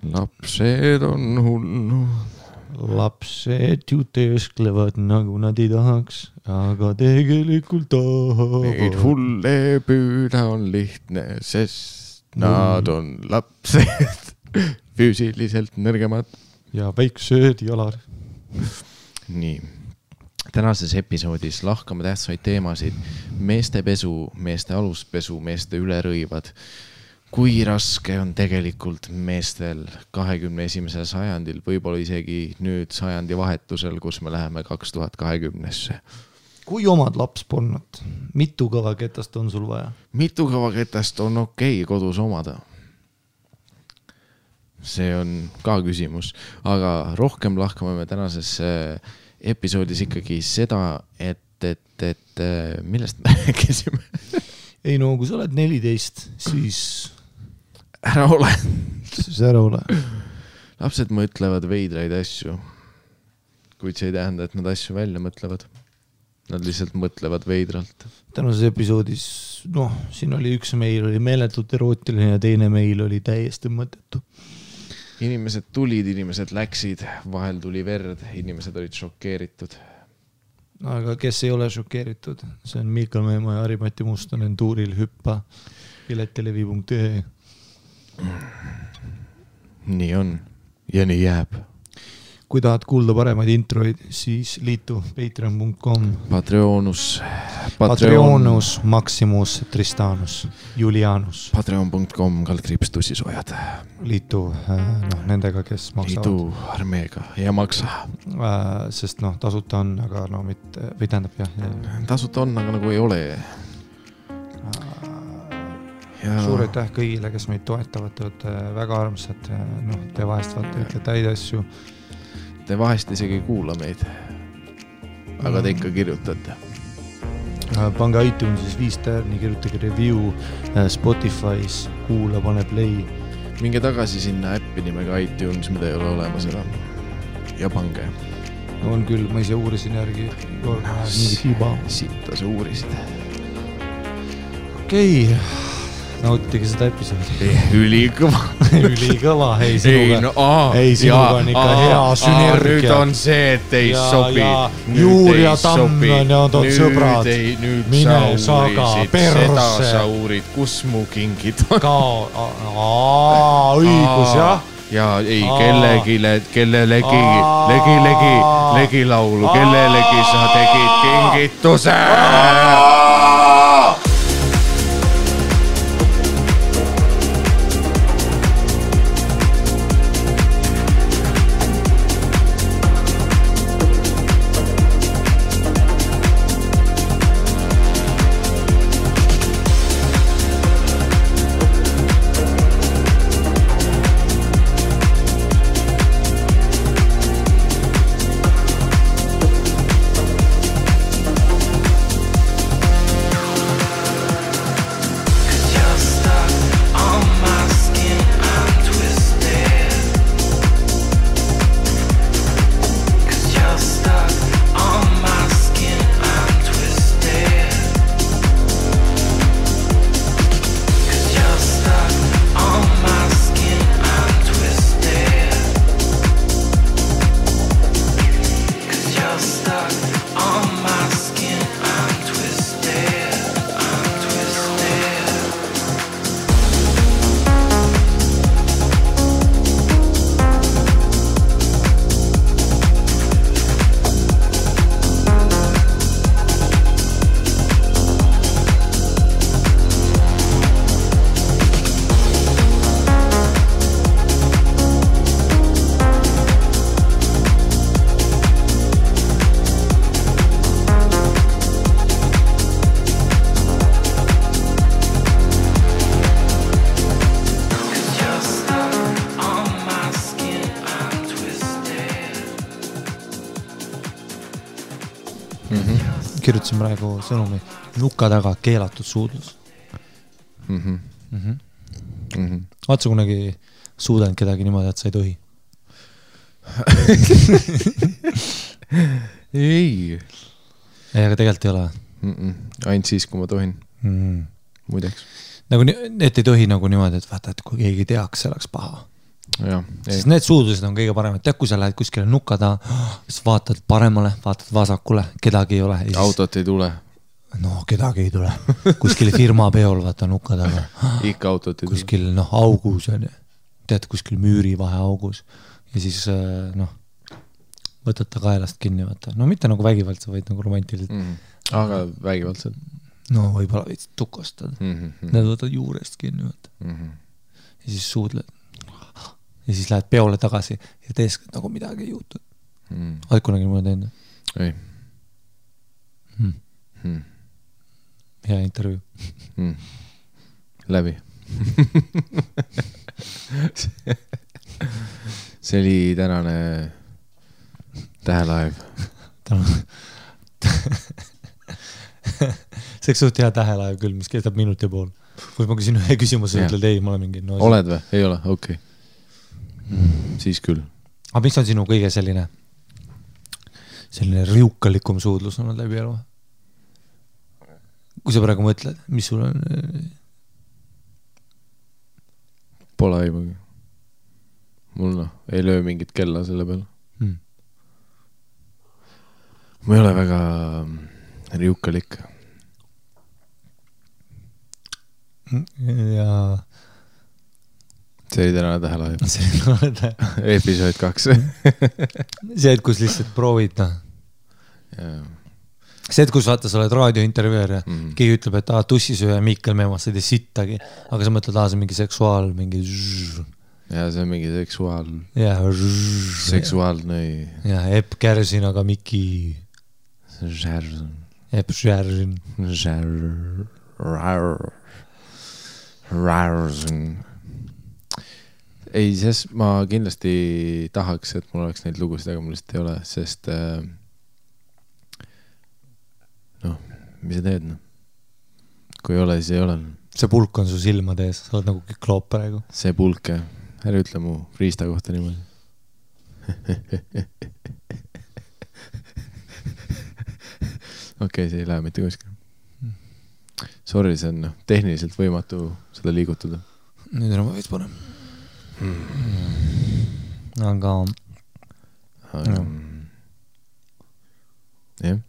Lapsed on hulnud. Lapsed ju teesklevad nagu nad ei tahaks, aga tegelikult tahavad. Neid hulle püüda on lihtne, sest nad on lapsed füüsiliselt nõrgemad. Ja väiksed jalad. Nii. Tänases episoodis lahkame tähtsaid teemasid. Meeste pesu, meeste aluspesu, meeste ülerõivad. Kui raske on tegelikult meestel 21. sajandil, võib-olla isegi nüüd sajandi vahetusel, kus me läheme 2020-sse. Kui omad laps polnud, mitu kõvaketast on sul vaja? Mitu kõvaketast on okei kodus omada? See on ka küsimus, aga rohkem lahkame me tänases episoodis ikkagi seda, et millest me rääkisime? Ei no, kui sa oled 14, siis... Ära ole. Siis ära ole. Lapsed mõtlevad veidraid asju, kuid see ei tähenda, et nad asju välja mõtlevad. Nad lihtsalt mõtlevad veidralt. Tänases episoodis, siin oli üks meil oli meeletult erootiline ja teine meil oli täiesti mõttetu. Inimesed tulid, inimesed läksid, vahel tuli verd, inimesed olid šokeeritud. Aga kes ei ole šokeeritud? See on Miikal Meemaa ja Harimati Mustonen tuuril hüppa piletelevi.ee. Nii on ja nii jääb. Kui tahad kuulda paremaid introid, siis liitu patreon.com Patreonus Maximus Tristanus Julianus Patreon.com /tussisojad. Liitu nendega, kes maksavad. Liitu armeega ja maksa. Sest tasuta on, aga mitte, või tähendab jah. Tasuta on, aga nagu ei ole. Suur aitäh kõigile, kes meid toetavad, te olete väga armsad, te vahest vaata täid asju. Te vahest isegi ei kuula meid, aga te ikka kirjutate. Pange iTunesis 5 tärni, kirjutage review, Spotify's, kuula, pane play. Minge tagasi sinna äppi nimega iTunes, mida ei ole olemas enam. Ja pange. On küll, ma ise uurisin järgi, mingi tiba. Sitta sa uurisid. Okei. Nautige seda episoodi. Ülikõva. Ülikõva, ei sinuga on ikka hea sünergia. Nüüd on see, et ei sobi. Juur ja Tamm on sõbrad. Mine saga perse. Seda sa uurid, kus mu kingid on. Õigus, jah. Ja ei, legi laulu, kellelegi sa tegid kingituse. Kirjutasin praegu sõnumi nuka taga keelatud suudlus. Vaatsa kunagi suudanud kedagi niimoodi, et sa ei tohi? Ei. Aga tegelikult ei ole. Ainult siis, kui ma tohin. Muideks. Nagu, et ei tohi nagu niimoodi, et vaata, et kui keegi teaks, see oleks paha. Sest need suudlused on kõige paremad. Tead, kui sa lähed kuskile nuka taha, siis vaatad paremale, vaatad vasakule, kedagi ei ole. Siis... Autot ei tule. No, kedagi ei tule. Kuskil firma peol vaata nuka taha. Ikka autot ei tule. Kuskil augus on. Tead, kuskil müüri vahe augus. Ja siis võtad ta kaelast kinni, vaata. No mitte nagu vägivaldselt, vaid nagu romantiliselt. Aga vägivaldselt. No võib-olla võid tukostad. Need võtad juurest kinni, vaata. Ja siis suudled. Ja siis lähed peole tagasi ja teeskad nagu midagi ei juhtud. Oled kunagi mulle teinud? Ei. Hea intervjuu. Läbi. See oli tänane tähelaev. See suht hea tähelaev küll, mis kestab minut ja pool. Kui ma küsin ühe küsimuse, ütled ei, ma olen mingi... No, oled või? Ei ole? Okei. Siis küll. Aga mis on sinu kõige selline riukalikum suudlus on läbi elu? Kui sa praegu mõtled, mis sul on? Pole aimugi. Mul ei löö mingit kella selle peale. Ma ei ole väga riukalik. Ja... See oli tänane tähelaev. Episood 2. See, et kus lihtsalt proovid, See, et kus vaata, sa oled raadiointervjuer ja keegi ütleb, et tussisööja Mikkel Meemas, sa ei tee sittagi, aga sa mõtled, see mingi seksuaal, mingi ja see on mingi seksuaal. Ja seksuaalne. Ja Epp Kärsin, aga Miki. Epp Kärsin. Ei, sest ma kindlasti tahaks, et mul oleks neid lugusid, aga mul lihtsalt ei ole, sest mis sa teed? Kui ei ole, siis ei ole. See pulk on su silmade ees, sa oled nagu kikloop praegu. See pulk, ära ütle mu riista kohta niimoodi. Okei, see ei lähe mitte kuskil. Sorry, see on tehniliselt võimatu seda liigutada. Nüüd on ma veits parem. Aga jah.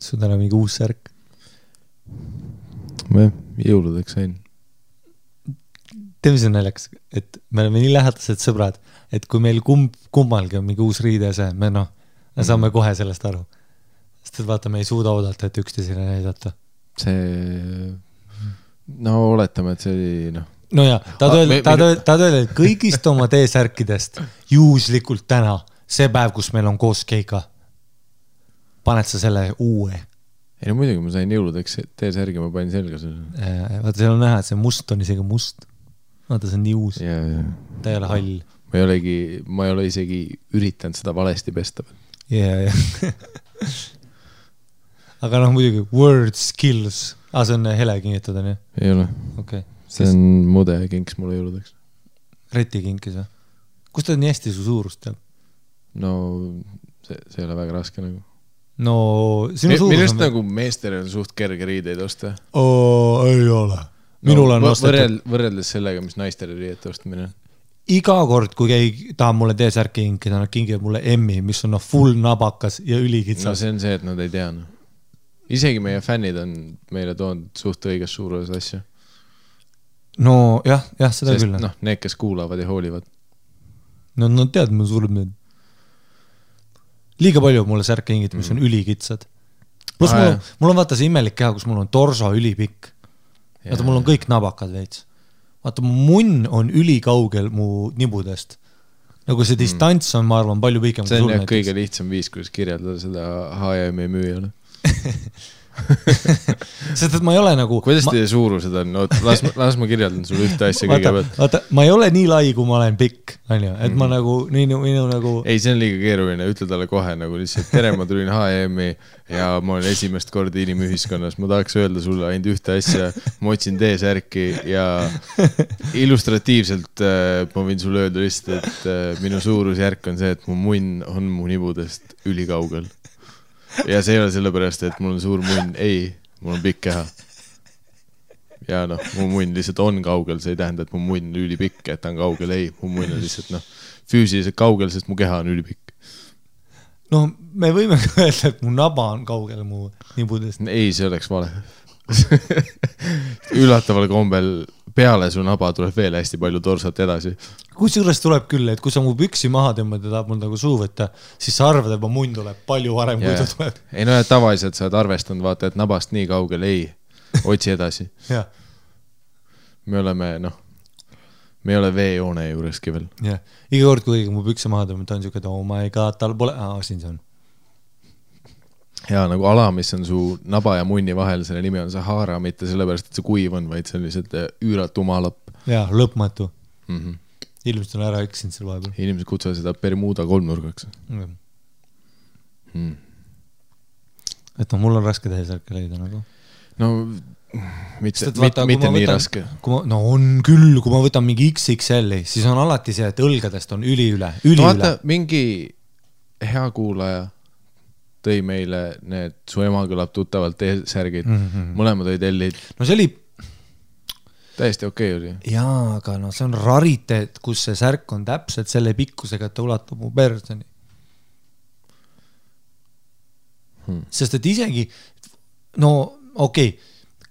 Sul täna mingi uus särk? Ma jõuludeks sain. Teeme see näljaks, et me oleme nii lähedased sõbrad, et kui meil kummalgi on mingi uus riide see, me saame kohe sellest aru. Sest et vaata, me ei suuda oodata, et üksteisele näidata. Oletame, et see oli No ja, tahad öelda, et kõigist oma T-särkidest juhuslikult täna, see päev, kus meil on koos keika, paned sa selle uue? Ei no muidugi, ma sain jõuludeks T-särgi, ma panin selga selle. Vaata, seal on näha, et see must on isegi must. Vaata, see on nii uus. Ta ei ole hall. Ma ei ole isegi üritanud seda valesti pesta. Ja. Aga muidugi, word skills. See on hele kingitud, on ju? Ei ole. Okay. See on mude kinks mulle jõuludeks. Reti kinkis või? Kus ta nii hästi su suurust teab? No, see ei ole väga raske nagu. No, sinu suurus Millest nagu meestel on suht kerge riideid osta? Ei ole. Minul on ostetud. Võrreldes sellega, mis naistele riidete ostmine. Iga kord, kui keegi tahab mulle T-särki kinkida, nad kingivad mulle M-i, mis on full nabakas ja ülikitsas. No see on see, et nad ei tea. Isegi meie fännid on meile toonud suht õiges suuruses asja. No jah, seda küll. Need, kes kuulavad ja hoolivad. No tead, mul sureb need. Liiga palju mulle särke hingid, mis on ülikitsad. Plus mul on vaata see imelik keha, kus mul on torso ülipikk. Vaata, mul on kõik nabakad veits. Vaata, mu munn on ülikaugel mu nibudest. Nagu see distants on, ma arvan, palju pikem. See on kõige lihtsam viis, kuidas kirjeldada seda H&M müüjale. sest et ma ei ole nagu kuidas teie suurused on? No, las ma kirjeldan sulle ühte asja kõigepealt. Vaata, ma ei ole nii lai, kui ma olen pikk, on ju, et ma nagu minu nagu ei, see on liiga keeruline, ütle talle kohe nagu lihtsalt tere, ma tulin H&M-i ja ma olen esimest korda inimühiskonnas, ma tahaks öelda sulle ainult ühte asja, ma otsin T-särki ja illustratiivselt ma võin sulle öelda lihtsalt, et minu suurusjärk on see, et mu munn on mu nibudest ülikaugel. Ja see ei ole sellepärast, et mul on suur munn, ei, mul on pikk keha. Ja noh, mu munn lihtsalt on kaugel, see ei tähenda, et mu munn on ülipikk, et ta on kaugel, ei, mu munn on lihtsalt füüsiliselt kaugel, sest mu keha on ülipikk. No me võime öelda, et mu naba on kaugel mu nibudest. Ei, see oleks vale. Üllataval kombel peale su naba tuleb veel hästi palju torsat edasi. Kusjuures tuleb küll, et kui sa mu püksi maha tõmbad ja tahab mul nagu suu võtta, siis sa arvad, et mu munn tuleb palju varem, kui ta tuleb. Ei no, tavaliselt sa oled arvestanud, vaata, et nabast nii kaugel, ei, otsi edasi. Me oleme, me ei ole veejoone juureski veel. Ja. Iga kord, kui mu pükse maha tõmbad, ta on siuke, et oh my god, tal pole, siin see on. Ja nagu ala, mis on su naba ja munni vahel, selle nimi on Sahara, mitte sellepärast, et see kuiv on, vaid see on lihtsalt üüratu maalapp. Ja, lõpmatu. Ilmselt on ära eksinud seal vahepeal. Inimesed kutsuvad seda Bermuda kolmnurgaks. Et mul on raske T-särke leida nagu. No, mitte nii raske. No on küll, kui ma võtan mingi XXL-i, siis on alati see, et õlgadest on üli üle. Vaata, mingi hea kuulaja tõi meile need, su ema kõlab tuttavalt T-särgid, mõlemad olid L-id. No see oli täiesti okei oli. Jaa, aga see on rariteet, kus see särk on täpselt selle pikkusega, et ta ulatub mu personi. Sest et isegi,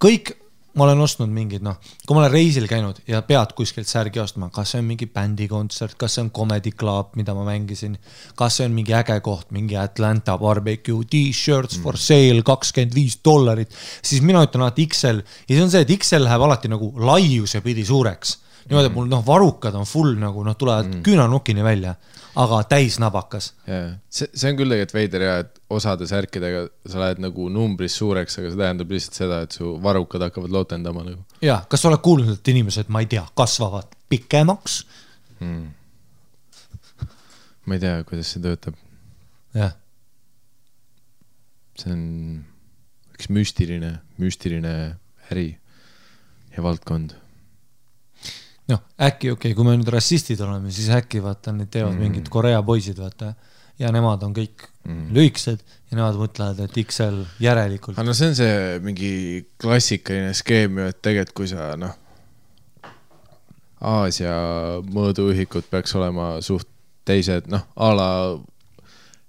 kõik, ma olen ostnud mingid, kui ma olen reisil käinud ja pead kuskilt särgi ostma, kas see on mingi bändikontsert, kas see on Comedy Club, mida ma mängisin, kas see on mingi äge koht, mingi Atlanta barbecue, t-shirts for sale, $25, siis mina ütlen alati XL ja see on see, et XL läheb alati nagu laiuse pidi suureks. Niimoodi, et mul varukad on full nagu, tulevad küünanukini välja, aga täis nabakas. See on küll tegelikult veider ja, et osade särkidega sa lähed nagu numbris suureks, aga see tähendab lihtsalt seda, et su varukad hakkavad lootendama nagu. Ja, kas sa oled kuulnud, et inimesed, ma ei tea, kasvavad pikemaks? Ma ei tea, kuidas see töötab. Jah. See on üks müstiline äri ja valdkond. Äkki, kui me nüüd rassistid oleme, siis äkki vaata, need teevad mingid Korea poisid, vaata, ja nemad on kõik lüiksed ja nemad mõtlevad, et XL järelikult. No see on see mingi klassikaline skeem, et tegelikult kui sa, Aasia mõõduühikud peaks olema suht teised, ala,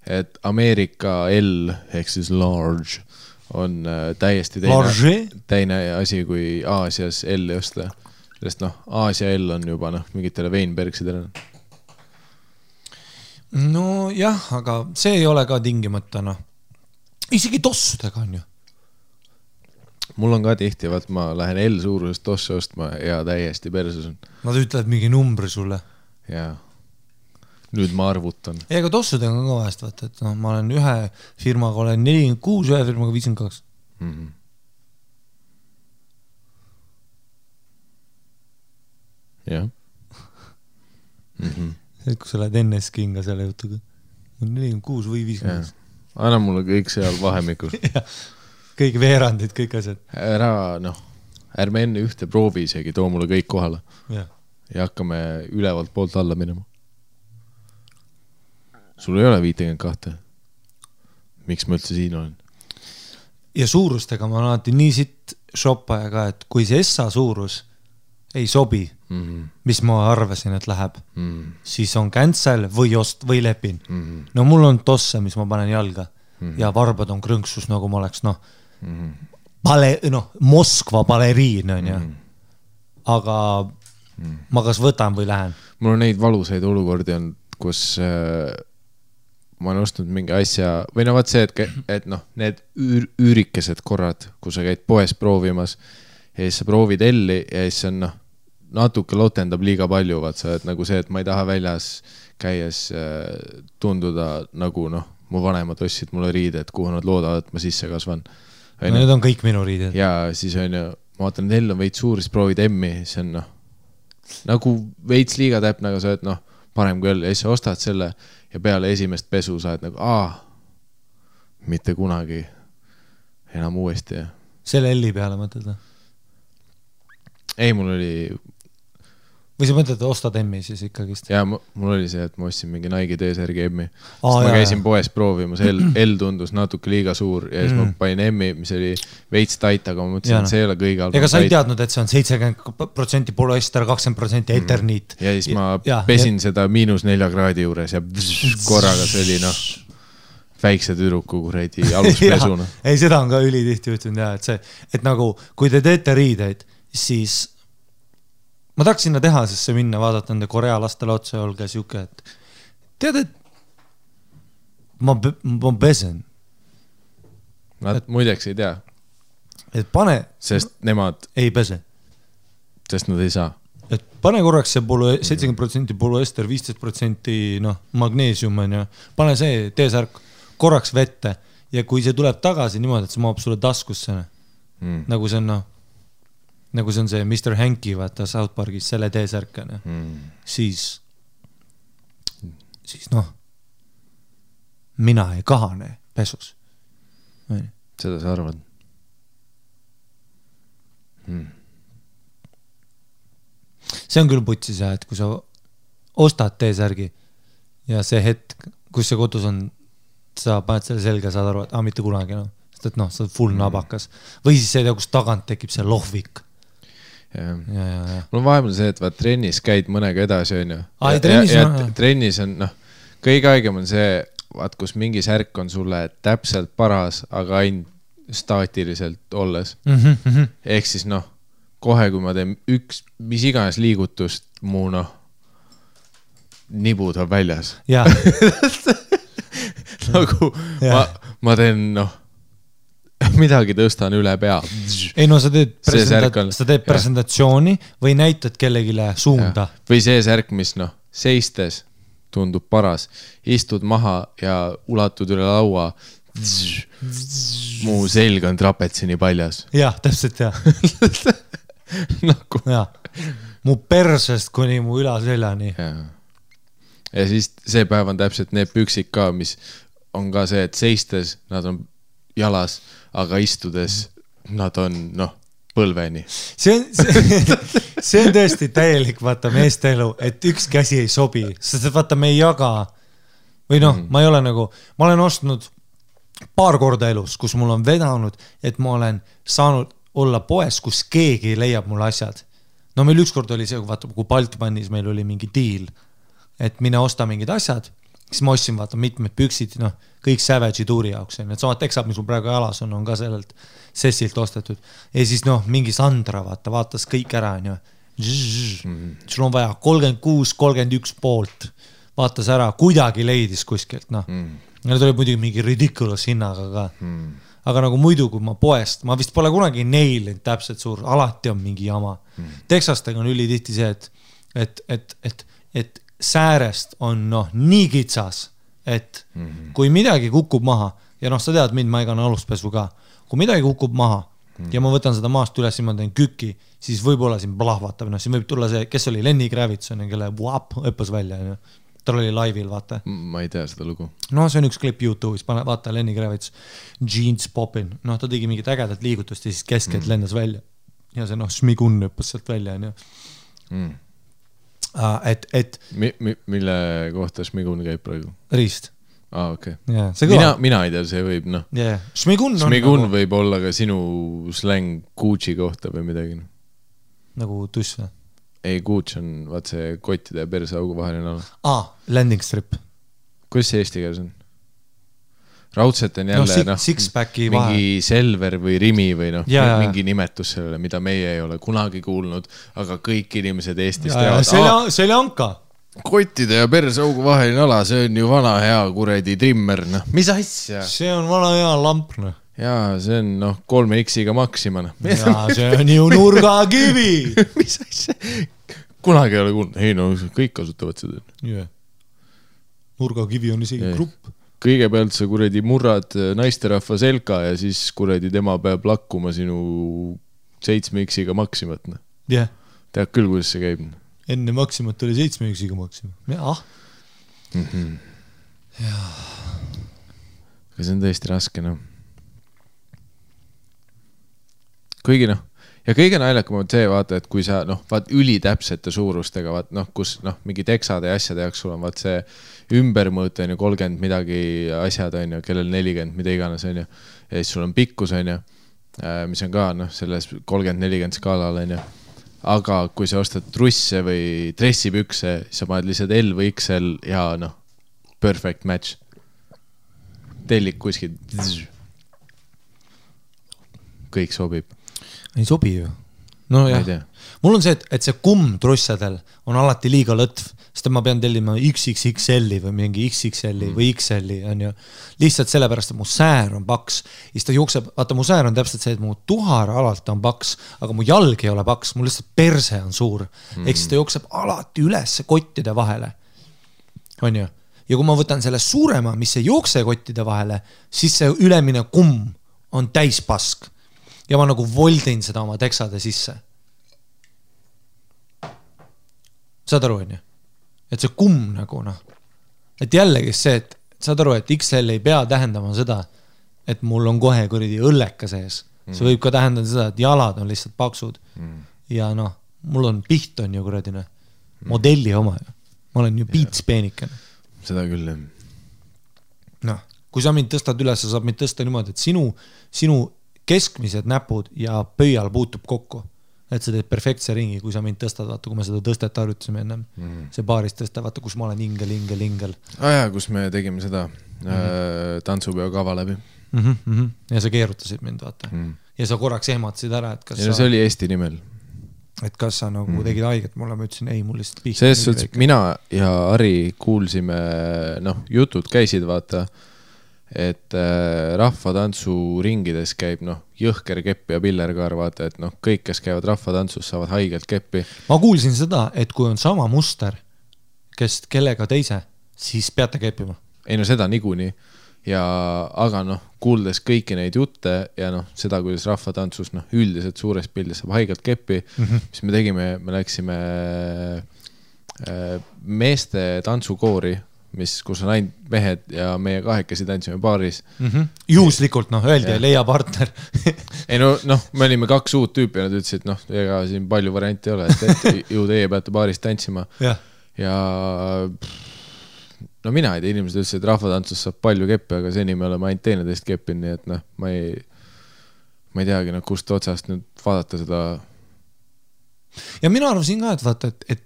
et Ameerika L ehk siis large on täiesti teine asi kui Aasias L osta. Sest Aasia L on juba mingitele Weinbergsidele. No jah, aga see ei ole ka tingimata, isegi tossudega on ju. Mul on ka tihti, vaat ma lähen L suurusest tosse ostma ja täiesti perses on. Nad ütlevad mingi numbri sulle. Jaa. Nüüd ma arvutan. Ei, aga tossudega on ka vahest, vaata, et ma olen ühe firmaga olen 46, ühe firmaga 52. Jah. Et kui sa lähed NS-kinga selle jutuga. 46 või 50. Anna mulle kõik seal vahemikus. Kõik veerandid, kõik asjad. Ärme enne ühte proovi isegi, too mulle kõik kohale. Ja hakkame ülevalt poolt alla minema. Sul ei ole 52. Miks ma üldse siin olen? Ja suurustega ma alati nii sitt shoppaja ka, et kui see SA suurus ei sobi, mis ma arvasin, et läheb, siis on cancel või lepin. No mul on tosse, mis ma panen jalga ja varbad on krõnksus, nagu ma oleks Moskva baleriin on ja. Aga ma kas võtan või lähen. Mul on neid valusaid olukordi on, kus ma olen ostnud mingi asja või vaat see, et need üürikesed korrad, kui sa käid poes proovimas ja siis sa proovid L-i ja siis on natuke lotendab liiga palju, vaat sa, et nagu see, et ma ei taha väljas käies tunduda nagu mu vanemad ostsid mulle riided, kuhu nad loodavad, et ma sisse kasvan. Need on kõik minu riided. Ja siis on ju, ma vaatan, L on veits suur, siis proovid M-i, see on noh, nagu veits liiga täpne, aga sa oled noh, parem kui L ja siis sa ostad selle ja peale esimest pesu sa oled nagu, mitte kunagi enam uuesti. Ja. Selle L-i peale mõtled? Ei, mul oli... Või sa mõtled, ostad M-i siis ikkagist? Ja mul oli see, et ma ostsin mingi Nike T-särgi M-i. Sest ma käisin poes proovimas, L tundus natuke liiga suur ja siis ma panin M-i, mis oli veits tait, aga ma mõtlesin, et see ei ole kõige halvem. Ega sa ei teadnud, et see on 70% poloester, 20% eterniit. Ja siis ma pesin seda -4 kraadi juures ja korraga see oli noh, väikse tüdruku kuredi aluspesuna. Ei, seda on ka ülitihti juhtunud ja, et see, et nagu, kui te teete riideid, siis ma tahaks sinna tehasesse minna, vaadata nende Korea lastele otsa ja olge siuke, et tead, et ma pesen. Nad muideks ei tea. Et pane... Sest nemad... Ei pese. Sest nad ei saa. Et pane korraks see 70% poloester, 15% magneesium on ja pane see T-särk korraks vette ja kui see tuleb tagasi niimoodi, et see maab sulle taskusse, nagu see on nagu see on see Mr. Hanky, vaata South Parkis, selle T-särkane, siis mina ei kahane pesus. Seda sa arvad? See on küll putsis, et kui sa ostad T-särgi ja see hetk, kus see kodus on, sa paned selle selga, saad aru, et mitte kunagi, sest et sa oled full nabakas. Või siis see, kus tagant tekib see lohvik. Ja. Mul on vahepeal see, et vaat trennis käid mõnega edasi, on ju. Trennis on, kõige aegem on see, vaat kus mingi särk on sulle täpselt paras, aga ainult staatiliselt olles. Ehk siis kohe, kui ma teen mis iganes liigutust, mu nibud on väljas. Jaa. Nagu ma teen, midagi tõstan üle pea. Ei sa teed presentatsiooni või näitad kellegile suunda. Ja. Või see särk, mis seistes tundub paras. Istud maha ja ulatud üle laua. Mu selg on trapetsini paljas. Jah, täpselt jah. Nagu. Ja. Mu persest kuni mu ülaseljani. Ja siis see päev on täpselt need püksid ka, mis on ka see, et seistes nad on jalas, aga istudes nad on, põlveni. See on tõesti täielik, vaata, meeste elu, et üks käsi ei sobi, sest vaata, me ei jaga, või ma ei ole nagu, ma olen ostnud paar korda elus, kus mul on vedanud, et ma olen saanud olla poes, kus keegi leiab mulle asjad. Meil ükskord oli see, vaata, kui Baltmanis meil oli mingi diil, et mine osta mingid asjad, siis ma ostsin, vaata, mitmed püksid, kõik Savage'i tuuri jaoks, et samad teksad, mis mul praegu jalas on ka sellelt sessilt ostetud. Ja siis, mingi Sandra, vaatas kõik ära, sul on vaja 36-31 poolt, vaatas ära, kuidagi leidis kuskilt, Need oli muidugi mingi ridiculous hinnaga ka. Aga nagu muidu, kui ma poest, ma vist pole kunagi neilinud täpselt suur, alati on mingi jama. Teksastega on ülitihti see, et säärest on nii kitsas, et kui midagi kukub maha, ja sa tead mind, ma ei kanna aluspesu ka, kui midagi kukub maha ja ma võtan seda maast üles ja ma teen küki, siis võib-olla siin plahvatab, siin võib tulla see, kes oli Lenny Kravitz, kelle õppes välja, tal oli laivil, vaata. Ma ei tea seda lugu. See on üks klipp YouTube'is, vaata Lenny Kravitz, Jeans Poppin, ta tegi mingit ägedat liigutust ja siis keskelt lendas välja ja see Šmigun õppes sealt välja, Mille kohta Šmigun käib praegu? Riist. Okay. Yeah, mina ei tea, see võib, Yeah. Šmigun võib olla ka sinu släng Gucci kohta või midagi. Nagu tuss või? Ei, Gucci on, vaat see kottide ja persaugu vaheline ala. Landing strip. Kuidas see eesti keeles on? Raudselt on jälle mingi Selver või Rimi või mingi nimetus sellele, mida meie ei ole kunagi kuulnud, aga kõik inimesed Eestis teavad. Seljanka. Kottide ja persaugu vaheline ala, see on ju vana hea kuredi trimmer. Mis asja? See on vana hea lamp. Jaa, see on 3X-iga Maxima. Jaa, see on ju nurgakivi. Mis asja? Kunagi ei ole kuulnud. Ei, kõik kasutavad seda. Nurgakivi on isegi grupp. kõigepealt sa kuradi murrad naisterahva selga ja siis kuradi tema peab lakkuma sinu 7X-iga Maximat. Yeah. Tead küll, kuidas see käib. Enne Maximat oli 7X-iga Maxima. Aga see on tõesti raske, Kuigi ja kõige naljakam on see, vaata, et kui sa, vaat ülitäpsete suurustega, vaat, kus, mingi teksade ja asjade jaoks sul on, vaat see ümbermõõt, on ju, 30 midagi asjad, on ju, kellel 40, mida iganes, on ju, ja siis sul on pikkus, on ju, mis on ka, selles 30-40 skaalal, on ju, aga kui sa ostad trusse või dressipükse, siis sa paned lihtsalt L või XL ja, perfect match. Tellik kuskil. Kõik sobib. Ei sobi ju. No jah, mul on see, et see kumm trussadel on alati liiga lõtv, sest ma pean tellima XXXL-i või mingi XXL-i või XL-i, on ju. Lihtsalt sellepärast, et mu säär on paks. Ja siis ta jookseb, vaata, mu säär on täpselt see, et mu tuhar alalt on paks, aga mu jalg ei ole paks, mu lihtsalt perse on suur. Ehk siis ta jookseb alati üles kottide vahele. On ju? Ja kui ma võtan selle suurema, mis ei jookse kottide vahele, siis see ülemine kumm on täispask. Ja ma nagu voldin seda oma teksade sisse. Saad aru, on ju? Et see kumm nagu, Et jällegi see, et saad aru, et XL ei pea tähendama seda, et mul on kohe kuradi õlleka sees. See võib ka tähendada seda, et jalad on lihtsalt paksud. Ja mul on piht on ju kuradine. Modelli oma ju. Ma olen ju piits peenikene. Seda küll, kui sa mind tõstad üles, sa saab mind tõsta niimoodi, et sinu keskmised näpud ja pöial puutub kokku. Et sa teed perfektse ringi, kui sa mind tõstad, vaata, kui me seda tõstet harjutasime ennem. See baaris tõsta, vaata, kus ma olen ingel. Kus me tegime seda tantsupeo kava läbi. Ja sa keerutasid mind, vaata. Ja sa korraks ehmatasid ära, et kas see oli Eesti nimel. Et kas sa nagu tegid haiget mulle, ma ütlesin, ei, mul lihtsalt pihta. Selles suhtes, mina ja Ari kuulsime, jutud käisid, vaata, et rahvatantsu ringides käib jõhker kepp ja pillerkaar, vaata, et kõik, kes käivad rahvatantsus, saavad haigelt keppi. Ma kuulsin seda, et kui on sama muster, kes kellega teise, siis peate keppima. Ei seda niikuinii. Aga kuuldes kõiki neid jutte ja seda, kuidas rahvatantsus üldiselt suures pildis saab haigelt keppi, mis me tegime, me läksime meeste tantsukoori, kus on ainult mehed ja meie kahekesi tantsime baaris. Juhuslikult, öeldi, leia partner. Ei me olime 2 uut tüüpi ja nad ütlesid, ega siin palju varianti ei ole, et ju teie peate baaris tantsima. Ja mina ei tea, inimesed ütlesid, et rahvatantsus saab palju keppi, aga seni me oleme ainult teineteist keppin, nii et ma ei teagi, kust otsast nüüd vaadata seda. Ja mina arvasin ka, et vaata, et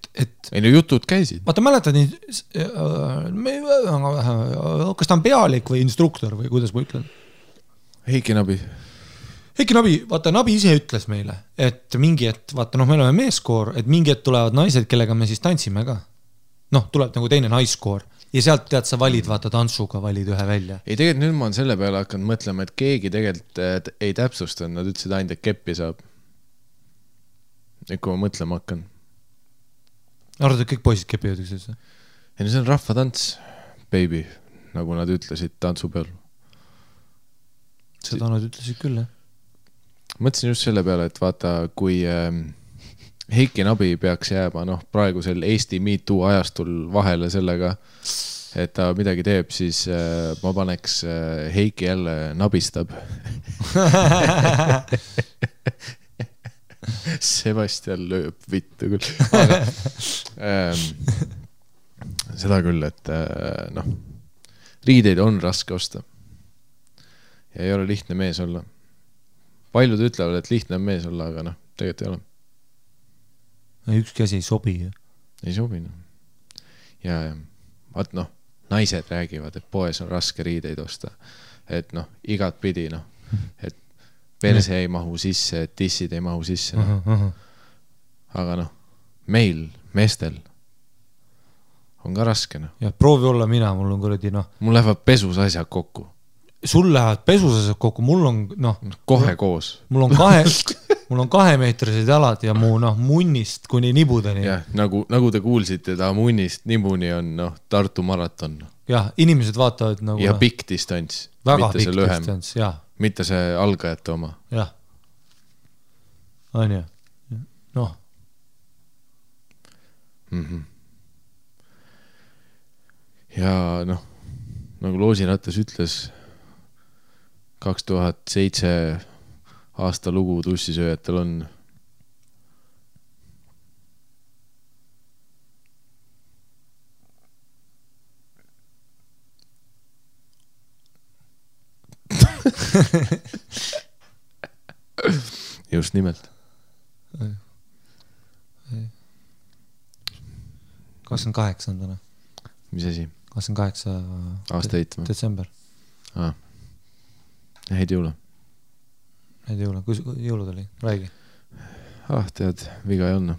ei jutud käisid. Vaata, mäletad nii, kas ta on pealik või instruktor või kuidas ma ütlen? Heiki Nabi, vaata, Nabi ise ütles meile, et mingi, et vaata, me oleme meeskoor, et mingi, et tulevad naised, kellega me siis tantsime ka. Tuleb nagu teine naiskoor. Ja sealt tead, sa valid, vaata, tantsuga valid ühe välja. Ei, tegelikult nüüd ma olen selle peale hakanud mõtlema, et keegi tegelikult ei täpsustanud, nad ütlesid ainult, et keppi saab. Et kui ma mõtlema hakkan. Arvad, et kõik poisid kepivad üksteise? Ei, see on rahvatants, baby, nagu nad ütlesid tantsu peal. Seda nad ütlesid küll, jah? Mõtlesin just selle peale, et vaata, kui Heiki Nabi peaks jääma praegusel Eesti MeToo ajastul vahele sellega, et ta midagi teeb, siis ma paneks Heiki jälle nabistab. Sebastian lööb vittu küll. Aga, seda küll, et riideid on raske osta. Ja ei ole lihtne mees olla. Paljud ütlevad, et lihtne on mees olla, aga tegelikult ei ole. Ükski asi ei sobi. Ei sobi. Ja vaat naised räägivad, et poes on raske riideid osta. Et igat pidi, et perse ei mahu sisse, et tissid ei mahu sisse. Aga meil, meestel on ka raske. Ja proovi olla mina, mul on kuradi Mul lähevad pesus asjad kokku. Sul lähevad pesus asjad kokku, mul on kohe koos. Mul on mul on 2-meetrised jalad ja mu munnist kuni nibudeni. Jah, nagu te kuulsite, ta munnist nibuni on Tartu maraton. Jah, inimesed vaatavad nagu... Ja pikk distants. Väga pikk distants, jah. Mitte see algajate oma. Jah. On ju. Noh. Ja nagu Loosiratas ütles, 2007 aasta lugu tussisööjatel on just nimelt. 28. Mis asi? 28. Aastaid või? Detsember. Häid jõule. Häid jõule. Kus jõulud oli? Räägi. Tead, viga ei olnud.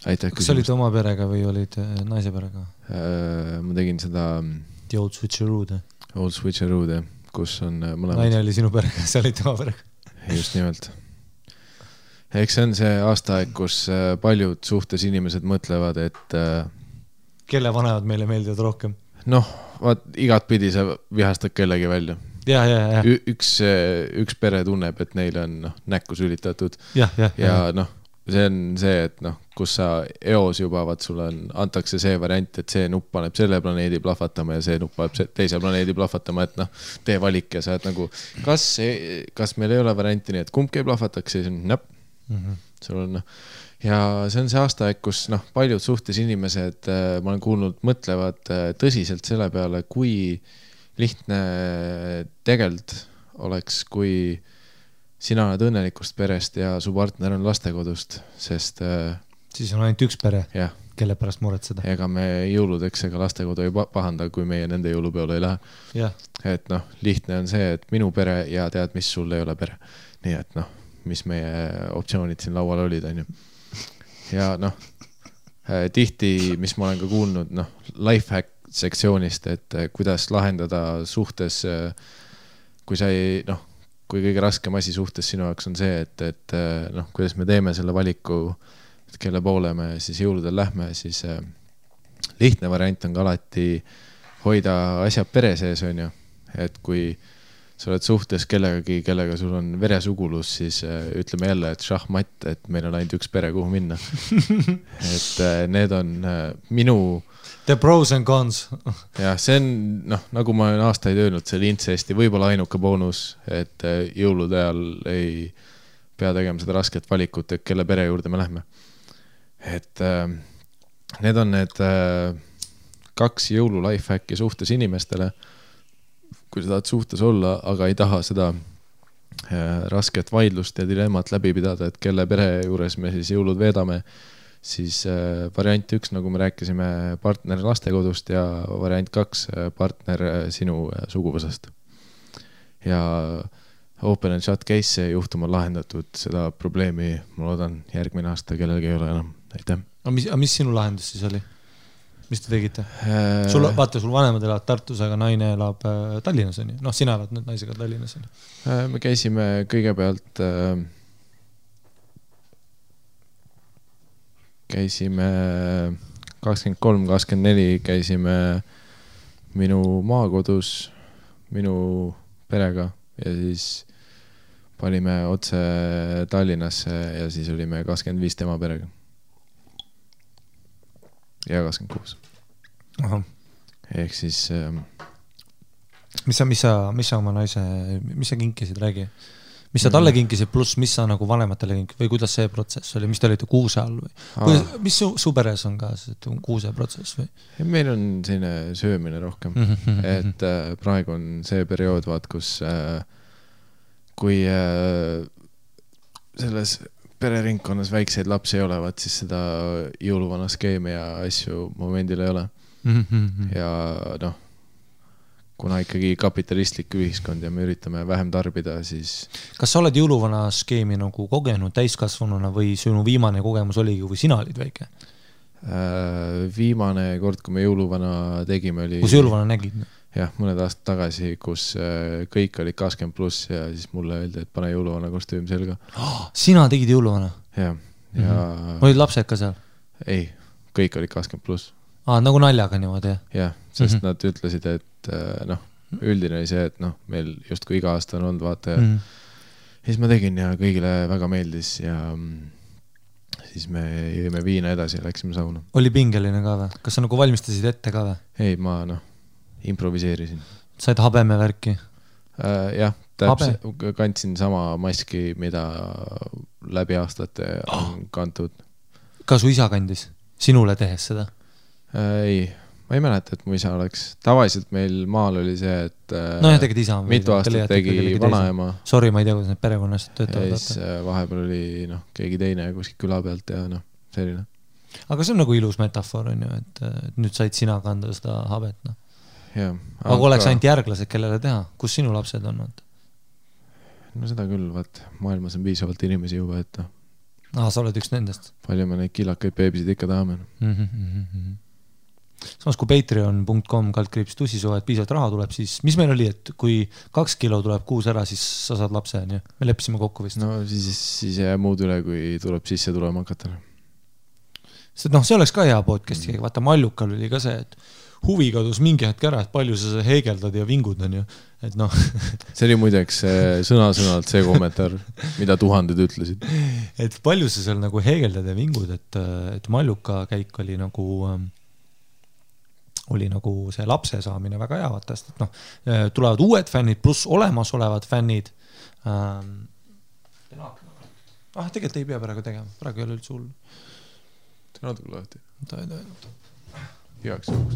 Aitäh küsimust. Kas olid oma perega või olid naise perega? Ma tegin seda... The Old Switcheroode. Old Switcheroode, kus on mõlemad... Naine oli sinu perega, sa olid tema perega. Just nimelt. Eks see on see aastaaeg, kus paljud suhtes inimesed mõtlevad, et... Kelle vanemad meile meeldivad rohkem? Vaat igat pidi sa vihastad kellegi välja. Ja. Üks pere tunneb, et neile on näkku sülitatud. Ja. See on see, et kus sa eos juba, sulle antakse see variant, et see nupp paneb selle planeedi plahvatama ja see nupp paneb teise planeedi plahvatama, et tee valik ja sa oled nagu, kas meil ei ole varianti nii, et kumbki ei plahvataks, siis on näpp. Sul on, ja see on see aastaaeg, kus paljud suhtes inimesed, ma olen kuulnud, mõtlevad tõsiselt selle peale, kui lihtne tegelikult oleks, kui sina oled õnnelikust perest ja su partner on lastekodust, sest... Siis on ainult üks pere, kelle pärast muretseda. Ega me jõuludeks ega lastekodu ei pahanda, kui meie nende jõulupeole ei lähe. Ja. Et lihtne on see, et minu pere ja tead, mis sul ei ole pere. Nii et mis meie optsioonid siin laual olid, on ju. Ja tihti, mis ma olen ka kuulnud, lifehack sektsioonist, et kuidas lahendada suhtes, kui sa ei, kui kõige raskem asi suhtes sinu jaoks on see, et kuidas me teeme selle valiku, et kelle poole me siis jõuludel lähme, siis lihtne variant on ka alati hoida asjad pere sees, on ju. Et kui sa oled suhtes kellegagi, kellega sul on veresugulus, siis ütleme jälle, et šahmatt, et meil on ainult üks pere, kuhu minna. Et need on minu... The pros and cons. Ja see on, nagu ma olen aastaid öelnud, see oli incesti võib-olla ainuke boonus, et jõulude ajal ei pea tegema seda rasket valikut, et kelle pere juurde me lähme. Et need on need 2 jõulu lifehacki suhtes inimestele, kui sa tahad suhtes olla, aga ei taha seda rasket vaidlust ja dilemmat läbi pidada, et kelle pere juures me siis jõulud veedame, siis variant 1, nagu me rääkisime, partner lastekodust ja variant 2, partner sinu suguvõsast. Ja open and shut case juhtum on lahendatud, seda probleemi ma loodan järgmine aasta kellelgi ei ole enam. Aitäh. Aga mis sinu lahendus siis oli? Mis te tegite? Vaata, sul vanemad elavad Tartus, aga naine elab Tallinnas. Sina elad nüüd naisega Tallinnas. Me käisime kõigepealt... Käisime 23-24, käisime minu maakodus, minu perega ja siis panime otse Tallinnasse ja siis olime 25 tema perega. Ja 26. Aha. Ehk siis... Mis sa oma naise, mis sa kinkisid, räägi? Mis sa talle kinkisid, pluss mis sa nagu vanematele kinkisid või kuidas see protsess oli, mis te olite kuuse all või? Mis su peres on ka kuuse protsess või? Meil on selline söömine rohkem, et praegu on see periood, kus kui selles pereringkonnas väikseid lapsi ei ole, siis seda jõuluvana skeemi ja asju momendil ei ole. Ja kuna ikkagi kapitalistlik ühiskond ja me üritame vähem tarbida, siis... Kas sa oled jõuluvana skeemi nagu kogenud täiskasvanuna või sinu viimane kogemus oligi, kui sina olid väike? Viimane kord, kui me jõuluvana tegime, oli... Kus jõuluvana nägid? jah, mõned aastad tagasi, kus kõik olid 20+ ja siis mulle öeldi, et pane jõuluvana kostüüm selga. Sina tegid jõuluvana? Ja olid lapsed ka seal? Ei, kõik olid 20+. Nagu naljaga niimoodi, jah? Jah, sest nad ütlesid, et üldine oli see, et meil justkui iga aasta on olnud, vaata ja siis ma tegin ja kõigile väga meeldis ja siis me jõime viina edasi ja läksime sauna. Oli pingeline ka või? Kas sa nagu valmistasid ette ka või? Ei, ma improviseerisin. Said habeme värki? Jah, kandsin sama maski, mida läbi aastate on kantud. Ka su isa kandis? Sinule tehes seda? Ei, ma ei mäleta, et mu isa oleks. Tavaliselt meil maal oli see, et tegid isa mitu aastat tegi vanaema. Sorry, ma ei tea, kuidas need perekonnast töötavad. Ja siis vahepeal oli keegi teine kuskil küla pealt ja selline. Aga see on nagu ilus metafoor, on ju, et nüüd said sina kanda seda habet. Ja, aga oleks ainult järglased, kellele teha? Kus sinu lapsed on? No seda küll, vaat maailmas on piisavalt inimesi juba, et sa oled üks nendest. Palju me neid kilakaid beebisid ikka tahame. Samas kui patreon.com/tussisoo, et piisavalt raha tuleb, siis mis meil oli, et kui 2 kilo tuleb kuus ära, siis sa saad lapse, on ju? Me leppisime kokku vist. No siis jää muud üle, kui tuleb sisse tulema hakata. See oleks ka hea podcasti, vaata Mallukal oli ka see, et huvi kadus mingi hetk ära, et palju sa heegeldad ja vingud, on ju. Et see oli muideks sõna-sõnalt see kommentaar, mida tuhanded ütlesid. Et palju sa seal nagu heegeldad ja vingud, et Malluka käik oli nagu see lapse saamine väga hea, vaata, et tulevad uued fännid pluss olemasolevad fännid. Tegelikult ei pea praegu tegema, praegu ei ole üldse hull. See natuke lahti. Heaks juhuks.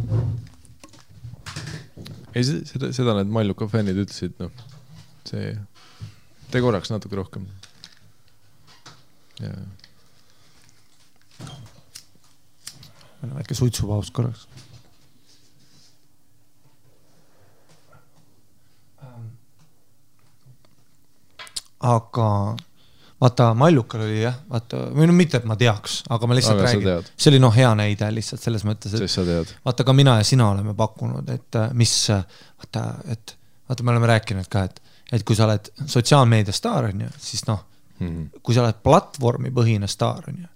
Ei, seda need Malluka fännid ütlesid, see tee korraks natuke rohkem. Ja. Meil on väike suitsupaus korraks. Aga vaata, Mallukal oli jah, vaata, või mitte, et ma teaks, aga ma lihtsalt räägin. See oli hea näide lihtsalt selles mõttes, et vaata ka mina ja sina oleme pakkunud, et mis, vaata me oleme rääkinud ka, et kui sa oled sotsiaalmeedia staar, on ju, siis kui sa oled platvormi põhine staar, on ju.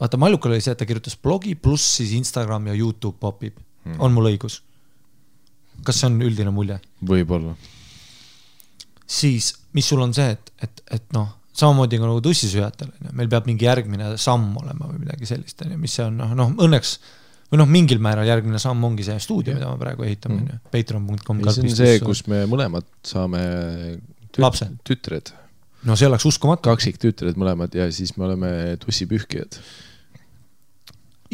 Vaata, Mallukal oli see, et ta kirjutas blogi pluss siis Instagram ja YouTube popib. On mul õigus? Kas see on üldine mulje? Võib-olla. Siis, mis sul on see, et samamoodi nagu tussisüjatel, meil peab mingi järgmine samm olema või midagi sellist, mis see on, õnneks, või mingil määral järgmine samm ongi see stuudio, mida me praegu ehitame, patreon.com. See on see, kus me mõlemad saame tütred. No see oleks uskumatu. Kaksik tütred mõlemad ja siis me oleme tussipühkijad.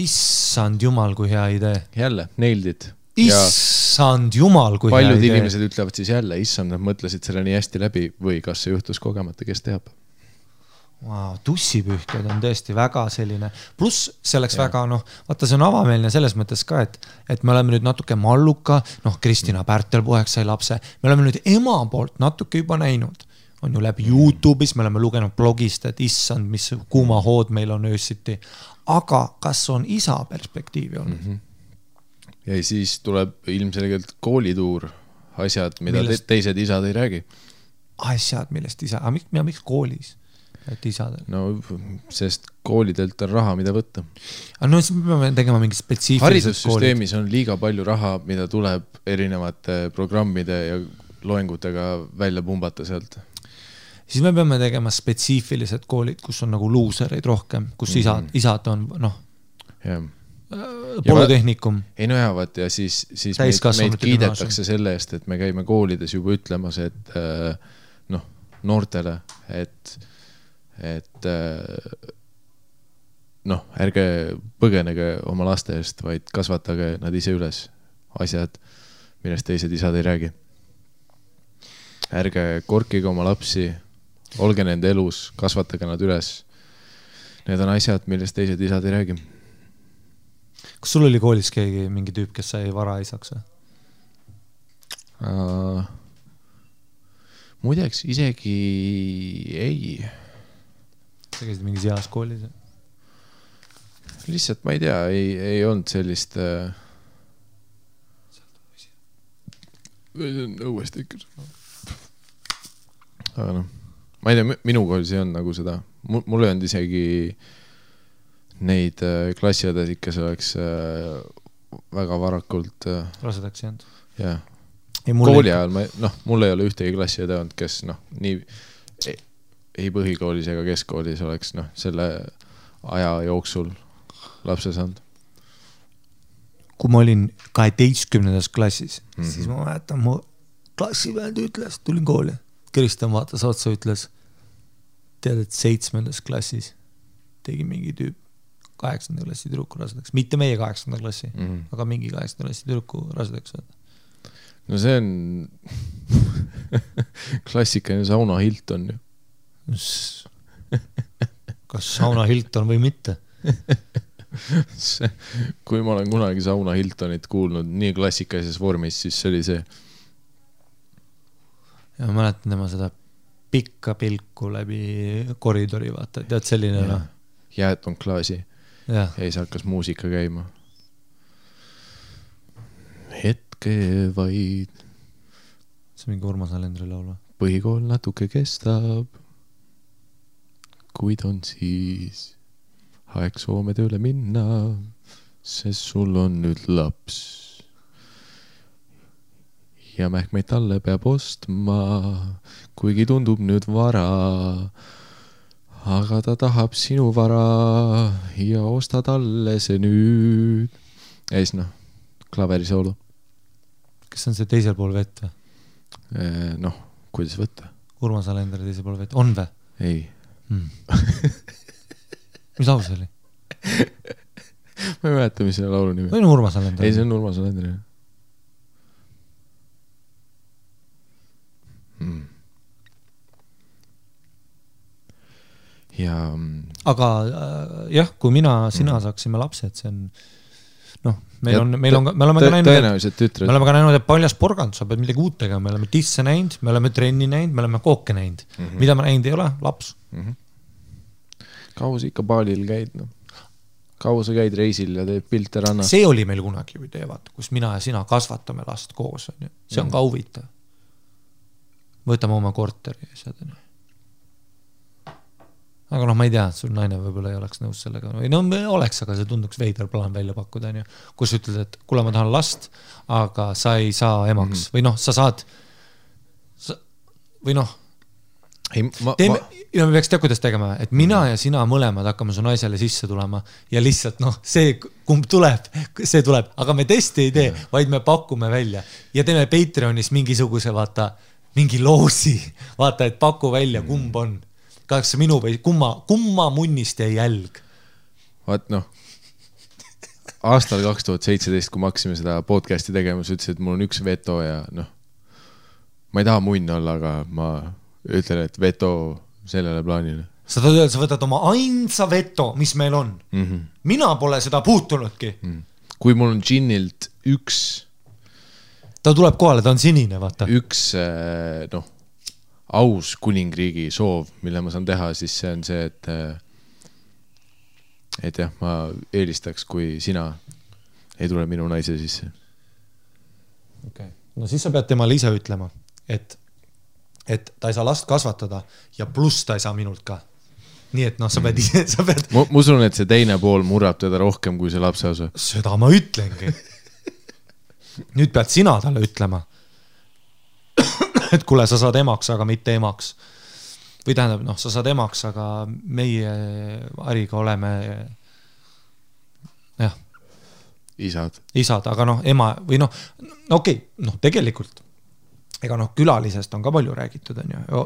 Issand jumal, kui hea idee. Jälle, nailed. Issand jumal, kui hea idee. Paljud inimesed ütlevad siis jälle, issand, nad mõtlesid selle nii hästi läbi või kas see juhtus kogemata, kes teab. Wow, tussipühkjad on tõesti väga selline, pluss see oleks väga, vaata see on avameelne selles mõttes ka, et me oleme nüüd natuke Malluka, Kristina Pärtelpoeg sai lapse, me oleme nüüd ema poolt natuke juba näinud, on ju läbi YouTube'is, me oleme lugenud blogist, et issand, mis kuuma hood meil on öösiti, aga kas on isa perspektiivi olnud? Ja siis tuleb ilmselgelt koolituur, asjad, mida teised isad ei räägi. Asjad, millest isa, aga miks koolis? Et isadel? No, sest koolidelt on raha, mida võtta. No siis me peame tegema mingi spetsiifilised haridussüsteemis on liiga palju raha, mida tuleb erinevate programmide ja loengutega välja pumbata sealt. Siis me peame tegema spetsiifilised koolid, kus on nagu luusereid rohkem, kus isad on, polütehnikum. Ei nojavad ja siis meid kiidetakse selle eest, et me käime koolides juba ütlemas, et noortele, et ärge põgenege oma laste eest, vaid kasvatage nad ise üles asjad, millest teised isad ei räägi. Ärge korkige oma lapsi, olge nende elus, kasvatage nad üles. Need on asjad, millest teised isad ei räägi. Kas sul oli koolis keegi mingi tüüp, kes sai varaisaks? Muideks isegi ei. Sa käisid mingis heas koolis? Lihtsalt ma ei tea, ei olnud sellist õuesti ikka. Aga noh, ma ei tea, minu koolis ei olnud nagu seda. Mul ei olnud isegi neid klassiõdes ikka see oleks väga varakult rasedaks jäänud. Jah. Kooli ajal, mul ei ole ühtegi klassiõde olnud, kes nii ei põhikoolis ega keskkoolis oleks selle aja jooksul lapse saanud. Kui ma olin 12. klassis, siis ma mäletan, mu klassivend ütles, tulin kooli, Kristjan vaatas otsa, ütles, tead, et 7. klassis tegi mingi tüüp 8. klassi tüdruku rasedaks, mitte meie 8. klassi, aga mingi 8. klassi tüdruku rasedaks. No see on klassikaline Sauna Hilton ju. Kas Sauna Hilton või mitte? Kui ma olen kunagi Sauna Hiltonit kuulnud nii klassikalises vormis, siis see oli see. Ja ma mäletan tema seda pikka pilku läbi koridori, vaata, tead selline ja. Jääton klaasi ja siis hakkas muusika käima. Hetke vaid. See mingi Urmas Alendri laulu. Põhikool natuke kestab, kuid on siis aeg Soome tööle minna, sest sul on nüüd laps. Ja mähkmeid talle peab ostma, kuigi tundub nüüd vara. Aga ta tahab sinu vara ja osta talle see nüüd. Ja siis klaverisoolo. Kas on see teisel pool vett või? Kuidas võtta? Urmas Alender teisel pool vett. On või? Ei. Mis laul see oli? Ma ei mäleta, mis selle laulu nimi. Või on Urmas Alender? Ei, see on Urmas Alender. Ja... Aga jah, kui sina saaksime lapsed, see on me oleme ka näinud, et paljas porgand, sa pead midagi uut tegema, me oleme tisse näinud, me oleme trenni näinud, me oleme kooke näinud. Mida me näinud ei ole? Laps. Kaua sa ikka baalil käid? Kaua sa käid reisil ja teed pilte rannas? See oli meil kunagi ju teevad, kus mina ja sina kasvatame last koos. See on ka huvitav. Võtame oma korteri ja seda. Aga ma ei tea, sul naine võib-olla ei oleks nõus sellega. Oleks, aga see tunduks veider plaan välja pakkuda. Kus ütled, et kuule, ma tahan last, aga sa ei saa emaks. Või sa saad... Või me peaks teha, kuidas tegema, et mina ja sina mõlemad hakkame su naisele sisse tulema ja lihtsalt see, kumb tuleb, see tuleb. Aga me testi ei tee, vaid me pakume välja. Ja teeme Patreonis mingisuguse, vaata, mingi loosi. Vaata, et paku välja, kumb on. Kas minu või kumma munnist jäi jälg? Vaat aastal 2017, kui me hakkasime seda podcasti tegema, sa ütlesid, et mul on üks veto ja ma ei taha munn olla, aga ma ütlen, et veto sellele plaanile. Sa võtad oma ainsa veto, mis meil on. Mina pole seda puutunudki. Kui mul on džinnilt üks... Ta tuleb kohale, ta on sinine, vaata. Üks, aus kuningriigi soov, mille ma saan teha, siis see on see, et jah, ma eelistaks, kui sina ei tule minu naise sisse. Okay. No siis sa pead temale ise ütlema, et ta ei saa last kasvatada ja pluss ta ei saa minult ka. Nii et sa pead ise... Ma usun, et see teine pool murrab teda rohkem kui see lapse osa. Seda ma ütlengi. Nüüd pead sina talle ütlema. Et kuule, sa saad emaks, aga mitte emaks. Või tähendab, sa saad emaks, aga meie Ariga oleme isad, aga ema või okei, tegelikult ega külalisest on ka palju räägitud,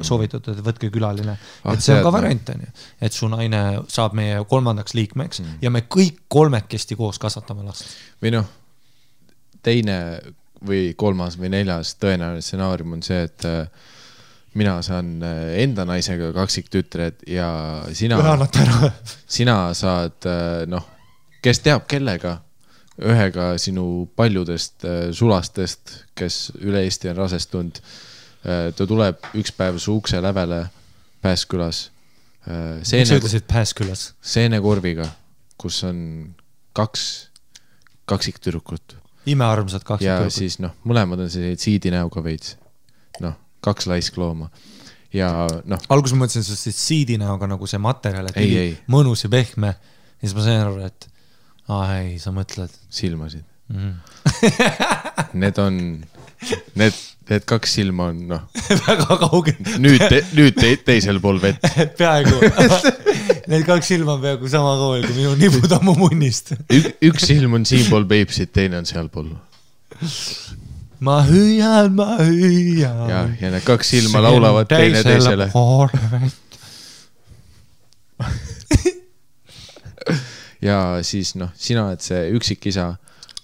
soovitud, et võtke külaline, et see on ka variant, et su naine saab meie 3. liikmeks ja me kõik 3 koos kasvatame last. Või teine või 3. või 4. tõenäoline stsenaarium on see, et mina saan enda naisega kaksiktütred ja sina saad, kes teab kellega, ühega sinu paljudest sulastest, kes üle Eesti on rasestunud. Ta tuleb üks päev su ukse lävele Pääskülas. Miks sa ütlesid Pääskülas? Seenekorviga, kus on 2 kaksiktüdrukut. imearmsad kaks ja tüdrukut. siis noh, mõlemad on sellised siidinäoga veits. Noh, 2 laisklooma. Ja noh. Alguses ma mõtlesin siis siidinäoga nagu see materjal, et ei. mõnus ja pehme. Ja siis ma sain aru, et ei, sa mõtled. Silmasid. Need on, need 2 silma on noh. Väga kaugel. Nüüd teisel pool vett. Peaaegu. Need 2 silma on peaaegu sama kaugel, kui minu nibud ammu munnist. Üks silm on siin pool Peipsit, teine on seal pool. Ma hüüan. Ja need 2 silma laulavad teine teisele. Ja siis noh, sina oled see üksikisa,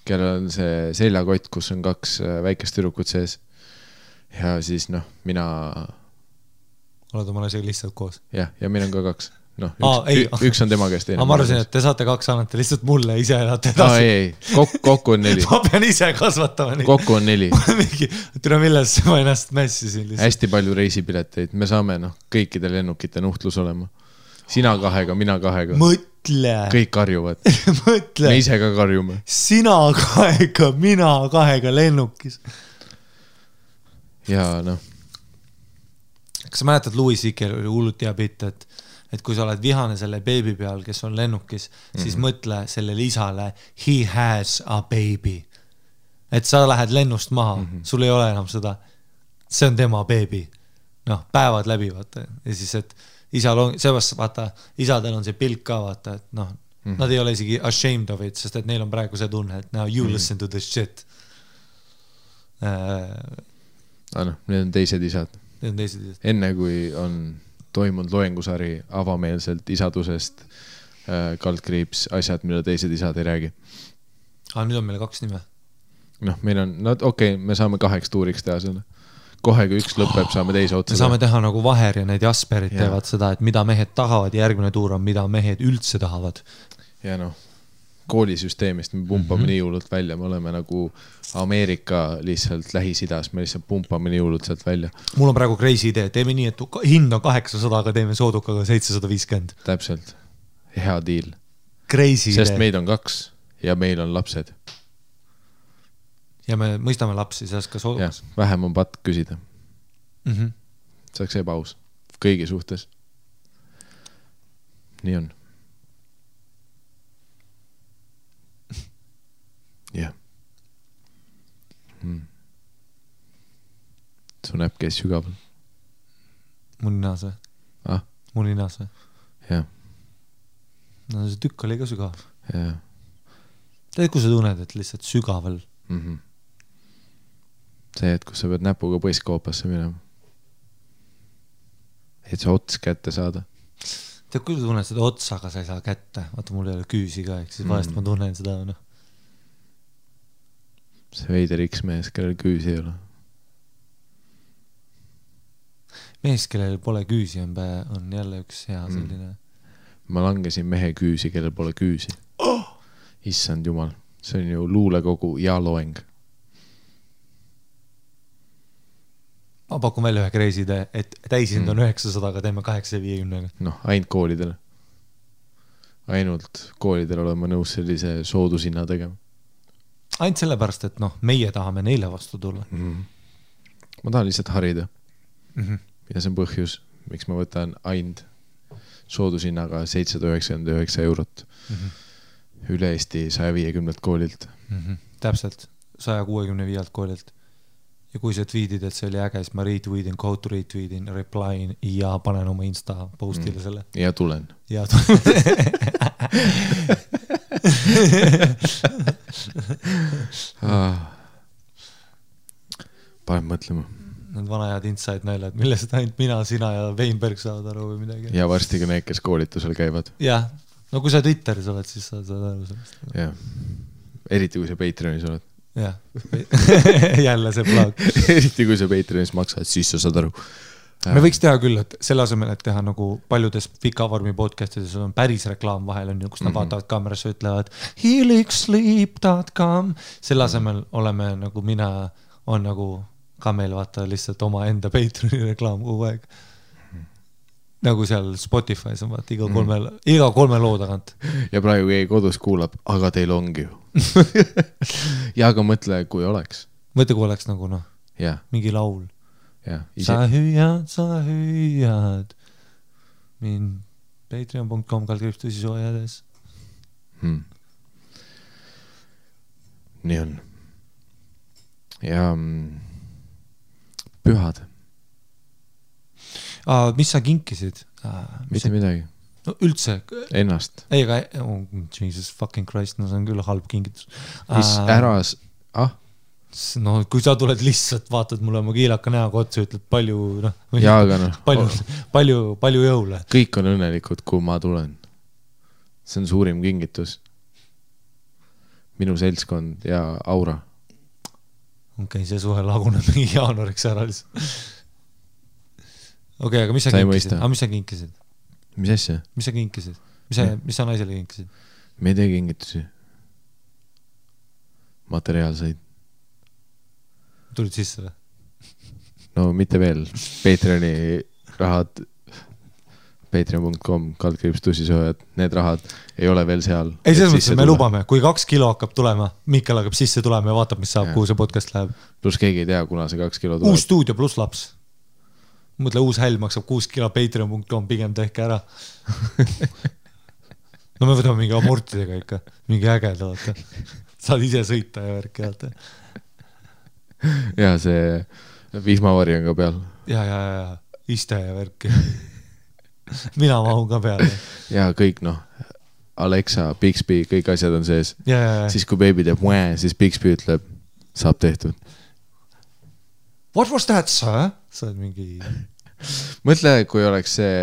kellel on see seljakott, kus on 2 väikest tüdrukut sees. Ja siis noh, mina... Oled oma asjaga lihtsalt koos? Ja meil on ka 2. No, üks on tema käest teine. Ma arvasin, et te saate 2 annate lihtsalt mulle ise elate edasi. Ei. Kokku on 4. Ma pean ise kasvatama neid. Kokku on 4. Tule milles ma ennast mässisin lihtsalt. Hästi palju reisipileteid. Me saame kõikide lennukite nuhtlus olema. Sina 2, mina 2. Mõtle. Kõik karjuvad. Mõtle. Me ise ka karjume. Sina 2, mina 2 lennukis. Ja noh. Kas sa mäletad, Louis C.K. oli hullut hea bitt, et kui sa oled vihane selle beebi peal, kes on lennukis, siis mõtle sellele isale, he has a baby. Et sa lähed lennust maha, sul ei ole enam seda, see on tema beebi. Noh, päevad läbi, vaata. Ja siis, et isal on, seepärast, vaata, isadel on see pilk ka, vaata, et noh, nad ei ole isegi ashamed of it, sest et neil on praegu see tunne, et now you listen to this shit. Need on teised isad. Enne kui on toimunud loengusari avameelselt isadusest, kaldkriips, asjad, mille teised isad ei räägi. Nüüd on meil 2 nime. Noh, meil on, me saame 8 tuuriks teha selle. Kohe, kui 1 lõpeb, saame teise otsa. Me saame teha nagu Vaher ja need Jasperid teevad seda, et mida mehed tahavad ja järgmine tuur on, mida mehed üldse tahavad. Ja noh, koolisüsteemist me pumpame nii hullult välja, me oleme nagu Ameerika lihtsalt Lähis-Idas, me lihtsalt pumpame nii hullult sealt välja. Mul on praegu crazy idee, teeme nii, et hind on 800, aga teeme soodukaga 750. Täpselt, hea deal. Crazy sest idee. Meid on 2 ja meil on lapsed. Ja me mõistame lapsi, sellest ka soodukas. Ja, vähem on patt küsida. Saaks ebaus kõigi suhtes. Nii on. Jah. Su näpp käis sügaval. Mu ninas või? Mu ninas või? Jah. No see tükk oli ka sügav. Jah. Tead, kui sa tunned, et lihtsalt sügaval? See, et kus sa pead näpuga põiskoopasse minema. Et sa ots kätte saada. Tead, kui sa tunned seda otsaga, sa ei saa kätte. Vaata, mul ei ole küüsi ka, eks siis vahest ma tunnen seda, noh. See veider X-mees, kellel küüsi ei ole. Mees, kellel pole küüsi, on jälle üks hea selline. Ma langesin mehe küüsi, kellel pole küüsi. Issand jumal, see on ju luulekogu ja loeng. Ma pakun välja ühe crazy idee, et täisind on 900, aga teeme 850. Noh, ainult koolidele. Ainult koolidele oleme nõus sellise soodushinna tegema. Ainult sellepärast, et noh, meie tahame neile vastu tulla. Ma tahan lihtsalt harida. Ja see on põhjus, miks ma võtan ainult soodushinnaga 799 eurot üle Eesti 150 koolilt. Täpselt, 165 koolilt. Ja kui sa tweetid, et see oli äge, siis ma retweetin, quote retweetin, replyin ja panen oma Insta postile selle. Ja tulen. Ja tulen. Panen mõtlema. Need vanajad inside näljad, millest ainult mina, sina ja Weinberg saavad aru või midagi. Ja varsti ka need, kes koolitusel käivad. Jah, no kui sa Twitteris oled, siis saad aru sellest. Jah, eriti kui sa Patreonis oled. Jah, jälle see plug. Eriti kui sa Patreonis maksad, siis sa saad aru. Me võiks teha küll, et selle asemel, et teha nagu paljudes pikavormi podcastides on päris reklaam vahel, on ju, kus nad vaatavad kaamerasse, ütlevad healingsleep.com. Selle asemel oleme nagu mina, on nagu ka meil vaata lihtsalt oma enda Patreoni reklaam kogu aeg. nagu seal Spotify's on vaata iga kolme loo tagant. Ja praegu keegi kodus kuulab, aga teil ongi ju. Ja aga mõtle, kui oleks. Mõtle, kui oleks nagu noh, ja. Mingi laul. Ja, sa hüüad mind patreon.com /tõsisoojades. Nii on. Ja pühad. Mis sa kinkisid? Mitte midagi. No üldse. Ennast. Ei, aga Jesus fucking Christ, no see on küll halb kingitus. Mis äras? No kui sa tuled lihtsalt, vaatad mulle oma kiilaka näoga otsa, ütled palju, noh. Ja, aga noh. Palju jõule. Kõik on õnnelikud, kui ma tulen. See on suurim kingitus. Minu seltskond ja aura. Okei, see suhe laguneb mingi jaanuariks ära lihtsalt. Okei, aga mis sa kinkisid? Mis sa kinkisid? Mis asja? Mis sa kinkisid? Mis sa naisele kinkisid? Me ei tee kingitusi. Materiaalseid. Tulid sisse või? No mitte veel. Patreoni rahad patreon.com /tõsisoojad. Need rahad ei ole veel seal. Ei, selles mõttes, me lubame. Kui 2 kilo hakkab tulema, Mikkel hakkab sisse tulema ja vaatab, mis saab, kuhu see podcast läheb. Plus keegi ei tea, kuna see 2 kilo tuleb. Uus stuudio plus laps. Mõtle, uus häll maksab 6 kilo patreon.com, pigem tehke ära. No me võtame mingi amortidega ikka. Mingi ägeda, vaata. Saad ise sõita ja värk jaata. Ja see vihmavari on ka peal. Ja. Iste ja värk. Mina mahun ka peale. Ja kõik, noh. Alexa, Bixby, kõik asjad on sees. Ja. Siis kui baby teeb mõe, siis Bixby ütleb, saab tehtud. What was that, sir? Sa oled mingi... Mõtle, kui oleks see,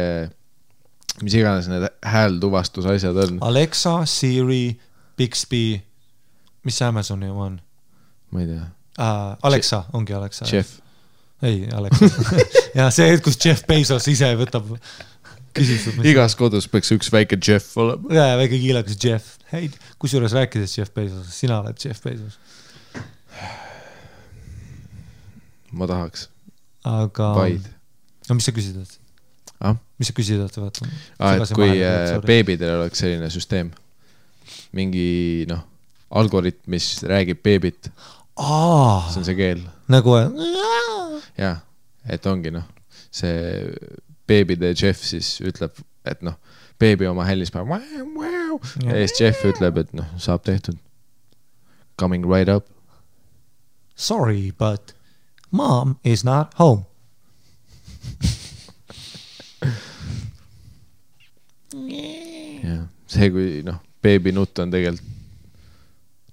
mis iganes need häältuvastus asjad on. Alexa, Siri, Bixby, mis Amazoni oma on? Ma ei tea. Alexa, ongi Alexa. Jeff. Ei, Alexa. Ja see, kus Jeff Bezos ise võtab küsitud. Igas kodus peaks üks väike Jeff olema. Ja, väike kiilakas Jeff. Hei, kus juures rääkides Jeff Bezos? Sina oled Jeff Bezos. Ma tahaks. Aga... Vaid. No mis sa küsid? Mis sa küsid? Et kui beebidel oleks selline süsteem. Mingi, noh, algoritm, mis räägib beebit. See on see keel. Nagu... Ja, et ongi, noh, see beebide Jeff siis ütleb, et noh, beebi oma hällis päev ja siis Jeff ütleb, et noh, saab tehtud. Coming right up. Sorry, but mom is not home. Ja, see kui, noh, beebi nutt on tegelikult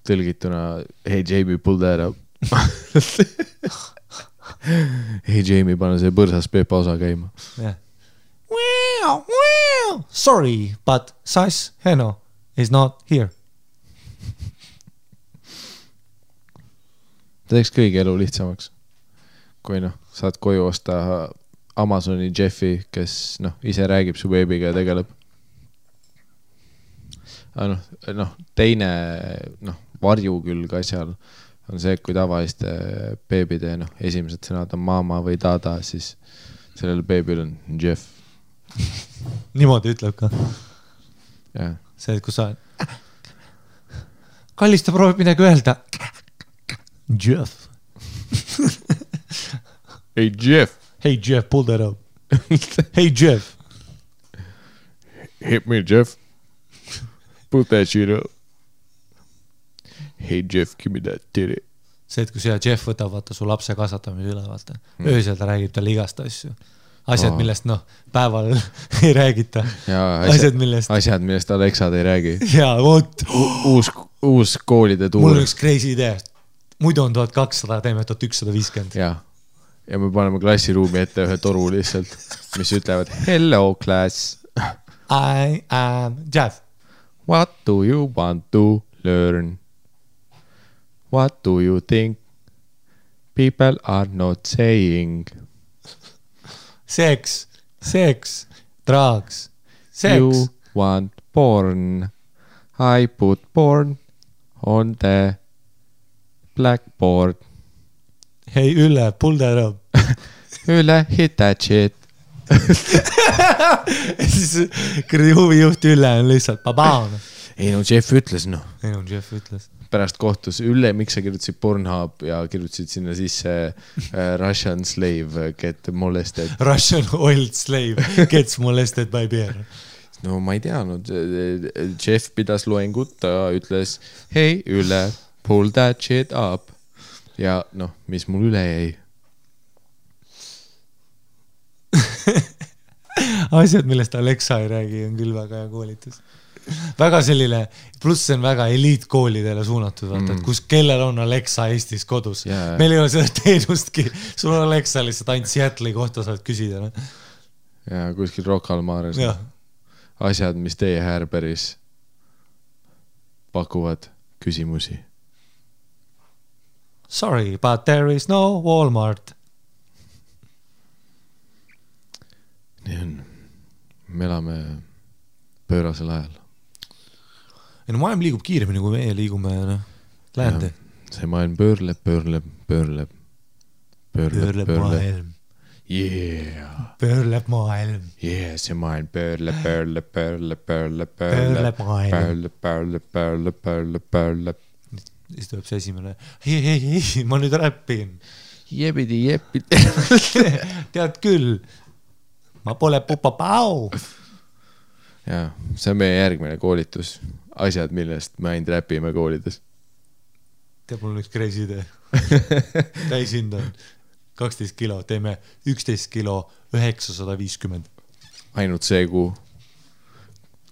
tõlgituna hey Jamie, pull that up. Hey Jamie, pane see põrsas Pepa osa käima. Yeah. Sorry, but Sass Heno is not here. Teeks kõigi elu lihtsamaks. Kui noh, saad koju osta Amazoni Jeffi, kes noh, ise räägib su beebiga ja tegeleb. Noh, teine noh, varju küll ka seal on see, kui tavaliste beebide noh, esimesed sõnad on mama või dada, siis sellel beebil on Jeff. Niimoodi ütleb ka. Ja. See, kus sa kallista proovib midagi öelda. Jeff. Hey Jeff. Hey Jeff, pull that up. Hey Jeff. Hit me Jeff. Put that shit up. Hey Jeff, give me that titty. See, et kui see Jeff võtab vaata su lapse kasvatamise üle, vaata. Öösel ta räägib talle igast asju. Asjad, millest noh, päeval ei räägita. Ja, asjad, millest Alexad ei räägi. Ja, vot. Uus koolide tuur. Mul on üks crazy idee. Muidu on 1200, teeme 1150. Ja me paneme klassiruumi ette ühe toru lihtsalt, mis ütlevad hello class. I am Jeff. What do you want to learn? What do you think people are not saying? Sex, drugs, sex. You want porn. I put porn on the blackboard. Hey Ülle, pull that up. Ülle, hit that shit. ja siis kuradi huvijuht Ülle on lihtsalt babaan. Ei no Jeff ütles Jeff ütles. Pärast kohtus Ülle, miks sa kirjutasid Pornhub ja kirjutasid sinna sisse Russian slave get molested. Russian old slave gets molested by bear. No ma ei teadnud, Jeff pidas loengut, ta ütles, hei Ülle, pull that shit up. Ja noh, mis mul üle jäi? Asjad, millest Alexa ei räägi, on küll väga hea koolitus. Väga selline, pluss see on väga eliitkoolidele suunatud, vaata, et kus kellel on Alexa Eestis kodus. Meil ei ole seda teenustki, sul on Alexa lihtsalt ainult Seattle'i kohta saad küsida. No? Ja kuskil Rock al Mares. Asjad, mis teie Härberis pakuvad küsimusi. Sorry, but there is no Walmart. Nii on. Me elame pöörasel ajal. Ja no maailm liigub kiiremini, kui meie liigume läände. See maailm pöörleb. Maailm. Yeah. Pöörleb maailm. Yeah, see maailm pöörleb. Siis tuleb see esimene. Hei, ma nüüd räppin. Jebidi. Tead küll. Ma pole pupapau. Ja, see on meie järgmine koolitus. Asjad, millest me ainult räpime koolides. Teab, mul on üks crazy idee. Täishind on 12 kilo, teeme 11 kilo 950. Ainult see kuu.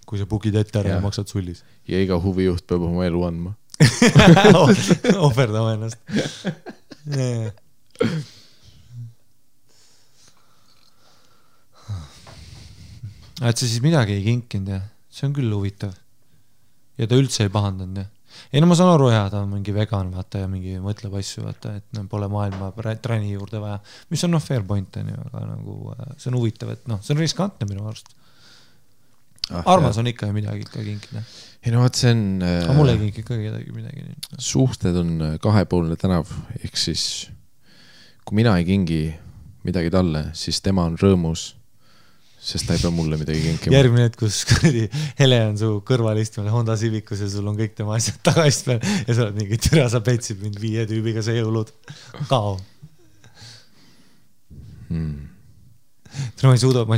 Kui sa bugid ette ära ja maksad sullis. Ja iga huvijuht peab oma elu andma. Ohverdama ennast. Et sa siis midagi ei kinkinud ja see on küll huvitav. Ja ta üldse ei pahandanud ja. Ei no ma saan aru ta on mingi vegan vaata ja mingi mõtleb asju vaata, et pole maailma träni juurde vaja, mis on fair point on ju, aga nagu see on huvitav, et see on riskantne minu arust. Armas on ikka midagi ikka kinkida. Ei no vaat see on... Aga mul ei kinki ka midagi. Suhted on kahepoolne tänav, ehk siis kui mina ei kingi midagi talle, siis tema on rõõmus, sest ta ei pea mulle midagi kinkima. Järgmine hetk, kus Hele on su kõrval istmel Honda Civicus ja sul on kõik tema asjad tagaist peal ja sa oled mingi türa, sa petsid mind 5 tüübiga see jõulud. Kao. Ma ei suuda, ma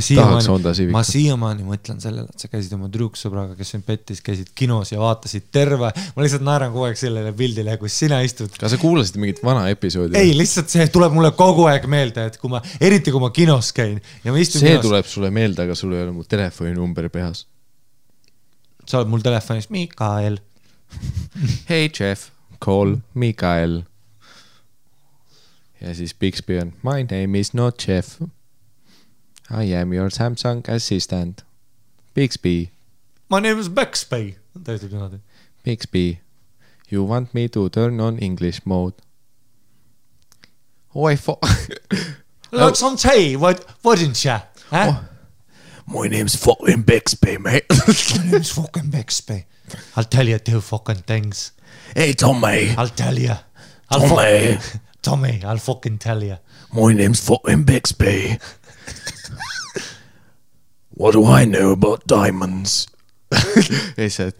siiamaani mõtlen sellele, et sa käisid oma trüksõbraga, kes on pettis, käisid kinos ja vaatasid terve. Ma lihtsalt naeran kogu aeg sellele pildile, kus sina istud. Kas sa kuulasid mingit vana episoodi? Ei, lihtsalt see tuleb mulle kogu aeg meelde, et eriti kui ma kinos käin ja ma istun see kinos. Tuleb sulle meelde, aga sul ei ole mu telefoninumber pehas. Sa oled mul telefonis Mikael. Hey Jeff, call Mikael. Ja siis Bixby on my name is not Jeff. I am your Samsung assistant. Bixby. My name is Bixby. Bixby, you want me to turn on English mode? Oh, like some tea, wouldn't you? Huh? Oh, my name's fucking Bixby, mate. My name's fucking Bixby. I'll tell you 2 fucking things. Hey, Tommy. I'll tell you. Tommy, I'll fucking tell you. My name's fucking Bixby. What do I know about diamonds? He said,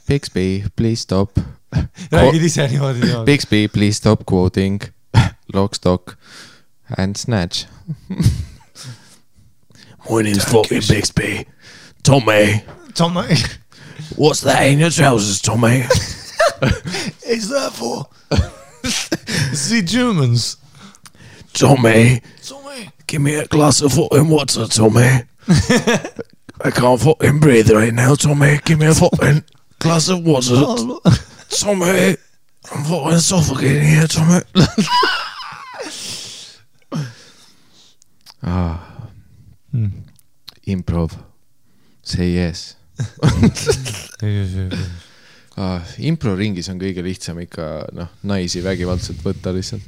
Bixby, please stop. Räägid ise niimoodi. Bixby, please stop quoting Lock, Stock and Snatch. My name's fucking Bixby. Tommy. What's that in your trousers, Tommy? Is that for? See Germans. Tommy. Give me a glass of fucking water, Tommy. I can't fucking breathe right now, Tommy. Give me a fucking glass of water. Tommy. I'm fucking suffocating here, Tommy. Improv. Say yes. Impro-ringis on kõige lihtsam ikka naisi vägivaldselt võtta lihtsalt.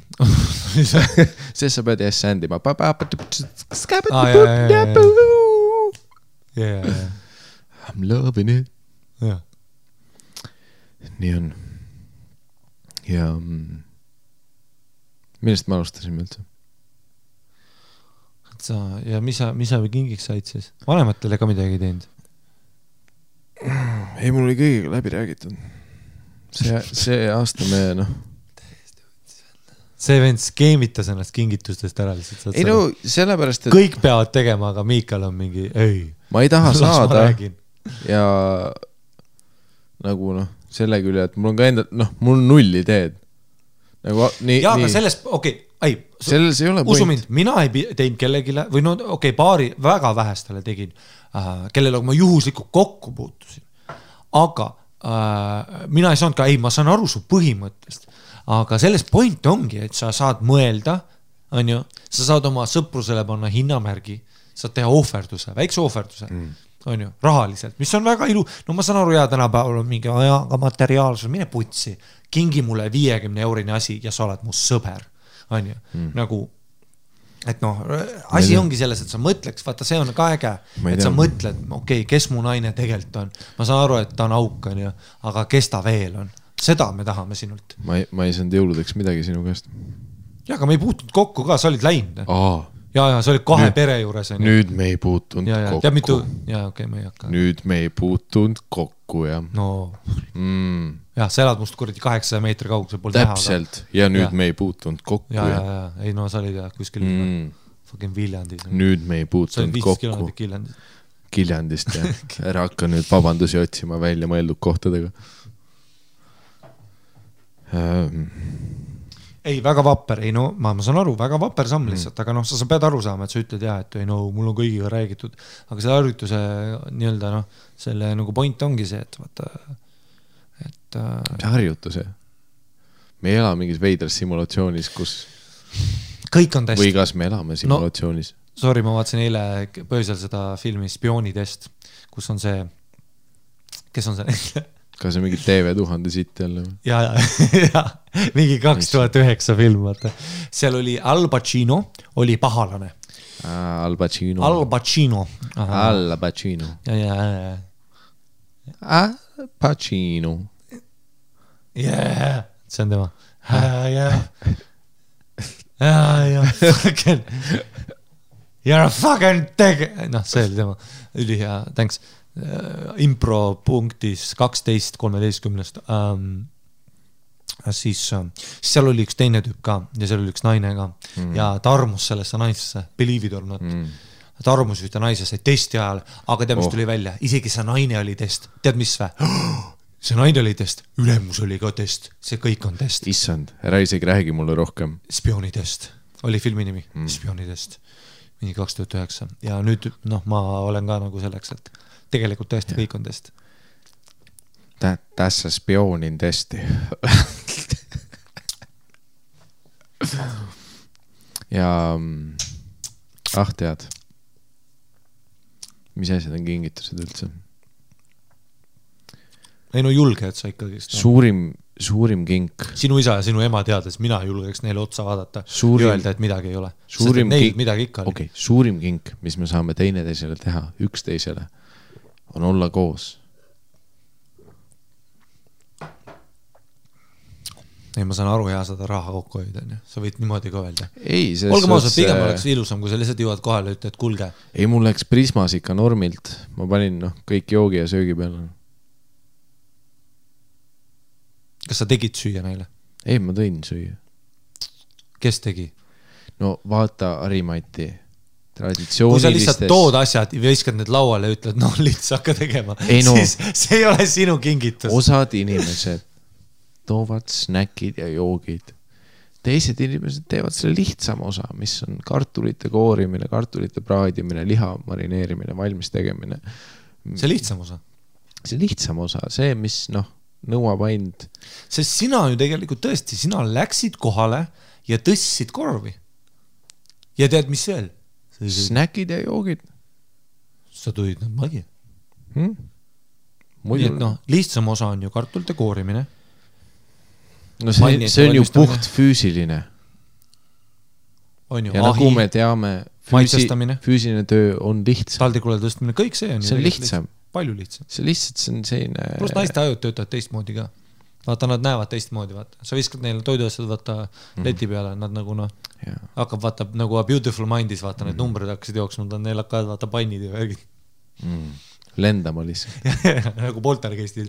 Sest sa pead yes sändima. I'm loving it. Nii on. Ja millest me alustasime üldse? ja mis sa kingiks said siis? Vanematele ka midagi teinud? Ei, mul oli kõigiga läbi räägitud. See aasta me, See vend skeemitas ennast kingitustest ära lihtsalt. Ei no, sellepärast, et kõik peavad tegema, aga Miikal on mingi, ei. Ma ei taha saada ja nagu selle küll, et mul on ka enda, mul on 0 ideed. Nagu, aga selles, selles ei ole usu mind, mina ei teinud kellegile, või paari väga vähestele tegin, kellele ma juhuslikult kokku puutusin. Aga mina ei saanud ka, ma saan aru su põhimõttest, aga selles point ongi, et sa saad mõelda, on ju, sa saad oma sõprusele panna hinnamärgi, saad teha ohverduse, väikse ohverduse, on ju, rahaliselt, mis on väga ilu, ma saan aru, tänapäeval on mingi ajaga materiaalsus, mine putsi, kingi mulle 50 eurine asi ja sa oled mu sõber, on ju, nagu, et asi ongi selles, et sa mõtleks, vaata, see on ka äge, et sa mõtled, kes mu naine tegelikult on, ma saan aru, et ta on auk, on ju, aga kes ta veel on, seda me tahame sinult. Ma ei saanud jõuludeks midagi sinu käest. Ja, aga me ei puutunud kokku ka, sa olid läinud. Ja, sa olid 2 pere juures. Nüüd me ei puutunud kokku. Tead mitu? Me ei hakka. Nüüd me ei puutunud kokku, jah. Ja, sa elad must kuradi 800 meetri kaugusel pool näha. Täpselt. Ja nüüd me ei puutunud kokku. Ja. Ei, sa olid kuskil fucking Viljandis. Nüüd me ei puutunud kokku. Sa olid 15 kilomeetrit Kiljandist, jah. Ära hakka nüüd vabandusi otsima välja mõeldud kohtadega. Ei, väga vapper, ma saan aru, väga vapper samm lihtsalt, aga sa pead aru saama, et sa ütled et mul on kõigiga räägitud, aga selle harjutuse nii-öelda, selle nagu point ongi see, et vaata, et see harjutuse. Me ei ela mingis veidras simulatsioonis, kus kõik on test. Või kas me elame simulatsioonis? Sorry, ma vaatasin eile pöösel seda filmi Spioonitest, kus on see, kes on see? Kas see mingi TV1000 siit jälle? Ja, mingi 2009 film, vaata. Seal oli Al Pacino, oli pahalane. Al Pacino. Al Pacino. Al Pacino. Ja. Al Pacino. Yeah, see on tema. Ja. Fucking. You're a fucking teg... see oli tema. Üli hea, thanks. Impro punktis 12-13 siis seal oli üks teine tüüp ka ja seal oli üks naine ka ja ta armus sellesse naisesse, believe it or not ta armus ühte naisesse testi ajal, aga tead mis tuli välja, isegi see naine oli test, tead mis vä? See naine oli test, ülemus oli ka test, see kõik on test. Issand, ära isegi räägi mulle rohkem. Spioonitest oli filmi nimi, Spioonitest mingi 2009 ja nüüd ma olen ka nagu selleks, et tegelikult tõesti kõik on test. Tässä spionin testi. Ja tead. Mis asjad on kingitused üldse? Ei julge, et sa ikkagi... Suurim kink. Sinu isa ja sinu ema teades, mina julgeks neile otsa vaadata ja öelda, et midagi ei ole. Midagi ikka oli. Okay, suurim kink, mis me saame teineteisele teha, üksteisele, on olla koos. Ei, ma saan aru hea seda raha kokku hoida. Sa võid niimoodi ka öelda. Ei, olge mausad, pigem oleks ilusam, kui sa lihtsalt jõuad kohale ja ütled, kulge. Ei, mul läks Prismas ikka normilt. Ma panin kõik joogi ja söögi peale. Kas sa tegid süüa neile? Ei, ma tõin süüa. Kes tegi? No vaata Harimati traditsioonilistes... Kui sa lihtsalt tood asjad ja viskad need lauale ja ütled, lihtsalt hakka tegema, siis see ei ole sinu kingitus. Osad inimesed toovad snäkid ja joogid. Teised inimesed teevad selle lihtsama osa, mis on kartulite koorimine, kartulite praadimine, liha marineerimine, valmis tegemine. See lihtsam osa? See lihtsam osa, see, mis nõuab ainult. Sest sina ju tegelikult tõesti, sina läksid kohale ja tõssid korvi. Ja tead, mis veel? Snäkid ja joogid. Sa tulid nad magi. Muidu... Lihtsam osa on ju kartulite koorimine. No see on ju puht füüsiline. On ju, ja nagu me teame, füüsiline töö on lihtsam. Taldrikule tõstmine, kõik see on ju lihtsam. Palju lihtsam. See lihtsalt see on selline... Plus naiste ajud töötavad teistmoodi ka. vaata, nad näevad teistmoodi, vaata. Sa viskad neile toiduasjad, vaata, leti peale, nad nagu noh, hakkab, vaata, nagu A Beautiful Mindis, vaata, need numbrid hakkasid jooksma, neil hakkavad, vaata, pannid ja värgid. Lendama lihtsalt. nagu poltergeistil.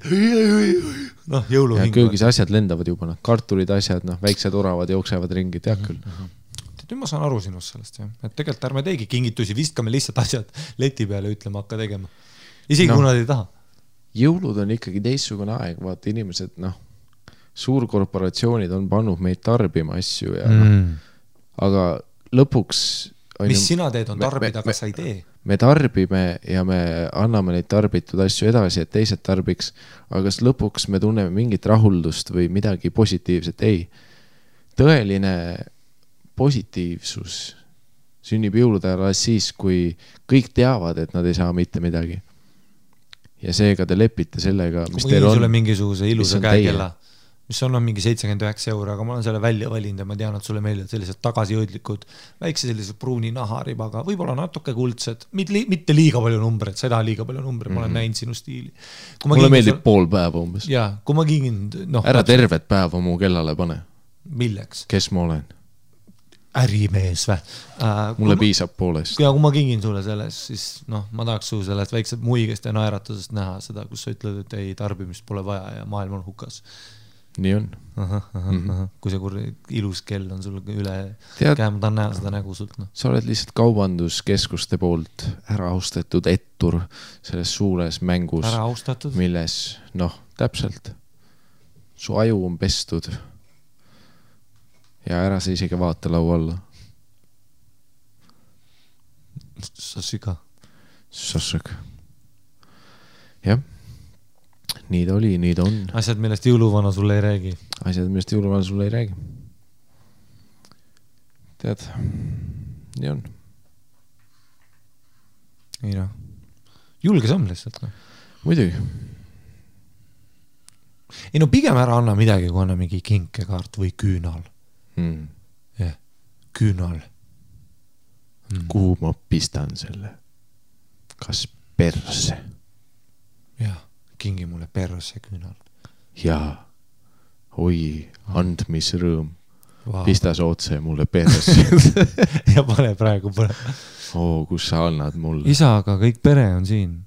Noh, jõuluhing. Köögis asjad lendavad juba, noh, kartulid asjad, noh, väiksed oravad jooksevad ringi, tead küll. Nüüd ma saan aru sinust sellest, jah. Et tegelikult ärme teegi kingitusi, vistkame lihtsalt asjad leti peale, ütleme, hakka tegema. Isegi kui nad ei taha. Jõulud on ikkagi teistsugune aeg, vaata inimesed, noh, suurkorporatsioonid on pannud meid tarbima asju ja aga lõpuks mis sina teed on tarbida, aga sa ei tee? Me tarbime ja me anname neid tarbitud asju edasi, et teised tarbiks, aga kas lõpuks me tunneme mingit rahuldust või midagi positiivset? Ei. Tõeline positiivsus sünnib jõulude ajal siis, kui kõik teavad, et nad ei saa mitte midagi. Ja seega te lepite sellega, mis teil on. Sulle mingisuguse ilusa käekella, mis on mingi 79 €, aga ma olen selle välja valinud ja ma tean, et sulle meeldivad sellised tagasijõudlikud, väikse sellised pruuni naharibaga, võib-olla natuke kuldsed, mitte liiga palju numbreid, sa ei taha liiga palju numbreid, ma olen näinud sinu stiili. Mulle meeldib pool päeva umbes. Jaa, kui ma kingin... Ära tervet päeva mu kellale pane. Milleks? Kes ma olen? Ärimees vä? Mulle piisab poolest. Ja kui ma kingin sulle selles, siis ma tahaks su sellest väiksed muigest ja naeratusest näha seda, kus sa ütled, et ei, tarbimist pole vaja ja maailm on hukas. Nii on. Kui see ilus kell on sul üle käe, ma tahan näha seda nägu sult. Sa oled lihtsalt kaubanduskeskuste poolt ära austatud ettur selles suures mängus, milles, täpselt, su aju on pestud ja ära sa isegi vaata lau alla. Sassiga. Jah. Nii ta oli, nii ta on. Asjad, millest jõuluvana sulle ei räägi. Tead, nii on. Ei noh. Julge samm lihtsalt. Muidugi. Ei pigem ära anna midagi, kui anna mingi kinkekaart või küünal. Küünal. Kuhu ma pistan selle? Kas perse? Jah. Kingi mulle perse küünal. Jaa, oi, andmisrõõm. Pistas otse mulle perse. ja pane praegu. Kus sa annad mulle? Isa, aga kõik pere on siin.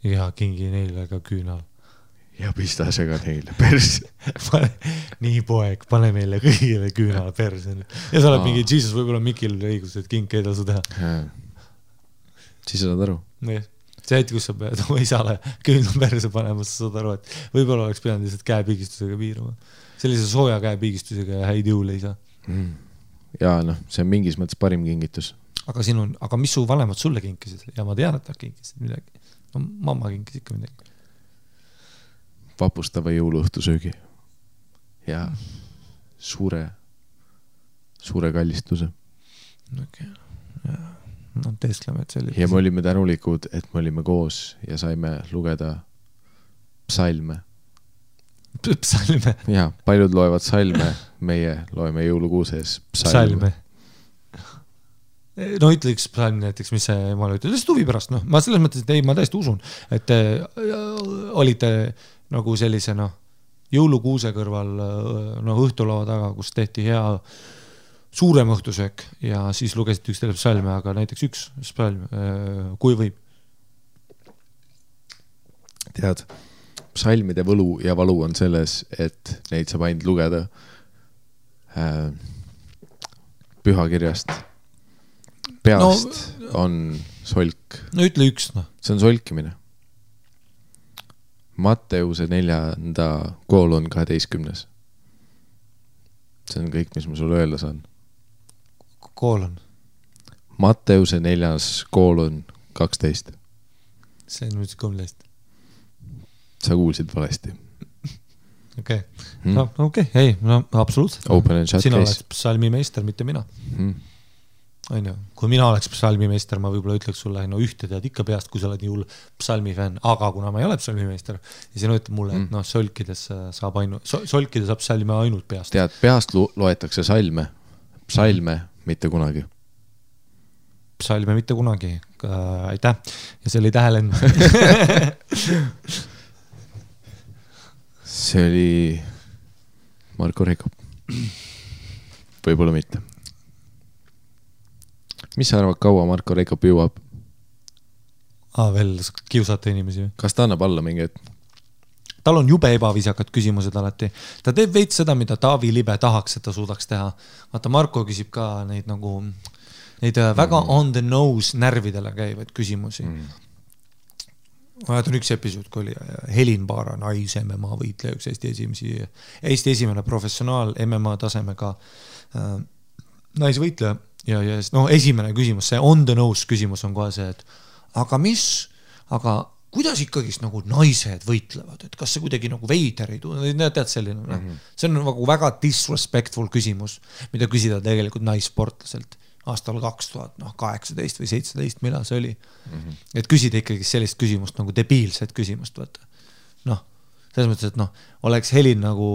Ja kingi neile ka küünal. Ja pistas ega neile perse. Nii poeg, pane meile kõigile küünal perse. Ja sa oled mingi, Jesus, võib-olla Mikil õigus, et king ei tasu teha. Siis sa saad aru. See hetk, kus sa pead oma isale küünal perse panema, sa saad aru, et võib-olla oleks pidanud lihtsalt käepiigistusega piirama. Sellise sooja käepiigistusega ja häid jõule ei saa. Ja see on mingis mõttes parim kingitus. Aga mis su vanemad sulle kinkisid? Ja ma tean, et nad kinkisid midagi. Mamma kinkis ikka midagi. Vapustava jõuluõhtusöögi. Ja suure kallistuse. Okei, jah. Teeskleme, et selline. Ja me olime tänulikud, et me olime koos ja saime lugeda psalme. Psalme? Ja, paljud loevad salme, meie loeme jõulukuuses psalme. Ütle üks psalm näiteks, mis see jumala ütleb. Lihtsalt huvi pärast, ma selles mõttes, et ei, ma täiesti usun, et olite nagu sellise jõulukuuse kõrval õhtulava taga, kus tehti hea suurem õhtusöök ja siis lugesid üks teile psalme, aga näiteks üks psalm, kui võib. Tead, psalmide võlu ja valu on selles, et neid saab ainult lugeda pühakirjast. Peast on solk. Ütle üks. See on solkimine. Matteuse 4. koolon 12. See on kõik, mis ma sulle öelda saan. Koolon. Matteuse 4. koolon 12. See on nüüd 13. Sa kuulsid valesti. Okei. Okei, ei, absoluutselt. Sina oleks psalmimeister, mitte mina. Kui mina oleks psalmimeister, ma võib-olla ütleks sulle, ühte tead ikka peast, kui sa oled nii hull psalmifänn, aga kuna ma ei ole psalmimeister ja sina ütleb mulle, et solkides saab psalme ainult peast. Tead, peast loetakse psalme mitte kunagi. Psalme mitte kunagi. Aitäh. Ja see oli tähelend. see oli Marko Reikop. Võib-olla mitte. Mis sa arvad, kaua Marko Reikop jõuab? Veel kiusata inimesi. Kas ta annab alla mingi hetk? Tal on jube ebaviisakad küsimused alati. Ta teeb veits seda, mida Taavi Libe tahaks, et ta suudaks teha. Vaata, Marko küsib ka neid nagu neid väga on the nose närvidele käivaid küsimusi. On üks episood, kui oli Helin Baara, nais-MMA võitleja, üks Eesti esimene professionaal MMA tasemega naisvõitleja. Ja esimene küsimus, see on the nose küsimus on kohe see, et aga kuidas ikkagi nagu naised võitlevad, et kas see kuidagi nagu veider ei tule, tead selline, see on nagu väga disrespectful küsimus, mida küsida tegelikult naissportlaselt aastal 2018 või 17, millal see oli. Et küsida ikkagi sellist küsimust nagu debiilset küsimust, vaata. Selles mõttes, et oleks Helin nagu,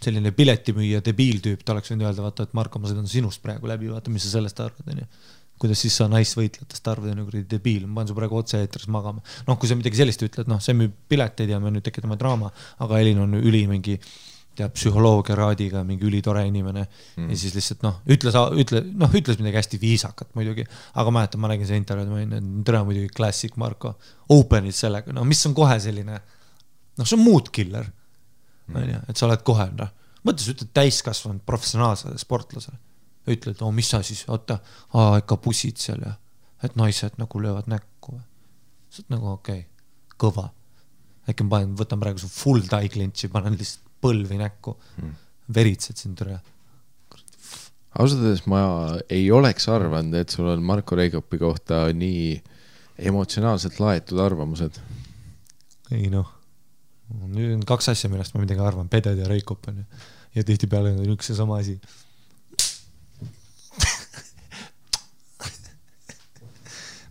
selline piletimüüja debiiltüüp, ta oleks võinud öelda, vaata, et Marko, ma sõidan sinust praegu läbi, vaata, mis sa sellest arvad, on ju. Kuidas siis sa naisvõitletest arvad, on ju debiil, ma panen su praegu otse eetris magama. Kui sa midagi sellist ütled, see müüb pileteid ja me nüüd tekitame draama, aga Helin on üli mingi psühholoogia raadiga, mingi ülitore inimene ja siis lihtsalt, ütles midagi hästi viisakat muidugi, aga mäletan, ma nägin see intervjuud, ma olin, tere muidugi klassik Marko, openid sellega, mis on kohe selline, see on mood killer, et sa oled kohe, mõttes ütled täiskasvanud professionaalsele sportlasele, ütled, mis sa siis, oota, ikka bussid seal ja, et naised nagu löövad näkku. See on nagu okei, kõva. Äkki ma võtan praegu su full die klintsi, panen lihtsalt põlvi näkku, veritsed sind üle. Ausalt, ma ei oleks arvanud, et sul on Marko Reikopi kohta nii emotsionaalselt laetud arvamused. Ei nüüd on 2 asja, millest ma midagi arvan, Peded ja Reikop on ja tihti peale on üks ja sama asi.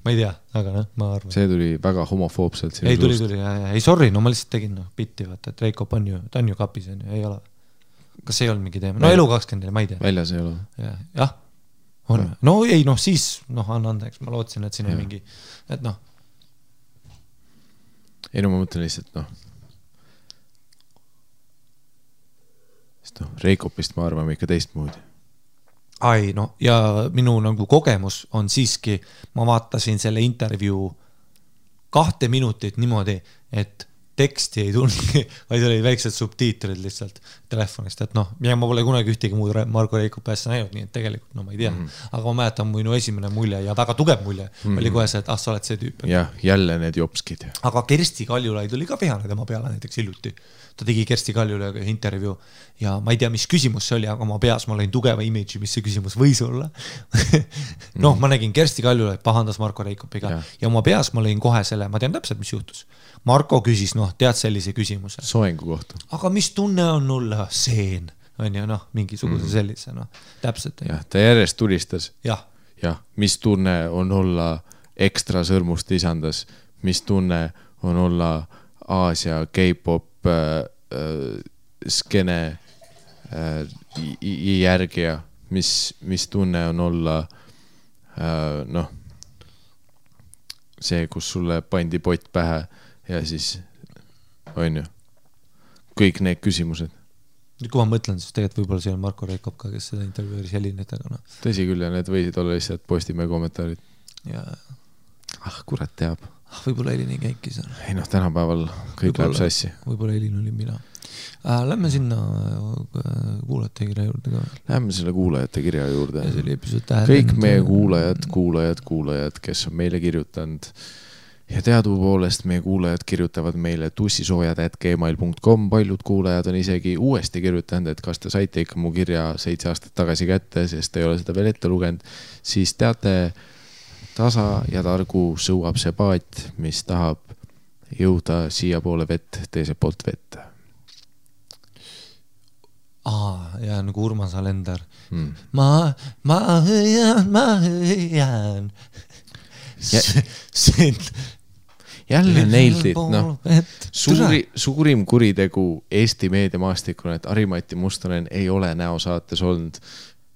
Ma ei tea, aga ma arvan. See tuli väga homofoobselt. Ei tuli, ei sorry, ma lihtsalt tegin bitti, vaata, et Reikop on ju, ta on ju kapis, ei ole. Kas see ei olnud mingi teema? Elu 24, ma ei tea. Väljas ei ole. Jah, on. Ei, siis, anna andeks, ma lootsin, et siin on mingi, et Ei, ma mõtlen lihtsalt, Reikopist ma arvame ikka teistmoodi. Ja minu nagu kogemus on siiski, ma vaatasin selle intervjuu 2 minutit niimoodi, et teksti ei tulnud, vaid oli väiksed subtiitrid lihtsalt telefonist, et ja ma pole kunagi ühtegi muud Marko Reikopi asja näinud, nii et tegelikult ma ei tea, aga ma mäletan minu esimene mulje ja väga tugev mulje oli kohe see, et sa oled see tüüp. Jah, jälle need jopskid. Aga Kersti Kaljulaid oli ka vihane tema peale näiteks hiljuti. Ta tegi Kersti Kaljulaiga intervjuu ja ma ei tea, mis küsimus see oli, aga ma peas ma lõin tugeva imidži, mis see küsimus võis olla. Ma nägin Kersti Kaljulaid pahandas Marko Reikopiga ja ma peas ma lõin kohe selle, ma tean täpselt, mis juhtus. Marko küsis, tead sellise küsimuse. Soengu kohta. Aga mis tunne on olla seen? On ju, mingisuguse sellise, täpselt. Jah, ta järjest tulistas. Jah. Mis tunne on olla ekstra sõrmust lisandas? Mis tunne on olla Aasia K-pop skene järgija? Mis tunne on olla see, kus sulle pandi pott pähe ja siis on ju kõik need küsimused. Kui ma mõtlen, siis tegelikult võib-olla see on Marko Reikop ka, kes seda intervjuuris Helinit, aga Tõsi küll ja need võisid olla lihtsalt Postimehe kommentaarid. Ja kurat teab. Võib-olla Helin ei käikis. Ei tänapäeval kõik läheb sassi. Võib-olla Helin oli mina. Lähme sinna kuulajate kirja juurde ka. Lähme selle kuulajate kirja juurde. Ja kõik meie kuulajad, kes on meile kirjutanud. Ja teadupoolest meie kuulajad kirjutavad meile tussisoojad@gmail.com. Paljud kuulajad on isegi uuesti kirjutanud, et kas te saite ikka mu kirja 7 aastat tagasi kätte, sest ei ole seda veel ette lugenud. Siis teate, tasa ja targu sõuab see paat, mis tahab jõuda siia poole vett, teise poolt vett. Ja nagu Urmas Alender. Ma hõian. Jälle neildid, suurim kuritegu Eesti meediamaastikuna, et Ari-Mati Mustonen ei ole näosaates olnud.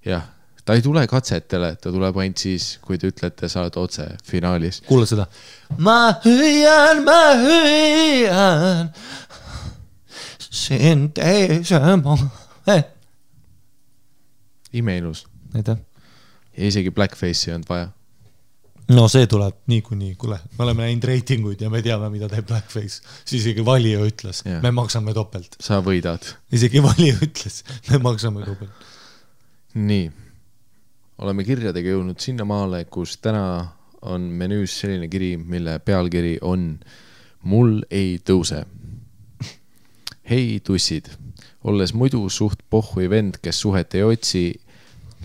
Jah, ta ei tule katsetele, ta tuleb ainult siis, kui te ütlete, sa oled otse finaalis. Kuule seda. Ma hõian. Imeilus. Aitäh. Ja isegi blackface'i on vaja. No see tuleb niikuinii, kuule, me oleme näinud reitinguid ja me teame, mida teeb blackface. Siis isegi valija ütles, me maksame topelt. Sa võidad. Isegi valija ütles, me maksame topelt. Nii, oleme kirjadega jõudnud sinna maale, kus täna on menüüs selline kiri, mille pealkiri on Mul ei tõuse. Hei tussid, olles muidu suht pohhui vend, kes suhet ei otsi,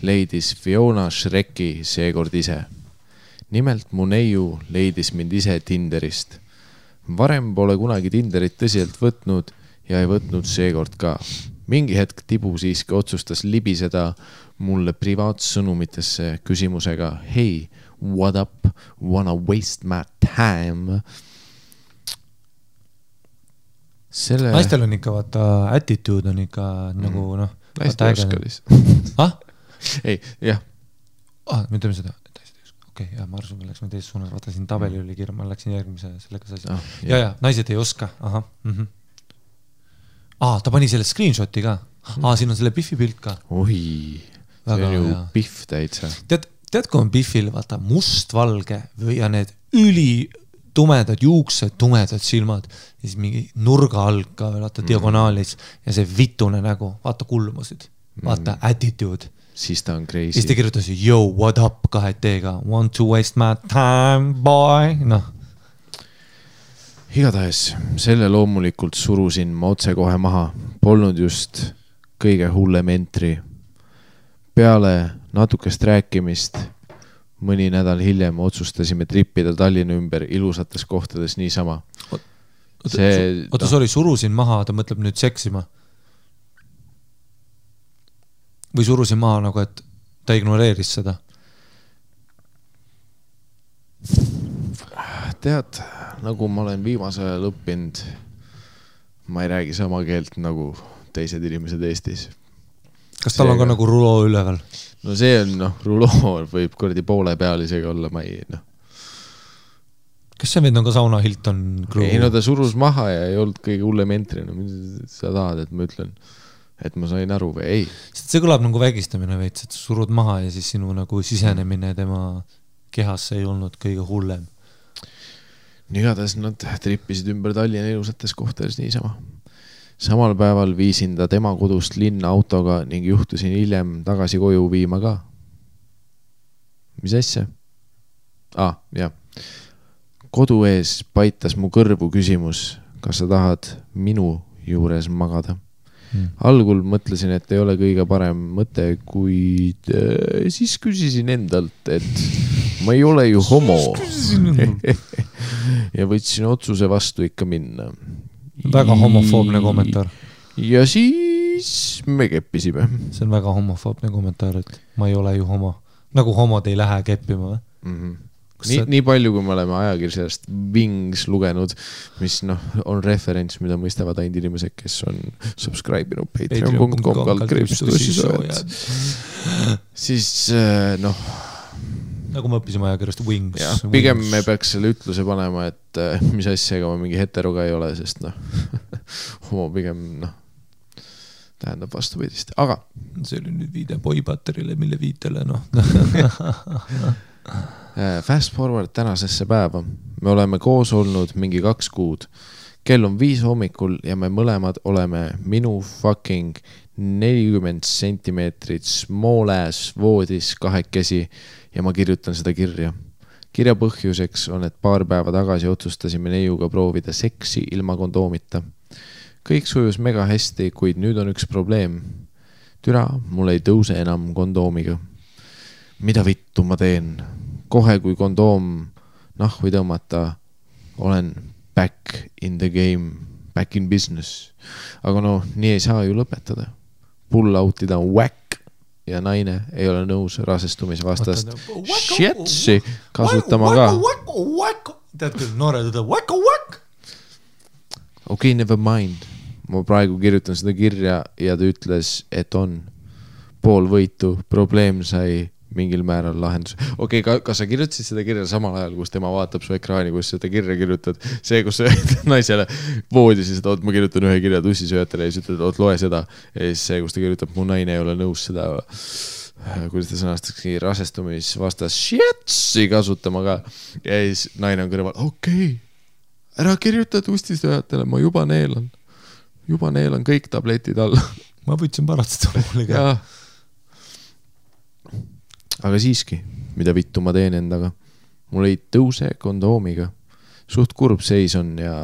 leidis Fiona Shreki seekord ise. Nimelt mu neiu leidis mind ise Tinderist. Varem pole kunagi Tinderit tõsiselt võtnud ja ei võtnud seekord ka. Mingi hetk Tibu siiski otsustas libiseda mulle privaatsõnumitesse küsimusega Hey, what up? Wanna waste my time? Naistel on ikka vaata attitude on ikka nagu noh. Naiste oskalis. Ei, jah. Me teeme seda. Okei, ja ma arvasin, läks me teises suunas. Vaata siin tabeli oli kirja, ma läksin järgmise sellega sasi. Ja, naised ei oska. Aha. Ta pani selle screenshoti ka. Siin on selle Biffi pilt ka. Oi, see on ju Biff täitsa. Tead, kui on Biffil vaata mustvalge ja need tumedad juuksed, tumedad silmad ja siis mingi nurga all ka vaata diagonaalis ja see vitune nägu, vaata kulmusid, vaata attitude. Siis ta on crazy. Siis ta kirjutas, yo, what up 2T-ga, want to waste my time, boy, noh. Igatahes, selle loomulikult surusin ma otse kohe maha, polnud just kõige hullem entry. Peale natukest rääkimist mõni nädal hiljem otsustasime trippida Tallinna ümber ilusates kohtades niisama. Sorry, surusin maha, ta mõtleb nüüd seksima. Või surusin maha nagu, et ta ignoreeris seda? Tead, nagu ma olen viimase ajal õppinud, ma ei räägi sama keelt nagu teised inimesed Eestis. Kas tal on ka nagu ruloo üleval? No see on, ruloo võib kordi poole peal isegi olla, ma ei, Kas see vend on ka Sauna Hilton crew? Ei, ta surus maha ja ei olnud kõige hullem entry. Sa tahad, et ma ütlen, et ma sain aru või ei? See kõlab nagu vägistamine veits, et surud maha ja siis sinu nagu sisenemine tema kehasse ei olnud kõige hullem. Igatahes nad trippisid ümber Tallinna ilusates kohtades niisama. Samal päeval viisin ta tema kodust linna autoga ning juhtusin hiljem tagasi koju viima ka. Mis asja? Jah. Kodu ees paitas mu kõrvu küsimus, kas sa tahad minu juures magada. Algul mõtlesin, et ei ole kõige parem mõte, kuid siis küsisin endalt, et ma ei ole ju homo. Ja võtsin otsuse vastu ikka minna. Väga homofoobne kommentaar. Ja siis me keppisime. See on väga homofoobne kommentaar, et ma ei ole ju homo. Nagu homod ei lähe keppima. Nii palju, kui me oleme ajakirjast Wings lugenud, mis on referents, mida mõistavad ainult inimesed, kes on subscribe'inud patreon.com/. Siis nagu me õppisime ajakirjast Wings. Pigem me peaks selle ütluse panema, et mis asjaga ma mingi heteroga ei ole, sest homo pigem tähendab vastupidist. Aga see oli nüüd viide boybatterile, mille viitele Fast forward tänasesse päeva. Me oleme koos olnud mingi 2 kuud. Kell on 5 hommikul ja me mõlemad oleme minu fucking 40 sentimeetrit small ass voodis kahekesi ja ma kirjutan seda kirja. Kirja põhjuseks on, et paar päeva tagasi otsustasime neiuga proovida seksi ilma kondoomita. Kõik sujus mega hästi, kuid nüüd on üks probleem. Türa, mul ei tõuse enam kondoomiga. Mida vittu ma teen? Kohe kui kondoom nahvi tõmmata, olen back in the game, back in business. Aga nii ei saa ju lõpetada. Pull out'ida on whack ja naine ei ole nõus rasestumise vastast shitsi kasutama ka. Tead küll, noored ütleb Okei, never mind. Ma praegu kirjutan seda kirja ja ta ütles, et on pool võitu. Probleem sai mingil määral lahendus. Okei, kas sa kirjutasid seda kirja samal ajal, kus tema vaatab su ekraani, kus seda kirja kirjutad? See, kus sa naisele voodis ja seda, ma kirjutan ühe kirja tussisööjatele ja siis ütled, loe seda. Ja siis see, kus ta kirjutab, mu naine ei ole nõus seda, kuidas ta sõnastakski, rasestumisvastas shitsi kasutama ka. Ja siis naine on kõrval, okei, ära kirjuta tussisööjatele, ma juba neelan kõik tabletid alla. Ma võtsin paratsetamooli ka. Aga siiski, mida vittu ma teen endaga? Mul ei tõuse kondoomiga. Suht kurb seis on ja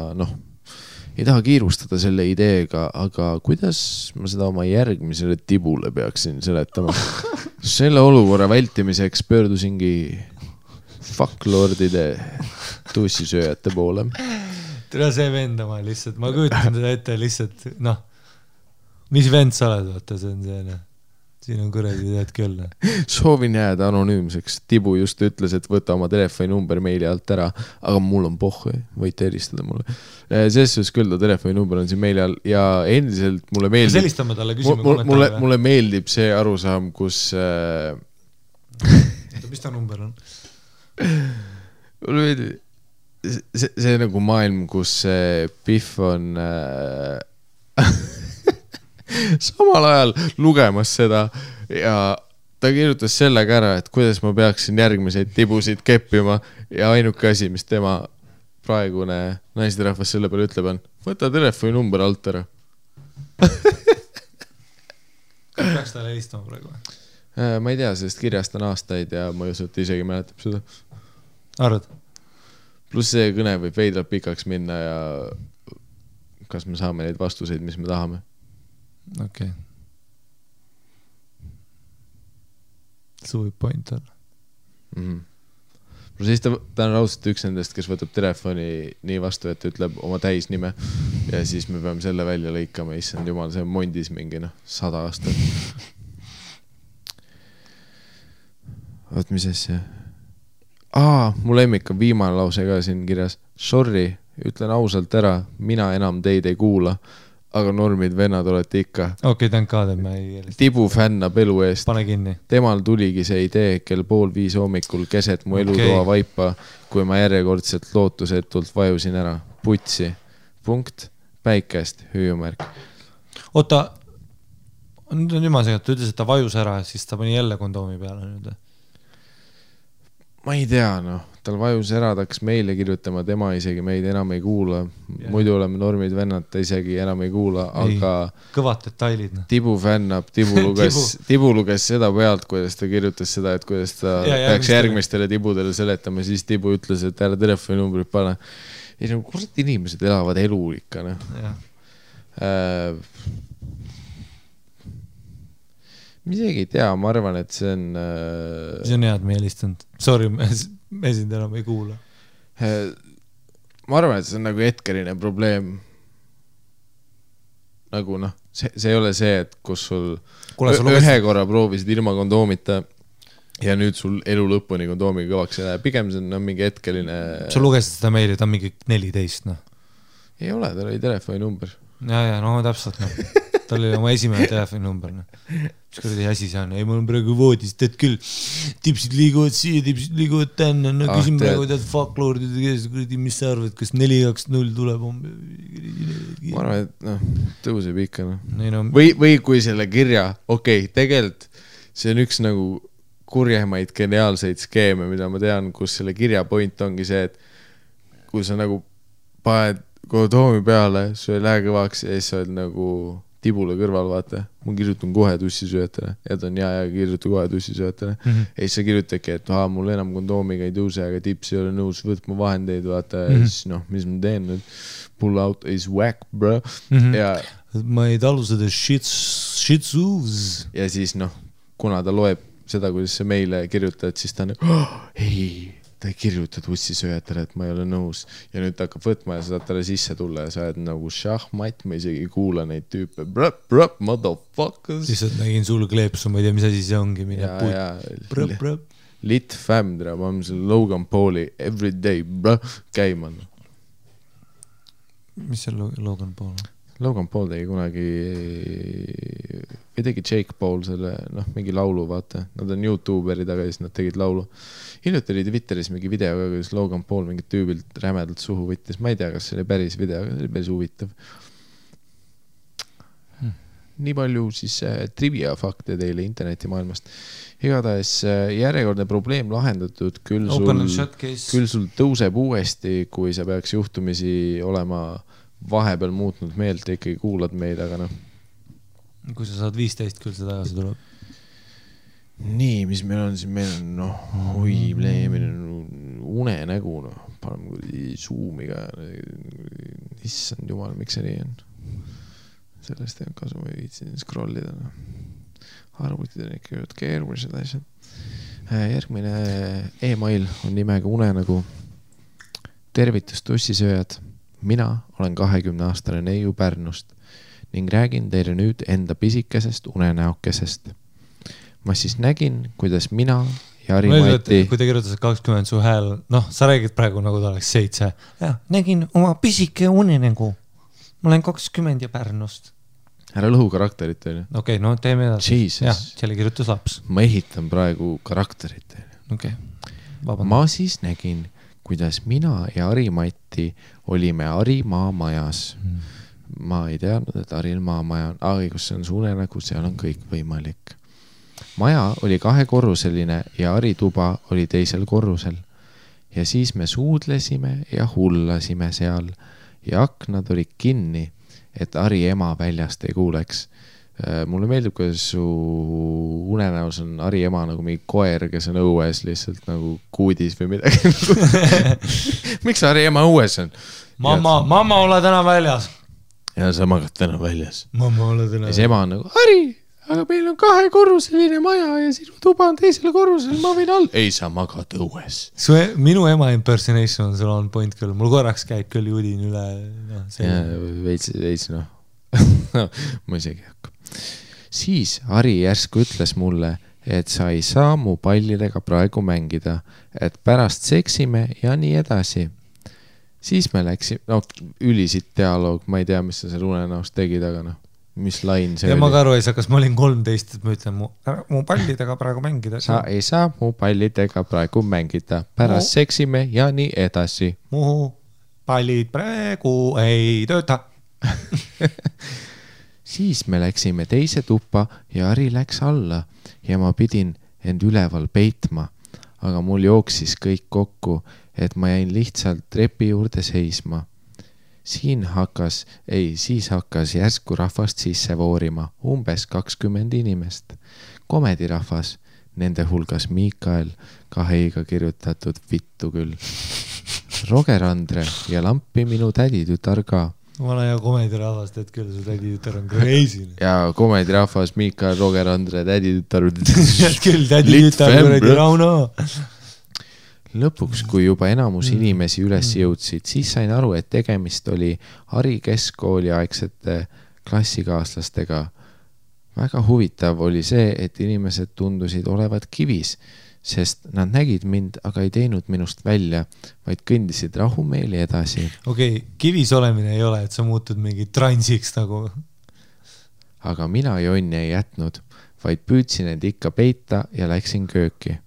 ei taha kiirustada selle ideega, aga kuidas ma seda oma järgmisele tibule peaksin seletama? Selle olukorra vältimiseks pöördusingi fucklordide tussisööjate poole. Tere see vendama lihtsalt, ma kujutan seda ette lihtsalt, mis vend sa oled, vaata, see on see, siin on kuradi tead küll. Soovin jääda anonüümseks. Tibu just ütles, et võta oma telefoni number meili alt ära, aga mul on pohhu, võite helistada mulle. Selles küll, telefoni number on siin meili all ja endiselt mulle meeldib... Selistame talle, küsime kommentaare. Mulle meeldib see arusaam, kus... Mis ta number on? Mulle meeldib... See nagu maailm, kus Biff on samal ajal lugemas seda ja ta kirjutas sellega ära, et kuidas ma peaksin järgmiseid tibusid keppima ja ainuke asi, mis tema praegune naisterahvas selle peale ütleb on, võta telefoni number alt ära. Peaks talle helistama praegu? Ma ei tea, sest kirjast on aastaid ja ma ei usu, et isegi mäletab seda. Arvad? Pluss see kõne võib veidralt pikaks minna ja kas me saame neid vastuseid, mis me tahame. Okei. See võib point olla. Pluss siis ta on raudselt üks nendest, kes võtab telefoni nii vastu, et ütleb oma täisnime ja siis me peame selle välja lõikama. Issand jumal, see on mondis mingi 100 aastat. Oot, mis asja? Mu lemmik on viimane lause ka siin kirjas. Sorry, ütlen ausalt ära, mina enam teid ei kuula, aga normid vennad olete ikka. Okei, thank God, et ma ei helista. Tibu fännab elu eest. Pane kinni. Temal tuligi see idee kell 4:30 hommikul keset mu elutoa vaipa, kui ma järjekordselt lootusetult vajusin ära. Putsi. Punkt. Päikest. Hüüumärk. Oota, nüüd on jumal segat, ta ütles, et ta vajus ära, siis ta pani jälle kondoomi peale nüüd. Ma ei tea, tal vajus ära, ta hakkas meile kirjutama, tema isegi meid enam ei kuula. Muidu oleme normid vennad, ta isegi enam ei kuula, aga... Kõvad detailid. Tibu fännab, Tibu luges seda pealt, kuidas ta kirjutas seda, et kuidas ta peaks järgmistele tibudele seletama, siis Tibu ütles, et ära telefoni numbrit pane. Ja kurat inimesed elavad elu ikka, Ma isegi ei tea, ma arvan, et see on... See on head me helistanud. Sorry, me sind enam ei kuula. Ma arvan, et see on nagu hetkeline probleem. Nagu see ei ole see, et kus sul ühe korra proovisid ilma kondoomita ja nüüd sul elu lõpuni kondoomiga kõvaks ei lähe. Pigem see on mingi hetkeline... Sa lugesid seda meili, ta on mingi 14, Ei ole, tal oli telefoni number. Ja, täpselt, Tal oli oma esimene telefoni number, Mis kuradi asi see on? Ei, mul on praegu voodis, teed küll. Tipsid liiguvad siia, tipsid liiguvad tänna. Küsin praegu tead fucklordide kes, mis sa arvad, kas 4-2-0 tuleb? Ma arvan, et tõuseb ikka. No. Või kui selle kirja, tegelikult see on üks nagu kurjemaid geniaalseid skeeme, mida ma tean, kus selle kirja point ongi see, et kui sa nagu paned kondoomi peale, su ei lähe kõvaks ja siis sa oled nagu... Tibule kõrval, vaata, ma kirjutan kohe tussisööjatele ja ta on ja kirjutan kohe tussisööjatele ja siis sa kirjutadki, et mul enam kondoomiga ei tõuse, aga tips ei ole nõus võtma vahendeid, vaata ja siis mis ma teen nüüd, pull out is whack, bro ja ma ei talu seda shitsus ja siis kuna ta loeb seda, kuidas sa meile kirjutad, siis ta on ei, ta ei kirjuta tussisööjatele, et ma ei ole nõus ja nüüd ta hakkab võtma ja sa saad talle sisse tulla ja sa oled nagu šahmat, ma isegi ei kuula neid tüüpe motherfuckers siis nägin sul kleepsu, ma ei tea, mis asi see ongi lit fam, ma olen selle Logan Pauli everyday käima mis see Logan Paul on? Logan Paul tegi kunagi või tegi Jake Paul selle, mingi laulu, vaata. Nad on YouTuberid, aga siis nad tegid laulu. Hiljuti oli Twitteris mingi video, kuidas Logan Paul mingit tüübilt rämedalt suhu võttis. Ma ei tea, kas see oli päris video, aga see oli päris huvitav. Nii palju siis trivia fakte teile internetimaailmast. Igatahes järjekordne probleem lahendatud, küll sul tõuseb uuesti, kui sa peaks juhtumisi olema vahepeal muutnud meelt ja ikkagi kuulad meid, aga Kui sa saad 15, küll see tagasi tuleb. Nii, mis meil on siin, meil on unenägu, paneme Zoomiga. Issand jumal, miks see nii on? Sellest ei on kasu, ma ei viitsin scrollida. Arvutid on ikka keerulised asjad. Järgmine e-mail on nimega unenägu. Tervitus tussisööjad. Mina olen 20-aastane neiu Pärnust ning räägin teile nüüd enda pisikesest unenäokesest. Ma siis nägin, kuidas mina ja Ari-Mati... Kui te kirjutasid 20 su hääl, sa räägid praegu nagu ta oleks 7. Ja, nägin oma pisike unenägu. Ma olen 20 ja Pärnust. Ära lõhu karakterit teile. Okei, teeme edasi. Jah, selle kirjutas laps. Ma ehitan praegu karakterit teile. Okei. Ma siis nägin, kuidas mina ja Ari-Mati olime Arimaa majas. Ma ei teadnud, et Arimaa maja on, kus see on su unenägu, seal on kõik võimalik. Maja oli 2-korruseline ja Ari tuba oli teisel korrusel. Ja siis me suudlesime ja hullasime seal ja aknad olid kinni, et Ari ema väljast ei kuuleks. Mulle meeldib, kuidas su unenäos on Ari ema nagu mingi koer, kes on õues lihtsalt nagu kuudis või midagi. Miks Ari ema õues on? Mamma, ole täna väljas. Ja sa magad täna väljas. Mamma, ole täna väljas. Ja see ema on nagu, Ari, aga meil on 2-korruseline maja ja sinu tuba on teisel korrusel, ma võin all. Ei, sa magad õues. Minu ema impersonation on sul on point küll. Mul korraks käib küll judin üle. Veits. Ma isegi hakka. Siis Ari järsku ütles mulle, et sa ei saa mu pallidega praegu mängida, et pärast seksime ja nii edasi. Siis me läksime, ülisid dialoog, ma ei tea, mis sa seal unenäost tegid, aga mis lain see oli. Ja ma ka aru ei saa, kas ma olin 13, et ma ütlen mu pallidega praegu mängida. Sa ei saa mu pallidega praegu mängida, pärast seksime ja nii edasi. Mu pallid praegu ei tööta. Siis me läksime teise tuppa ja Ari läks alla ja ma pidin end üleval peitma, aga mul jooksis kõik kokku, et ma jäin lihtsalt trepi juurde seisma. Siis hakkas järsku rahvast sisse voorima, umbes 20 inimest. Komedirahvas, nende hulgas Miikael, 2 kirjutatud vittu küll. Roger Andre ja lampi minu täditütar ka. Ma olen ja komedirahvast, et küll su täditütar on crazy. Ja komedirahvas, Miikael, Roger Andre, täditütar. Küll täditütar, kuradi Rauno. Lõpuks, kui juba enamus inimesi üles jõudsid, siis sain aru, et tegemist oli Ari keskkooli aegsete klassikaaslastega. Väga huvitav oli see, et inimesed tundusid olevat kivis, sest nad nägid mind, aga ei teinud minust välja, vaid kõndisid rahumeeli edasi. Okei, kivis olemine ei ole, et sa muutud mingi transiks nagu. Aga mina jonni ei jätnud, vaid püüdsin end ikka peita ja läksin kööki.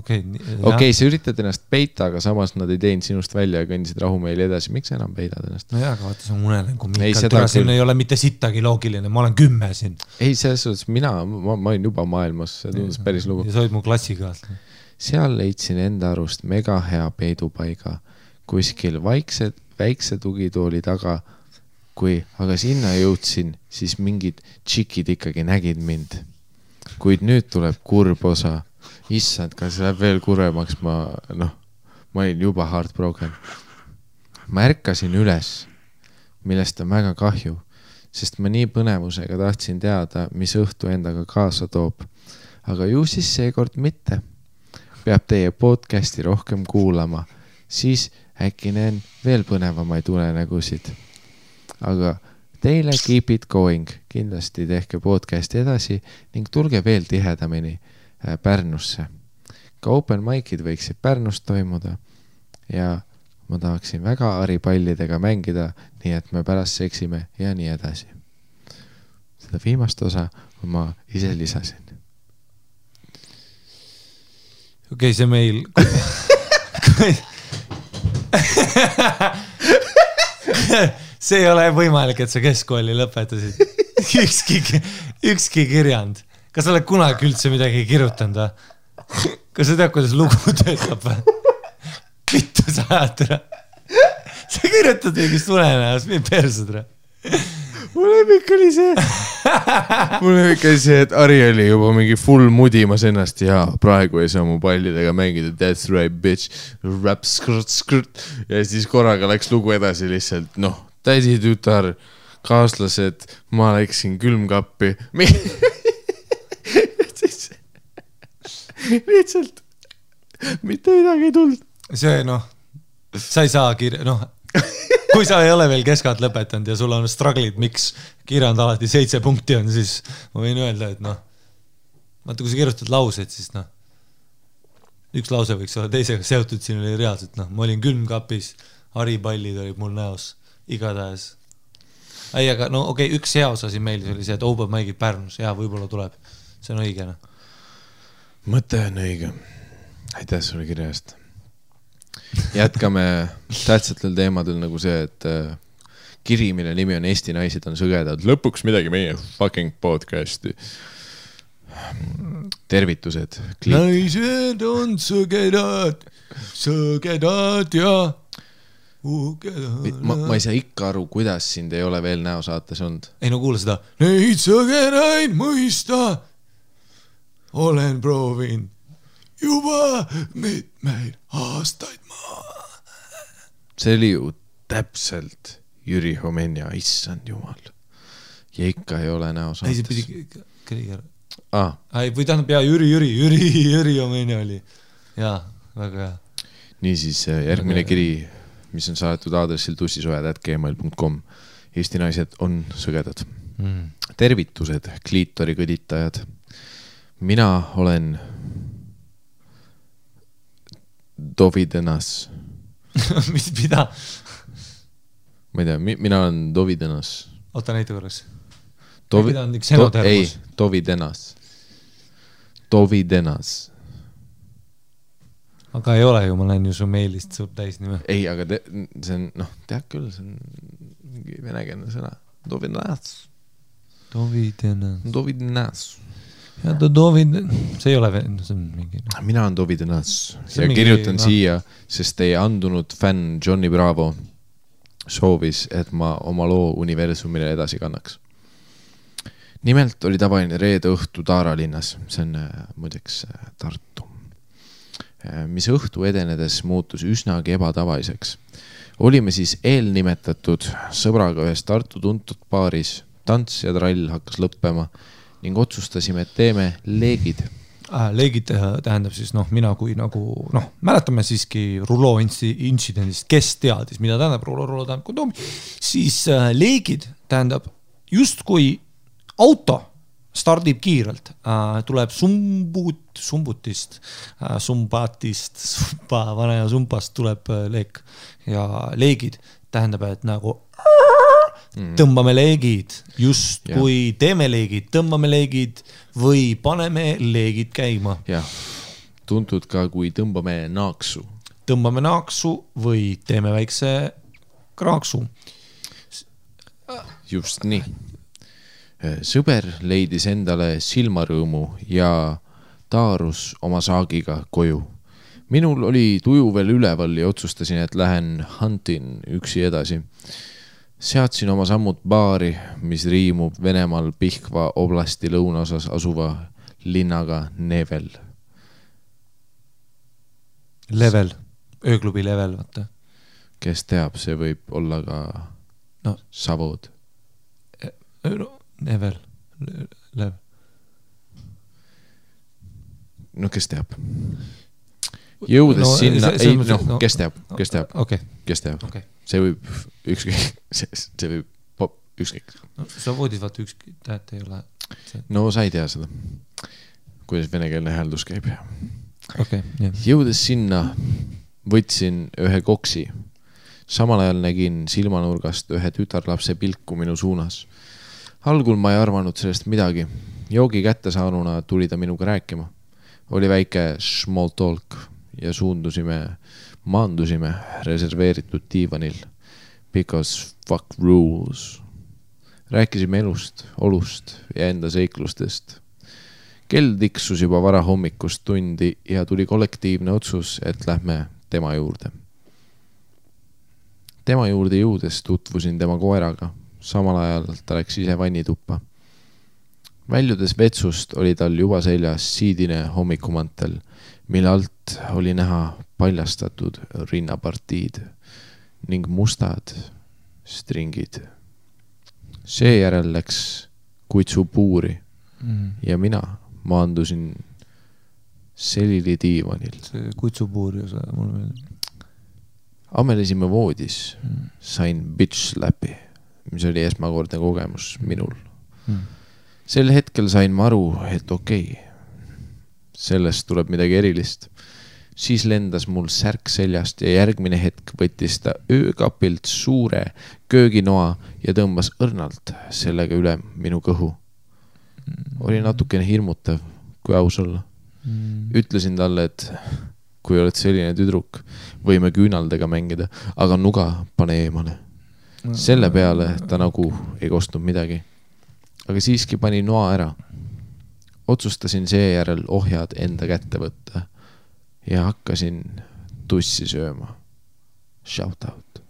Okei, sa üritad ennast peita, aga samas nad ei teinud sinust välja ja kõndisid rahumeeli edasi. Miks sa enam peidad ennast? No jah, aga vaata, see on unenägu Miikal. Siin ei ole mitte sittagi loogiline. Ma olen 10 siin. Ei, selles suhtes ma olin juba maailmas. See tundus päris lugu. Ja sa olid mu klassikaaslane. Seal leidsin enda arust mega hea peidupaiga. Kuskil väikse tugitooli taga. Aga sinna jõudsin, siis mingid tšikid ikkagi nägid mind. Kuid nüüd tuleb kurb osa. Issand, kas läheb veel kuremaks, ma olin juba heartbroken. Ma ärkasin üles, millest on väga kahju, sest ma nii põnevusega tahtsin teada, mis õhtu endaga kaasa toob. Aga ju siis seekord mitte. Peab teie podcasti rohkem kuulama, siis äkki näen veel põnevamaid unenägusid. Aga teile keep it going, kindlasti tehke podcasti edasi ning tulge veel tihedamini Pärnusse. Ka open mic'id võiksid Pärnus toimuda ja ma tahaksin väga haripallidega mängida, nii et me pärast seksime ja nii edasi. Seda viimast osa ma ise lisasin. Okei, see meil... See ei ole võimalik, et sa keskkooli lõpetasid. Ükski kirjand. Kas sa oled kunagi üldse midagi kirjutanud või? Kas sa tead, kuidas lugu töötab või? Vittu sa ajad ära. Sa kirjutad mingist unenäos, mind persud ära. Mul lemmik oli see, et Ari oli juba mingi full mudimas ennast ja praegu ei saa mu pallidega mängida. That's right, bitch. Rap, skrt. Ja siis korraga läks lugu edasi lihtsalt, tädi tütar, kaaslased, ma läksin külmkappi. Lihtsalt mitte midagi ei tulnud. See, sa ei saa kui sa ei ole veel keskad lõpetanud ja sul on struggle'id, miks kirjand alati 7 punkti on, siis ma võin öelda, et vaata, kui sa kirjutad lauseid, siis üks lause võiks olla teisega seotud, siin oli reaalselt, ma olin külmkapis, haripallid olid mul näos, igatahes. Ei, aga okei, üks hea osa siin meeldis oli see, et open mic'id Pärnus, ja võib-olla tuleb, see on õige. Mõte on õige. Aitäh sulle kirjast. Jätkame tähtsatel teemadel nagu see, et kiri, mille nimi on Eesti naised on sõgedad. Lõpuks midagi meie fucking podcasti. Tervitused. Naised on sõgedad ja ma ei saa ikka aru, kuidas sind ei ole veel näosaates olnud. Ei, kuule seda. Neid sõgedaid mõista olen proovinud juba mitmeid aastaid See oli ju täpselt Jüri Homenja, issand jumal. Ja ikka ei ole näosaates. Ei, see pidi Kriiger. Või tähendab, Jüri Homenja oli. Jaa, väga hea. Niisiis, järgmine kiri, mis on saadetud aadressil tussisojad@gmail.com. Eesti naised on sõgedad. Tervitused, kliitori kõditajad. Mina olen Dovidenas. Mida? Ma ei tea, mina olen Dovidenas. Oota näite korras. Mida on üks enotermus? Ei, Dovidenas. Aga ei ole ju, ma näen ju su meilist suurt täisnime. Ei, aga see on, tead küll, see on mingi venekeelne sõna. Dovidenas. Ja see ei ole see on mingi... Mina on Dovidenas ja kirjutan siia, sest teie andunud fänn Johnny Bravo soovis, et ma oma loo universumile edasi kannaks. Nimelt oli tavaline reede õhtu Taara linnas, see on muideks Tartu, mis õhtu edenedes muutus üsnagi ebatavaliseks. Olime siis eelnimetatud sõbraga ühes Tartu tuntud baaris, tants ja trall hakkas lõppema ning otsustasime, et teeme leegid. Leegid tähendab siis, mina kui mäletame siiski Rulo intsidendist, kes teadis, mida tähendab Rulo tähendab kondoomi, siis leegid tähendab justkui auto stardib kiirelt, tuleb sumbutist, vanaja sumpast tuleb leek ja leegid tähendab, et nagu tõmbame leegid, just kui teeme leegid, tõmbame leegid või paneme leegid käima. Jah, tuntud ka kui tõmbame naaksu. Tõmbame naaksu või teeme väikse kraaksu. Just nii. Sõber leidis endale silmarõõmu ja taarus oma saagiga koju. Minul oli tuju veel üleval ja otsustasin, et lähen huntin üksi edasi. Seadsin oma sammud baari, mis riimub Venemaal Pihkva oblasti lõunaosas asuva linnaga Nevel. Level, ööklubi Level, vaata. Kes teab, see võib olla ka Savod. Nevel, Level. No kes teab? Jõudes sinna, kes teab? Okay. Kes teab? Okay. See võib ükskõik, see võib ükskõik. Sa voodid vaata ükskõik, tähet ei ole. No sa ei tea seda, kuidas venekeelne hääldus käib. Okay, yeah. Jõudes sinna võtsin ühe koksi samal ajal nägin silmanurgast ühe tütarlapse pilku minu suunas. Algul ma ei arvanud sellest midagi. Joogi kätte saanuna tuli ta minuga rääkima. Oli väike small talk ja maandusime reserveeritud diivanil. Because fuck rules. Rääkisime elust, olust ja enda seiklustest. Kell tiksus juba varahommikust tundi ja tuli kollektiivne otsus, et lähme tema juurde. Tema juurde jõudes tutvusin tema koeraga. Samal ajal ta läks ise vannituppa. Väljudes vetsust oli tal juba seljas siidine hommikumantel, mille alt oli näha paljastatud rinnapartiid ning mustad stringid. Seejärel läks kutsu puuri ja mina maandusin selili diivanil. See kutsupuuri osa mulle meeldib. Amelesime voodis, sain bitch slapi, mis oli esmakordne kogemus minul. Sel hetkel sain ma aru, et okei, sellest tuleb midagi erilist. Siis lendas mul särk seljast ja järgmine hetk võttis ta öökapilt suure kööginoa ja tõmbas õrnalt sellega üle minu kõhu. Oli natukene hirmutav, kui aus olla. Ütlesin talle, et kui oled selline tüdruk, võime küünaldega mängida, aga nuga pane eemale. Selle peale ta nagu ei kostnud midagi. Aga siiski pani noa ära. Otsustasin seejärel ohjad enda kätte võtta ja hakkasin tussi sööma. Shout out.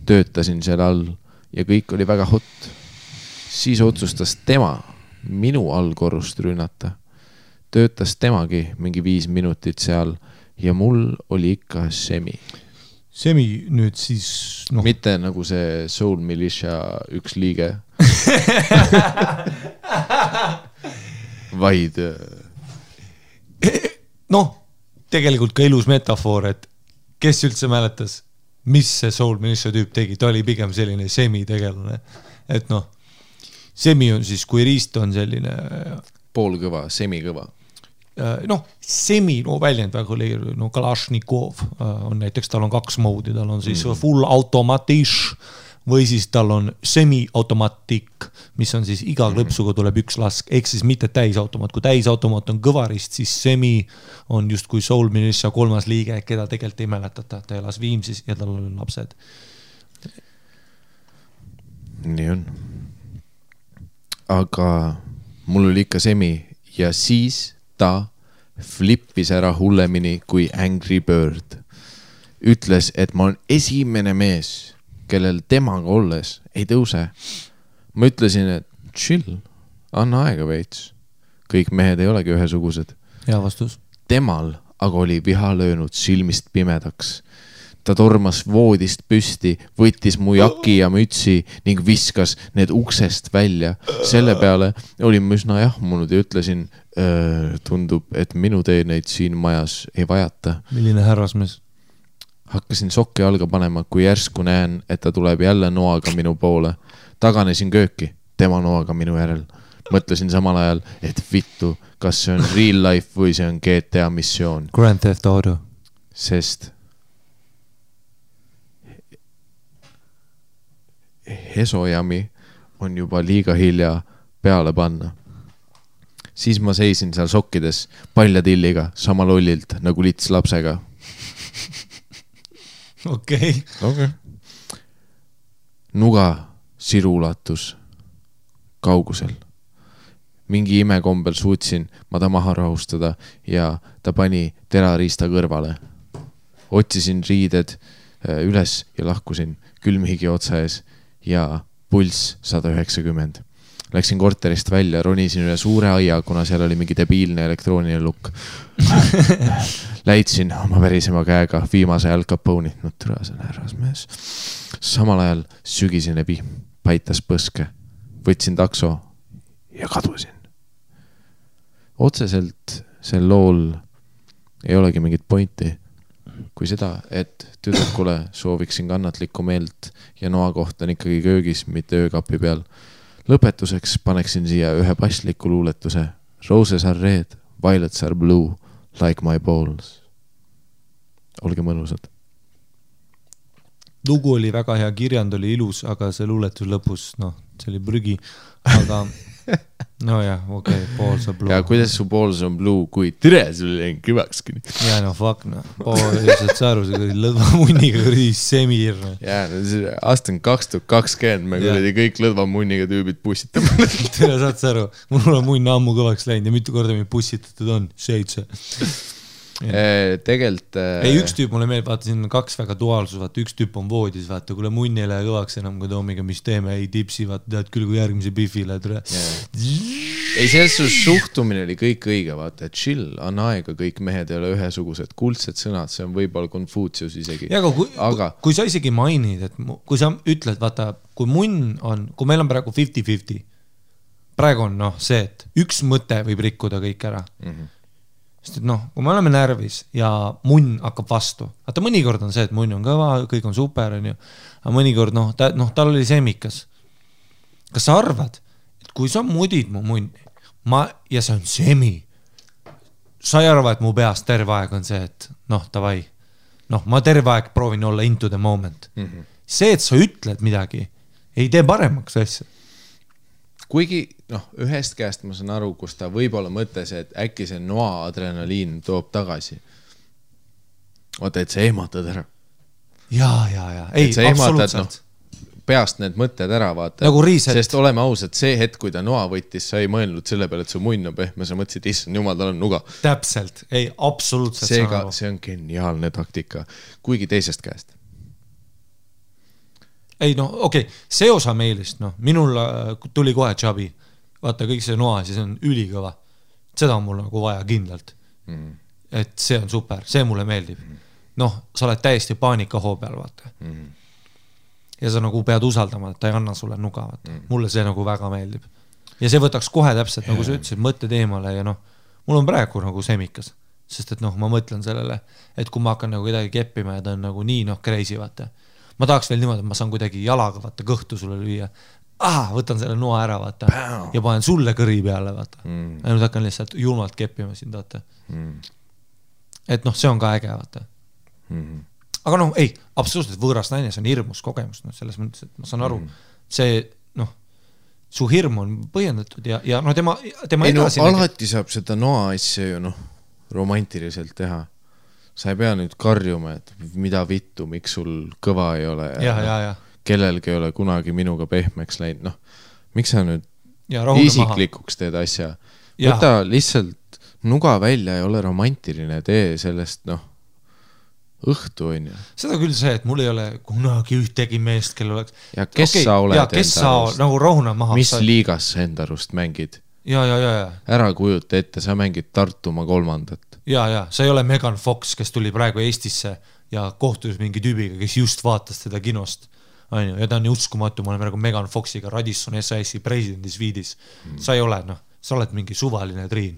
Töötasin seal all ja kõik oli väga hot. Siis otsustas tema minu allkorrust rünnata. Töötas temagi mingi 5 minutit seal ja mul oli ikka semi. Semi nüüd siis... No. Mitte nagu see Soul Militia üks liige. Vaid... Noh, tegelikult ka ilus metafoor, et kes üldse mäletas, mis see Soul Militia tüüp tegi, ta oli pigem selline semi-tegelane. Et noh, semi on siis, kui riist on selline... Poolkõva, semikõva. Noh, semi, no väljend väga oli, no Kalashnikov on näiteks, tal on 2 moodi, tal on siis full automatish või siis tal on semi-automatik, mis on siis iga klõpsuga tuleb 1 lask, ehk siis mitte täisautomaat. Kui täisautomaat on kõvarist, siis semi on just kui Soul Militia 3. liige, keda tegelikult ei mäletata, ta elas Viimsis ja tal on lapsed. Nii on. Aga mul oli ikka semi ja siis ta flippis ära hullemini kui Angry Bird. Ütles, et ma olen esimene mees, kellel temaga olles ei tõuse. Ma ütlesin, et chill, anna aega veits. Kõik mehed ei olegi ühesugused. Hea vastus. Temal aga oli viha löönud silmist pimedaks. Ta tormas voodist püsti, võttis mu jaki ja mütsi ning viskas need uksest välja. Selle peale olin ma üsna jahmunud ja ütlesin, tundub, et minu teeneid siin majas ei vajata. Milline härrasmees? Hakkasin sokki alga panema, kui järsku näen, et ta tuleb jälle noaga minu poole. Taganesin kööki, tema noaga minu järel. Mõtlesin samal ajal, et vittu, kas see on real life või see on GTA missioon. Grand Theft Auto. Sest Hesojami on juba liiga hilja peale panna. Siis ma seisin seal sokkides paljatilliga sama lollilt nagu lits lapsega. Okei. Nuga sirulatus kaugusel. Mingi imekombel suutsin ma ta maha rahustada ja ta pani terariista kõrvale. Otsisin riided üles ja lahkusin külmhigi otsa ees ja pulss 190. Läksin korterist välja, ronisin üle suure aia, kuna seal oli mingi debiilne elektrooniline lukk. Läitsin oma verisema käega viimase Al Capone'i. No türa, see on härrasmees. Samal ajal sügisene vihm paitas põske. Võtsin takso ja kadusin. Otseselt sel lool ei olegi mingit pointi. Kui seda, et tüdrukule sooviksin kannatlikku meelt ja noa koht on ikkagi köögis, mitte öökapi peal. Lõpetuseks paneksin siia ühe pasliku luuletuse. Roses are red, violets are blue, like my balls. Olge mõnusad. lugu oli väga hea, kirjand oli ilus, aga see luuletus lõpus, noh, see oli prügi, aga no jah, okei, Balls on Blue. Ja kuidas su Balls on Blue, kui tere sul jäin kõvakski? Ja no fuck, noh, saad sa aru, see lõdvamunniga kuradi semir. Ja, aasta on 2020, me kuradi kõik lõdvamunniga tüübid pussitame. Tere, saad sa aru, mul on munn ammu kõvaks läinud ja mitu korda mind pussitatud on, 7. Tegelt ei, üks tüüp mulle meeldib, vaata siin on 2 väga duaalsus, vaata üks tüüp on voodis, vaata kuule munn ei lähe kõvaks enam kui Toomiga, mis teeme, ei tipsi, vaata tead küll kui järgmise bifile tule. Ei, selles suhtumine oli kõik õige, vaata, et chill, anna aega, kõik mehed ei ole ühesugused, kuldsed sõnad, see on võib-olla Confucius isegi. Ja, aga kui sa isegi mainid, et kui sa ütled, vaata, kui munn on, kui meil on praegu 50-50, praegu on noh see, et üks mõte võib rikkuda kõik ära. Sest et noh, kui me oleme närvis ja munn hakkab vastu, vaata mõnikord on see, et munn on kõva, kõik on super, on ju, aga mõnikord noh, tal oli semikas. Kas sa arvad, et kui sa mudid mu munni ja see on semi, sa ei arva, et mu peas terve aeg on see, et noh, davai, noh, ma terve aeg proovin olla into the moment. See, et sa ütled midagi, ei tee paremaks asja. Kuigi, noh, ühest käest ma saan aru, kus ta võib-olla mõttes, et äkki see noa adrenaliin toob tagasi. Oota, et sa ehmatad ära. Ja. Ei, absoluutselt. No, peast need mõtted ära vaata. Nagu reset. Sest oleme ausad, see hetk, kui ta noa võttis, sa ei mõelnud selle peale, et su munn on pehme, sa mõtlesid, issand, jumal, tal on nuga. Täpselt. Ei, absoluutselt. Seega, see on geniaalne taktika. Kuigi teisest käest. Ei no okei, see osa meilist, noh, minul tuli kohe Chabi, vaata kõik see noa, siis on ülikõva, seda on mul nagu vaja kindlalt, et see on super, see mulle meeldib, noh, sa oled täiesti paanikahoo peal, vaata, ja sa nagu pead usaldama, et ta ei anna sulle nuga, vaata, mulle see nagu väga meeldib, ja see võtaks kohe täpselt, nagu sa ütlesid, mõtted eemale ja noh, mul on praegu nagu semikas, sest et noh, ma mõtlen sellele, et kui ma hakkan nagu kedagi keppima ja ta on nagu nii noh, crazy, vaata, ma tahaks veel niimoodi, et ma saan kuidagi jalaga vaata kõhtu sulle lüüa. Võtan selle noa ära, vaata. Ja panen sulle kõri peale, vaata. Ja nüüd hakkan lihtsalt julmalt keppima sind, vaata. Et noh, see on ka äge, vaata. Aga noh, ei, absoluutselt võõras naine, see on hirmus kogemus, noh, selles mõttes, et ma saan aru, see, noh, su hirm on põhjendatud ja noh, tema edasi... Alati saab seda noa asja ju, noh, romantiliselt teha. Sa ei pea nüüd karjuma, et mida vittu, miks sul kõva ei ole ja. Kellelgi ei ole kunagi minuga pehmeks läinud. Noh, miks sa nüüd isiklikuks teed asja? Võta lihtsalt nuga välja ja ole romantiline, tee sellest noh, õhtu on ju. Seda küll see, et mul ei ole kunagi ühtegi meest, kel oleks... Ja kes sa oled enda arust? Nagu rohuna maha. Mis liigas sa enda arust mängid? Ja. Ära kujuta ette, sa mängid Tartumaa 3. Ja, sa ei ole Megan Fox, kes tuli praegu Eestisse ja kohtus mingi tüübiga, kes just vaatas teda kinost. Ja ta on uskumatu, ma olen praegu Megan Foxiga Radisson SAS-i presidendis viidis. Sa ei ole, noh, sa oled mingi suvaline triin.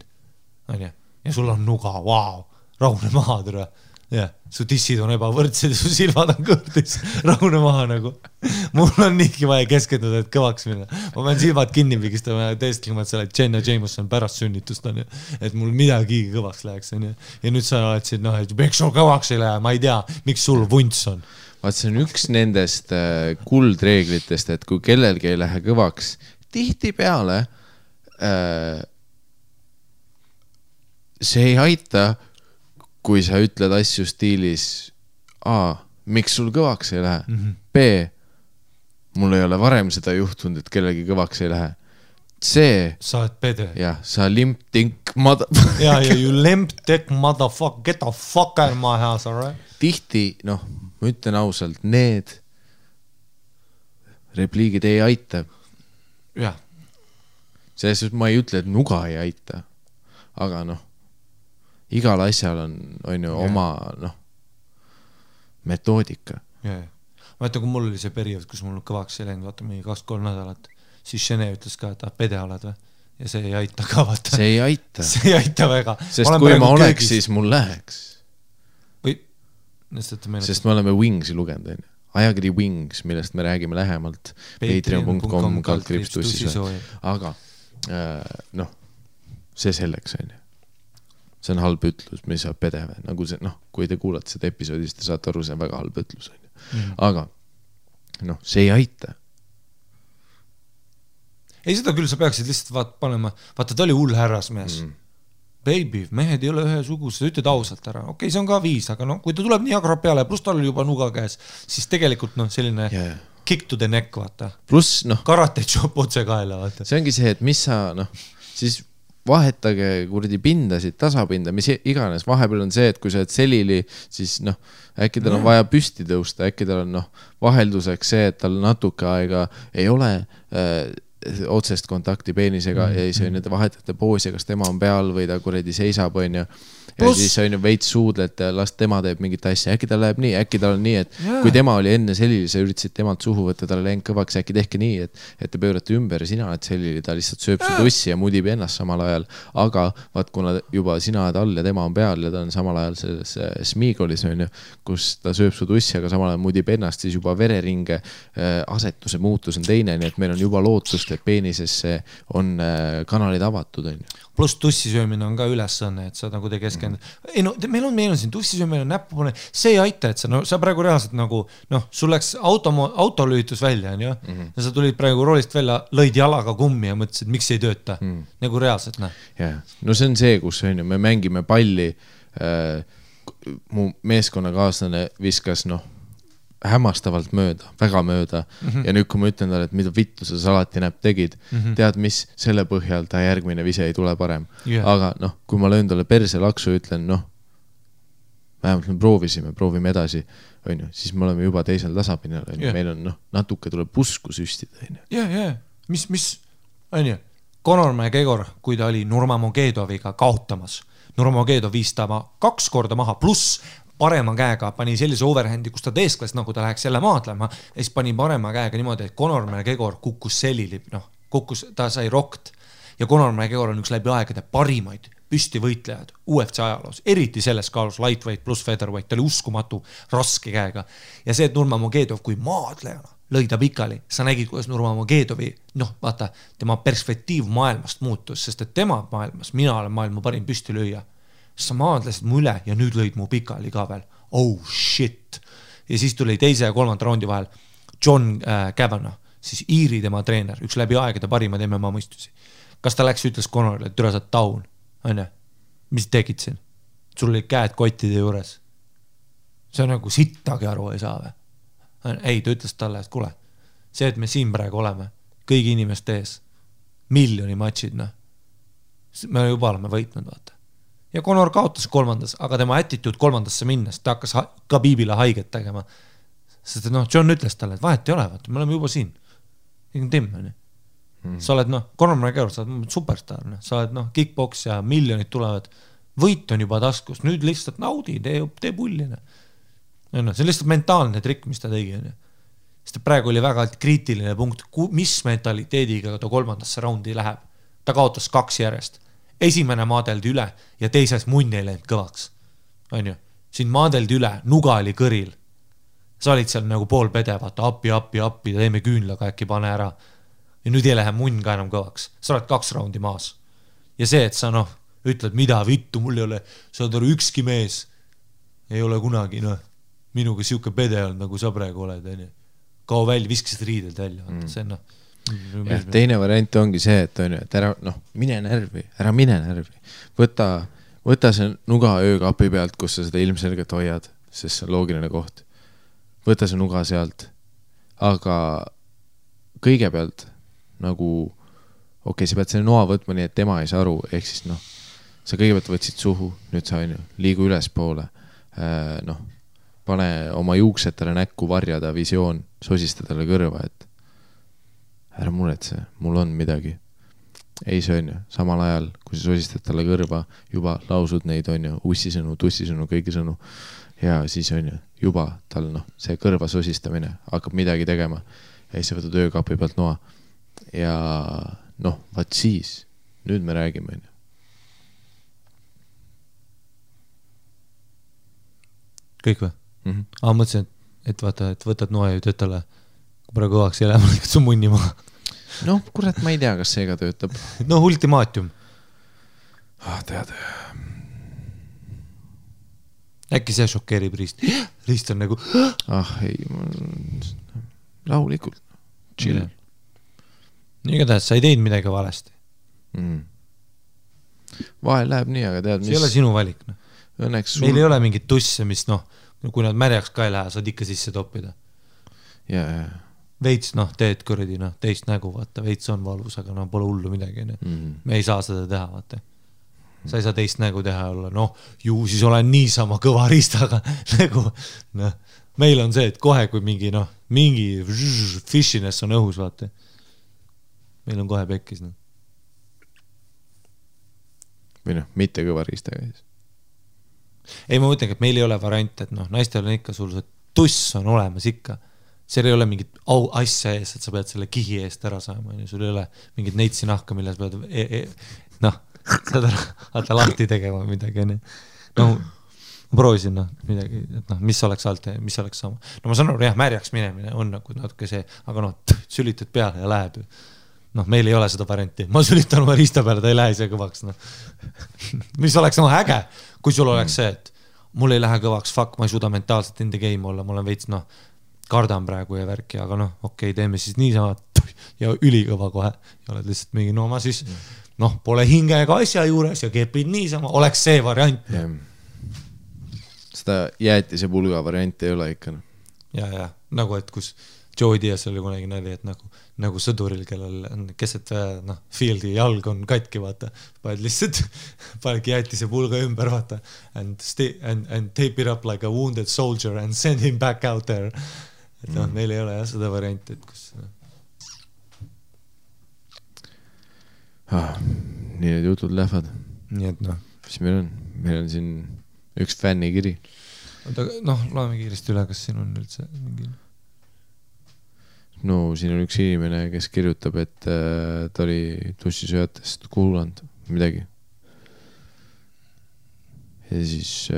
Ja sul on nuga, vau, rahune maha, tere. Ja, su tissid on ebavõrdsed ja su silmad on kõrdis, rahune maha nagu. Mul on niigi vaja keskenduda, et kõvaks minna. Ma pean silmad kinni pigistama ja teestlema, et sa oled Jenna Jameson pärast sünnitust, on ju. Et mul midagi kõvaks läheks, on ju. Ja nüüd sa oled siin, noh, et miks sul kõvaks ei lähe, ma ei tea, miks sul vunts on. Vaat see on üks nendest kuldreeglitest, et kui kellelgi ei lähe kõvaks, tihti peale see ei aita, kui sa ütled asju stiilis miks sul kõvaks ei lähe? B, mul ei ole varem seda juhtunud, et kellegi kõvaks ei lähe. C, sa oled pede. Jah, sa limp-tink ja, you limp-tink motherfucker, get the fuck out of my house, alright? Tihti, noh, ma ütlen ausalt, need repliigid ei aita. Jah. Selles ma ei ütle, et nuga ei aita, aga noh, igal asjal on ju oma metoodika. Vaata, kui mul oli see periood, kus mul kõvaks ei läinud, vaata mingi 2-3 nädalat, siis Šene ütles ka, et pede oled või? Ja see ei aita ka, vaata. See ei aita. See ei aita väga. Sest kui ma oleks, siis mul läheks. Või? Sest me oleme Wingsi lugenud. Ajakiri Wings, millest me räägime lähemalt. Patreon.com/tussisoo. Aga, noh, see selleks on ju. See on halb ütlus, mis saab pedeve. Nagu see, noh, kui te kuulate seda episoodist, te saate aru, see on väga halb ütlus. Aga noh, see ei aita. Ei, seda küll sa peaksid lihtsalt panema, vaata, ta oli hull härrasmees. Baby, mehed ei ole ühesugused, ütled ausalt ära. Okei, see on ka viis, aga no, kui ta tuleb nii agrab peale, pluss tal oli juba nuga käes, siis tegelikult noh, selline kick to the neck, vaata. Pluss, noh. Karate chop otse kaela, vaata. See ongi see, et mis sa, noh, siis vahetage kurdi pindasid, tasapinda, mis iganes. Vahepeal on see, et kui sa oled selili, siis noh, äkki tal on vaja püsti tõusta, äkki tal on noh, vahelduseks see, et tal natuke aega ei ole otsest kontakti peenisega ja siis on need vahetate poosi, kas tema on peal või ta kuredi seisab, on ju. Ja siis on ju veits suudlet ja las tema teeb mingit asja. Äkki tal läheb nii, äkki tal on nii, et kui tema oli enne selili, sa üritasid temalt suhu võtta, talle läinud kõvaks, äkki tehke nii, et te pöörate ümber ja sina oled selili, ta lihtsalt sööb su tussi ja mudib ennast samal ajal. Aga vaat, kuna juba sina oled all ja tema on peal ja ta on samal ajal selles smiigolis, on ju, kus ta sööb su tussi, aga samal ajal mudib ennast, siis juba vereringe asetuse muutus on teine, nii et meil on juba lootust, et peenisesse on kanalid avatud, on ju. Pluss tussisöömine on ka ülesanne, et sa nagu te keskendud. Ei no, meil on siin tussisöömine, näppupune, see ei aita, et sa praegu reaalselt nagu, noh, sul läks autolühitus välja, on ju, ja sa tulid praegu roolist välja, lõid jalaga kummi ja mõtlesid, miks ei tööta, nagu reaalselt, noh. Yeah. No see on see, kus on ju, me mängime palli, mu meeskonnakaaslane viskas, noh, hämmastavalt mööda, väga mööda ja nüüd, kui ma ütlen talle, et mida vittu sa alati näpp tegid, tead mis, selle põhjal ta järgmine vise ei tule parem. Aga noh, kui ma löön talle perse laksu ja ütlen, noh, vähemalt me proovime edasi, on ju, siis me oleme juba teisel tasapinal, on ju, meil on, noh, natuke tuleb usku süstida, on ju. Ja, mis, on ju, Conor McGregor, kui ta oli Nurmagomedova kaotamas, Nurmagomedov viis ta 2 korda maha, pluss parema käega pani sellise overhandi, kus ta teeskles, nagu ta läheks jälle maadlema, ja siis pani parema käega niimoodi, et Conor McGregor kukkus selili, noh, ta sai rokt ja Conor McGregor on üks läbi aegade parimaid püstivõitlejad UFC ajaloos, eriti selles kaalus lightweight pluss featherweight, ta oli uskumatu raske käega ja see, et Nurmagomedov kui maadlejana lõi ta pikali, sa nägid, kuidas Nurmagomedovi, noh, vaata, tema perspektiiv maailmast muutus, sest et tema maailmas, mina olen maailma parim püstilööja. Sa maadlesid mu üle ja nüüd lõid mu pikali ka veel. Oh shit. Ja siis tuli teise ja 3. raundi vahel John Kavanagh, siis Iiri tema treener, üks läbi aegade parimad MMA mõistusi. Kas ta läks, ütles Conorile, et türa sa taun, on ju? Mis tegid siin? Sul oli käed kottide juures. See on nagu sittagi aru ei saa või? Ei, ta ütles talle, et kuule, see, et me siin praegu oleme, kõigi inimeste ees, miljoni matšid, noh. Me juba oleme võitnud, vaata. Ja Conor kaotas 3. aga tema attitude 3. minnes, ta hakkas Khabibile haiget tegema. Sest noh, John ütles talle, et vahet ei ole, vaata, me oleme juba siin. Tim, sa oled, noh, Conor McGregor, sa oled superstar, sa oled, noh, kickbox ja miljonid tulevad. Võit on juba taskus, nüüd lihtsalt naudi, tee pullina. See on lihtsalt mentaalne trikk, mis ta tegi. Sest praegu oli väga kriitiline punkt, mis mentaliteediga ta 3. raundi läheb. Ta kaotas 2 järjest. Esimene maadeldi üle ja teises munn ei läinud kõvaks. On ju? Siin maadeldi üle, nuga oli kõril. Sa olid seal nagu pool pede, vaata, appi, teeme küünlaga äkki pane ära. Ja nüüd ei lähe munn ka enam kõvaks. Sa oled 2 raundi maas. Ja see, et sa noh, ütled, mida vittu, mul ei ole, sa oled ükski mees. Ei ole kunagi, noh, minuga siuke pede olnud, nagu sa praegu oled. Kao välja, viskasid riidelt välja. See on, noh. Ja, teine variant ongi see, et on ju, et ära, noh, mine närvi. Võta see nuga öökapi pealt, kus sa seda ilmselgelt hoiad, sest see on loogiline koht. Võta see nuga sealt. Aga kõigepealt nagu, okei, sa pead selle noa võtma nii, et tema ei saa aru, ehk siis noh, sa kõigepealt võtsid suhu, nüüd sa on ju, liigu ülespoole, noh, pane oma juuksetele näkku varjada visioon, sosista talle kõrva, et ära muretse, mul on midagi. Ei, see on ju, samal ajal, kui sa sosistad talle kõrva, juba lausud neid, on ju, ussisõnu, tussisõnu, kõigi sõnu. Ja siis on ju, juba tal, noh, see kõrva sosistamine hakkab midagi tegema. Ja siis sa võtad öökapi pealt noa. Ja noh, vaat siis, nüüd me räägime, on ju. Kõik või? Mõtlesin, et vaata, et võtad noa ja ütled talle, kui praegu kõvaks ei lähe, ma lõikad su munni maha. Noh, kurat, ma ei tea, kas see ka töötab. No, ultimaatium. Tead. Äkki see šokeerib Riist. Riist on nagu... ei. rahulikult, chill. Igatahes, sa ei teinud midagi valesti. Vahel läheb nii, aga tead, see ei ole sinu valik. No. Õnneks meil ei ole mingit tusse, mis kui nad märjaks ka ei lähe, saad ikka sisse toppida. Ja. Veits, teed kuradi, teist nägu, vaata, veits on valus, aga pole hullu midagi. Me ei saa seda teha, vaata. Sa ei saa teist nägu teha olla, ju siis olen niisama kõva riistaga nägu. Meil on see, et kohe, kui mingi fishiness on õhus, vaata. Meil on kohe pekkis. Või mitte kõva riistaga siis. Ei, ma mõtlengi, et meil ei ole variant, et naistel on ikka sul see tuss on olemas ikka. Seal ei ole mingit asja ees, et sa pead selle kihi eest ära saama. Sul ei ole mingit neitsi nahka, milles pead saad lahti tegema midagi. Ma proovisin midagi, et mis oleks alt, mis oleks sama. Ma saan aru, märjaks minemine on natuke see, aga sülitad peale ja läheb. Meil ei ole seda varianti. Ma sülitan oma riista peale, ta ei lähe ise kõvaks. Mis oleks äge, kui sul oleks see, et mul ei lähe kõvaks, fuck, ma ei suuda mentaalselt in the game olla, ma olen veits, kardan praegu ja värki, aga okei, teeme siis niisama ja ülikõva kohe. Ja oled lihtsalt mingi, ma siis, pole hinge ega asja juures ja kepid niisama, oleks see variant. Seda jäetise pulga varianti ei ole ikka. Ja, nagu et kus Joe Diaz oli kunagi nali, et nagu sõduril, kellel on keset fieldi jalg on katki, vaata. Paned lihtsalt, panedki jäetise pulga ümber, vaata. And tape it up like a wounded soldier and send him back out there. Et neil ei ole seda varianti, et kus... nii need jutud lähevad. Nii et Mis meil on? Meil on siin üks fännikiri. Loeme kiiresti üle, kas siin on üldse mingi... siin on üks inimene, kes kirjutab, et ta oli tussisööjatest kuulanud midagi. Ja siis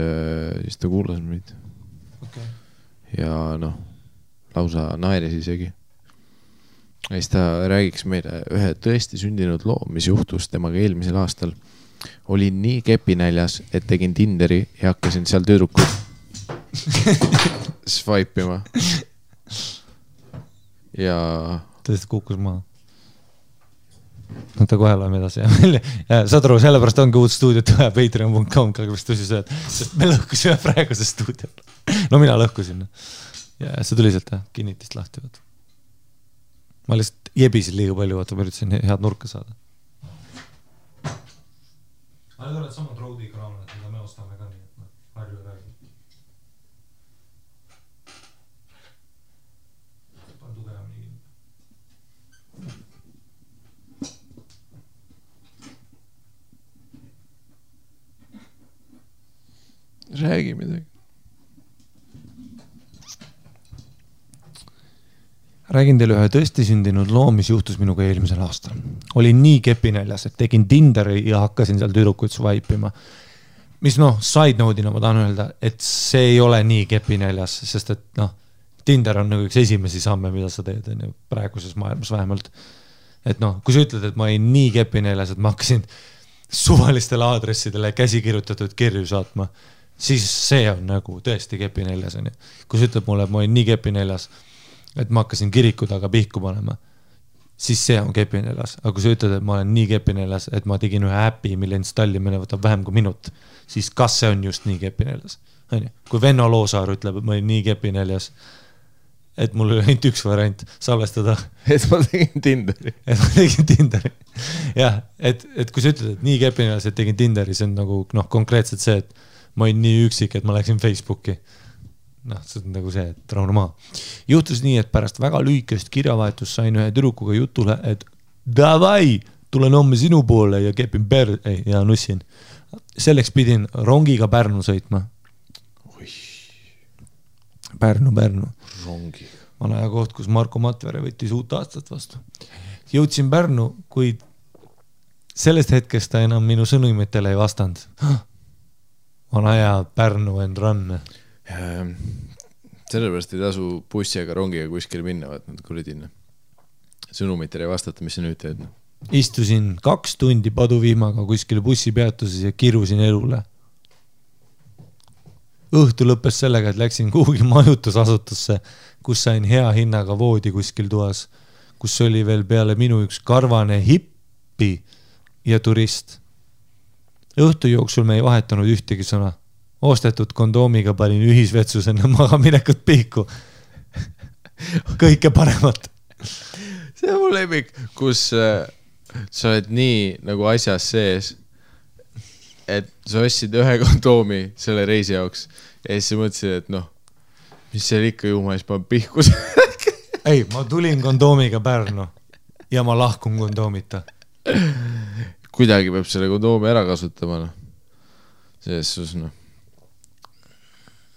ta kuulas meid. Okay. Ja lausa naeris isegi. Ja siis ta räägiks meile ühe tõesti sündinud loo, mis juhtus temaga eelmisel aastal. Olin nii kepinäljas, et tegin Tinderi ja hakkasin seal tüdrukud swipe'ima. Ja... Tõesti kukkus maha. Ta kohe loeme edasi. Saad aru, sellepärast ongi uut stuudiot vaja patreon.com, mis tussisööd, sest me lõhkusime praeguse stuudiot. Mina lõhkusin. Ja see tuli sealt kinnitist lahti. Ma lihtsalt jebisin liiga palju, vaata, ma üritasin head nurka saada. Ma nüüd oled samad roadi kraamad, mida me ostame ka nii, et harju ja räägi. Pane tugevam nii. Räägi midagi. Räägin teile ühe tõesti sündinud loo, mis juhtus minuga eelmisel aastal. Olin nii kepinäljas, et tegin Tinderi ja hakkasin seal tüdrukuid swipe'ima. Mis side note'ina ma tahan öelda, et see ei ole nii kepinäljas, sest et Tinder on nagu üks esimesi samme, mida sa teed praeguses maailmas vähemalt. Et kui sa ütled, et ma olin nii kepinäljas, et ma hakkasin suvalistele aadressidele käsikirjutatud kirju saatma, siis see on nagu tõesti kepinäljas. Kui sa ütled mulle, et ma olin nii kepinäljas, et ma hakkasin kiriku taga pihku panema, siis see on kepinäljas. Aga kui sa ütled, et ma olen nii kepinäljas, et ma tegin ühe äpi, mille installimine võtab vähem kui minut, siis kas see on just nii kepinäljas? Kui Venno Loosaar ütleb, et ma olin nii kepinäljas, et mul oli ainult üks variant salvestada. Et ma tegin Tinderi. Et ma tegin Tinderi. Jah, et kui sa ütled, et nii kepinäljas, et tegin Tinderi, see on nagu konkreetselt see, et ma olin nii üksik, et ma läksin Facebooki. See on nagu see, et rahune maa. Juhtus nii, et pärast väga lühikest kirjavahetust sain ühe tüdrukuga jutule, et davai, tulen homme sinu poole ja kepin ja nussin. Selleks pidin rongiga Pärnu sõitma. Pärnu. Rongiga. Vana koht, kus Marko Matvere võttis uut aastat vastu. Jõudsin Pärnu, kuid sellest hetkest ta enam minu sõnumitele ei vastanud. Vana hea Pärnu and run. Sellepärast ei tasu bussi ega rongiga kuskile minna, vaat nad kuridin. Sõnumitele ei vastata, mis sa nüüd teed. Istusin 2 tundi paduvihmaga kuskile bussipeatuses ja kirusin elule. õhtu lõppes sellega, et läksin kuhugi majutusasutusse, kus sain hea hinnaga voodi kuskil toas, kus oli veel peale minu üks karvane hippi ja turist. Õhtu jooksul me ei vahetanud ühtegi sõna. Ostetud kondoomiga panin ühisvetsus enne magaminekut pihku. Kõike paremat. See on mu lemmik, kus sa oled nii nagu asjas sees, et sa ostsid ühe kondoomi selle reisi jaoks ja siis sa mõtlesid, et noh, mis seal ikka juhma, siis ma pihkus. Ei, ma tulin kondoomiga Pärnu ja ma lahkun kondoomita. Kuidagi peab selle kondoomi ära kasutama, noh. Selles sus, noh.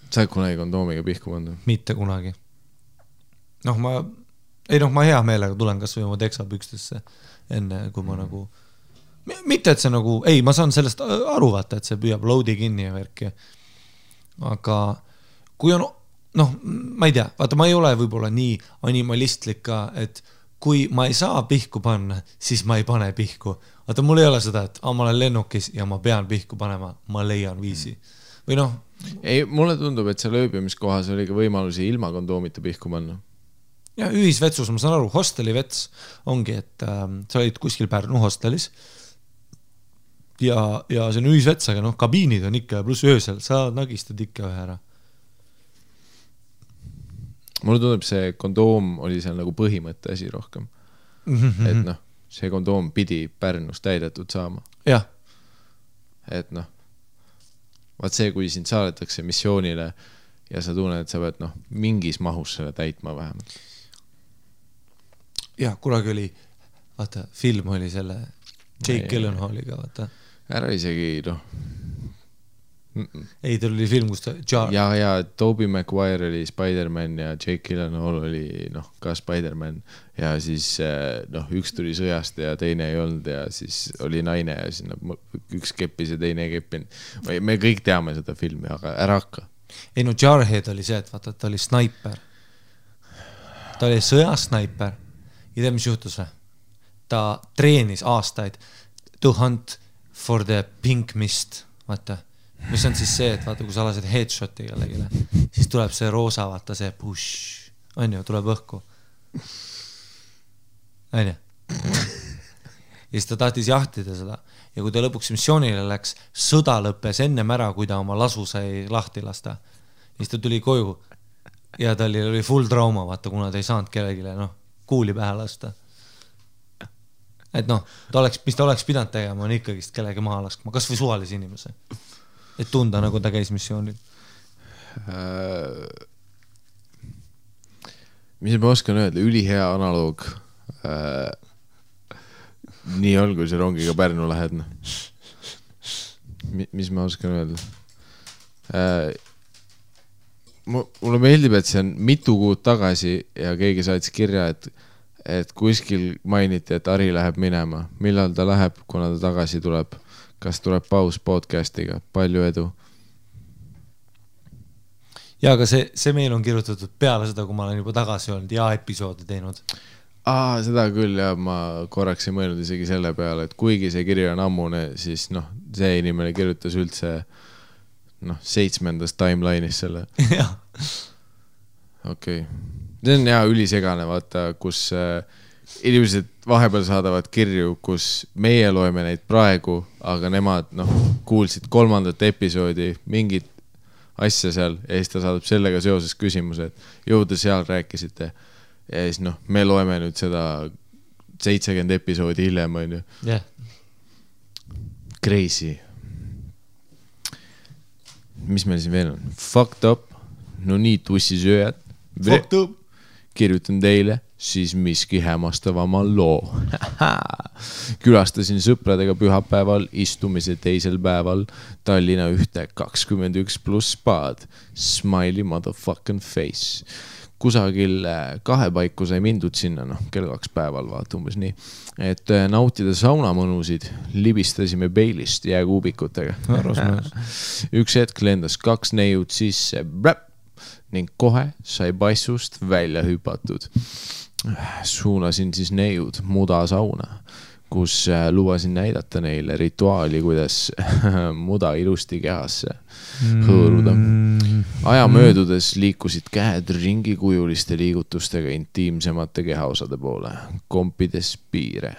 Sa oled kunagi kondoomiga pihku pannud? Mitte kunagi. Noh, ma hea meelega tulen kas või oma teksapükstesse enne, kui ma nagu... Mitte, et see nagu... Ei, ma saan sellest aru vaata, et see püüab loadi kinni ja värki. Aga kui on... Noh, ma ei tea, vaata, ma ei ole võib-olla nii animalistlik ka, et kui ma ei saa pihku panna, siis ma ei pane pihku. Vaata, mul ei ole seda, et ma olen lennukis ja ma pean pihku panema, ma leian viisi. Või noh... Ei, mulle tundub, et seal ööbimiskohas oli ka võimalusi ilma kondoomita pihku panna. Ja ühisvetsus, ma saan aru, hosteli vets ongi, et sa olid kuskil Pärnu hostelis ja see on ühisvets, aga noh, kabiinid on ikka pluss öösel, sa nagistad ikka ühe ära. Mulle tundub, see kondoom oli seal nagu põhimõtte asi rohkem. Et noh, see kondoom pidi Pärnus täidetud saama. Jah. Et noh, vaat see, kui sind saadetakse missioonile ja sa tunned, et sa pead noh, mingis mahus selle täitma vähemalt. Jah, kunagi oli, vaata, film oli selle Jake Gyllenhaaliga, vaata. Ära isegi, noh. Ei, tal oli film, kus ta... Ja Tobey Maguire oli Spider-Man ja Jake Gyllenhaal oli noh, ka Spider-Man ja siis noh, üks tuli sõjast ja teine ei olnud ja siis oli naine ja siis no, üks keppis ja teine ei keppinud. Me kõik teame seda filmi, aga ära hakka. Ei no Jarhead oli see, et vaata, ta oli snaiper. Ta oli sõjasnaiper ja tea, mis juhtus või? Ta treenis aastaid to hunt for the pink mist, vaata. Mis on siis see, et vaata, kui sa lased headshoti kellegile, siis tuleb see roosa, vaata see push, on ju, tuleb õhku. On ju? Ja siis ta tahtis jahtida seda. Ja kui ta lõpuks missioonile läks, sõda lõppes ennem ära, kui ta oma lasu sai lahti lasta. Ja siis ta tuli koju ja tal oli full trauma, vaata, kuna ta ei saanud kellegile, noh, kuuli pähe lasta. Et noh, mis ta oleks pidanud tegema, on ikkagist kellegi maha laskma, kas või suvalise inimese. Et tunda, nagu ta käis missioonil. Mis ma oskan öelda, ülihea analoog. Nii on, kui see rongiga Pärnu lähed. Mis ma oskan öelda? Mulle meeldib, et see on mitu kuud tagasi ja keegi saatis kirja, et kuskil mainiti, et Ari läheb minema. Millal ta läheb, kuna ta tagasi tuleb? Kas tuleb paus podcastiga? Palju edu. Ja, aga see meil on kirjutatud peale seda, kui ma olen juba tagasi olnud ja episoodi teinud. Seda küll ja ma korraks ei mõelnud isegi selle peale, et kuigi see kiri on ammune, siis noh, see inimene kirjutas üldse noh, 7. timeline'is selle. Jah. Okei. See on hea ülisegane, vaata, kus inimesed vahepeal saadavad kirju, kus meie loeme neid praegu, aga nemad noh, kuulsid 3. episoodi mingit asja seal ja siis ta saadab sellega seoses küsimuse, et jõuda seal rääkisite ja siis noh, me loeme nüüd seda 70 episoodi hiljem, on ju. Yeah. Crazy. Mis meil siin veel on? Fucked up. No nii tussisööjad. Fucked up. Kirjutan teile siis miski hämmastavama loo. Külastasin sõpradega pühapäeval, istumise teisel päeval Tallinna ühte 21+ spaad. Smiley motherfucking face. Kusagil 2 paiku sai mindud sinna, noh, kell 2 päeval vaata umbes nii. Et nautida saunamõnusid, libistasime peilist jääkuubikutega. Üks hetk lendas 2 neiud sisse, ning kohe sai passust välja hüpatud. Suunasin siis neiud muda sauna. kus lubasin näidata neile rituaali, kuidas muda ilusti kehasse hõõruda. Aja möödudes liikusid käed ringikujuliste liigutustega intiimsemate kehaosade poole, kompides piire.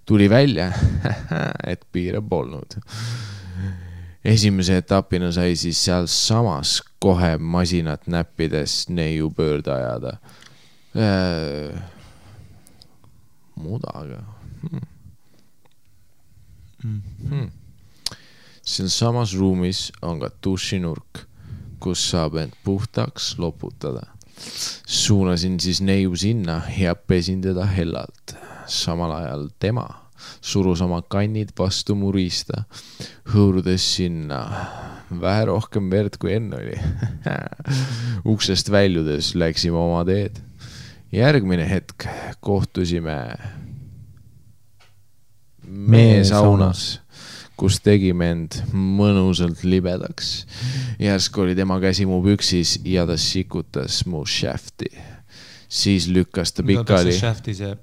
Tuli välja, et piire polnud. Esimese etapina sai siis seal samas kohe masinat näppides neiu pöörde ajada. Mudaga. Siin samas ruumis on ka dušinurk, kus saab end puhtaks loputada. Suunasin siis neiu sinna ja pesin teda hellalt. Samal ajal tema surus oma kannid vastu mu riista, hõõrudes sinna vähe rohkem verd kui enne oli. Uksest väljudes läksime oma teed. Järgmine hetk kohtusime meesaunas, kus tegime end mõnusalt libedaks. Järsku oli tema käsi mu püksis ja ta sikutas mu shafti. Siis lükkas ta pikali. Shafti see.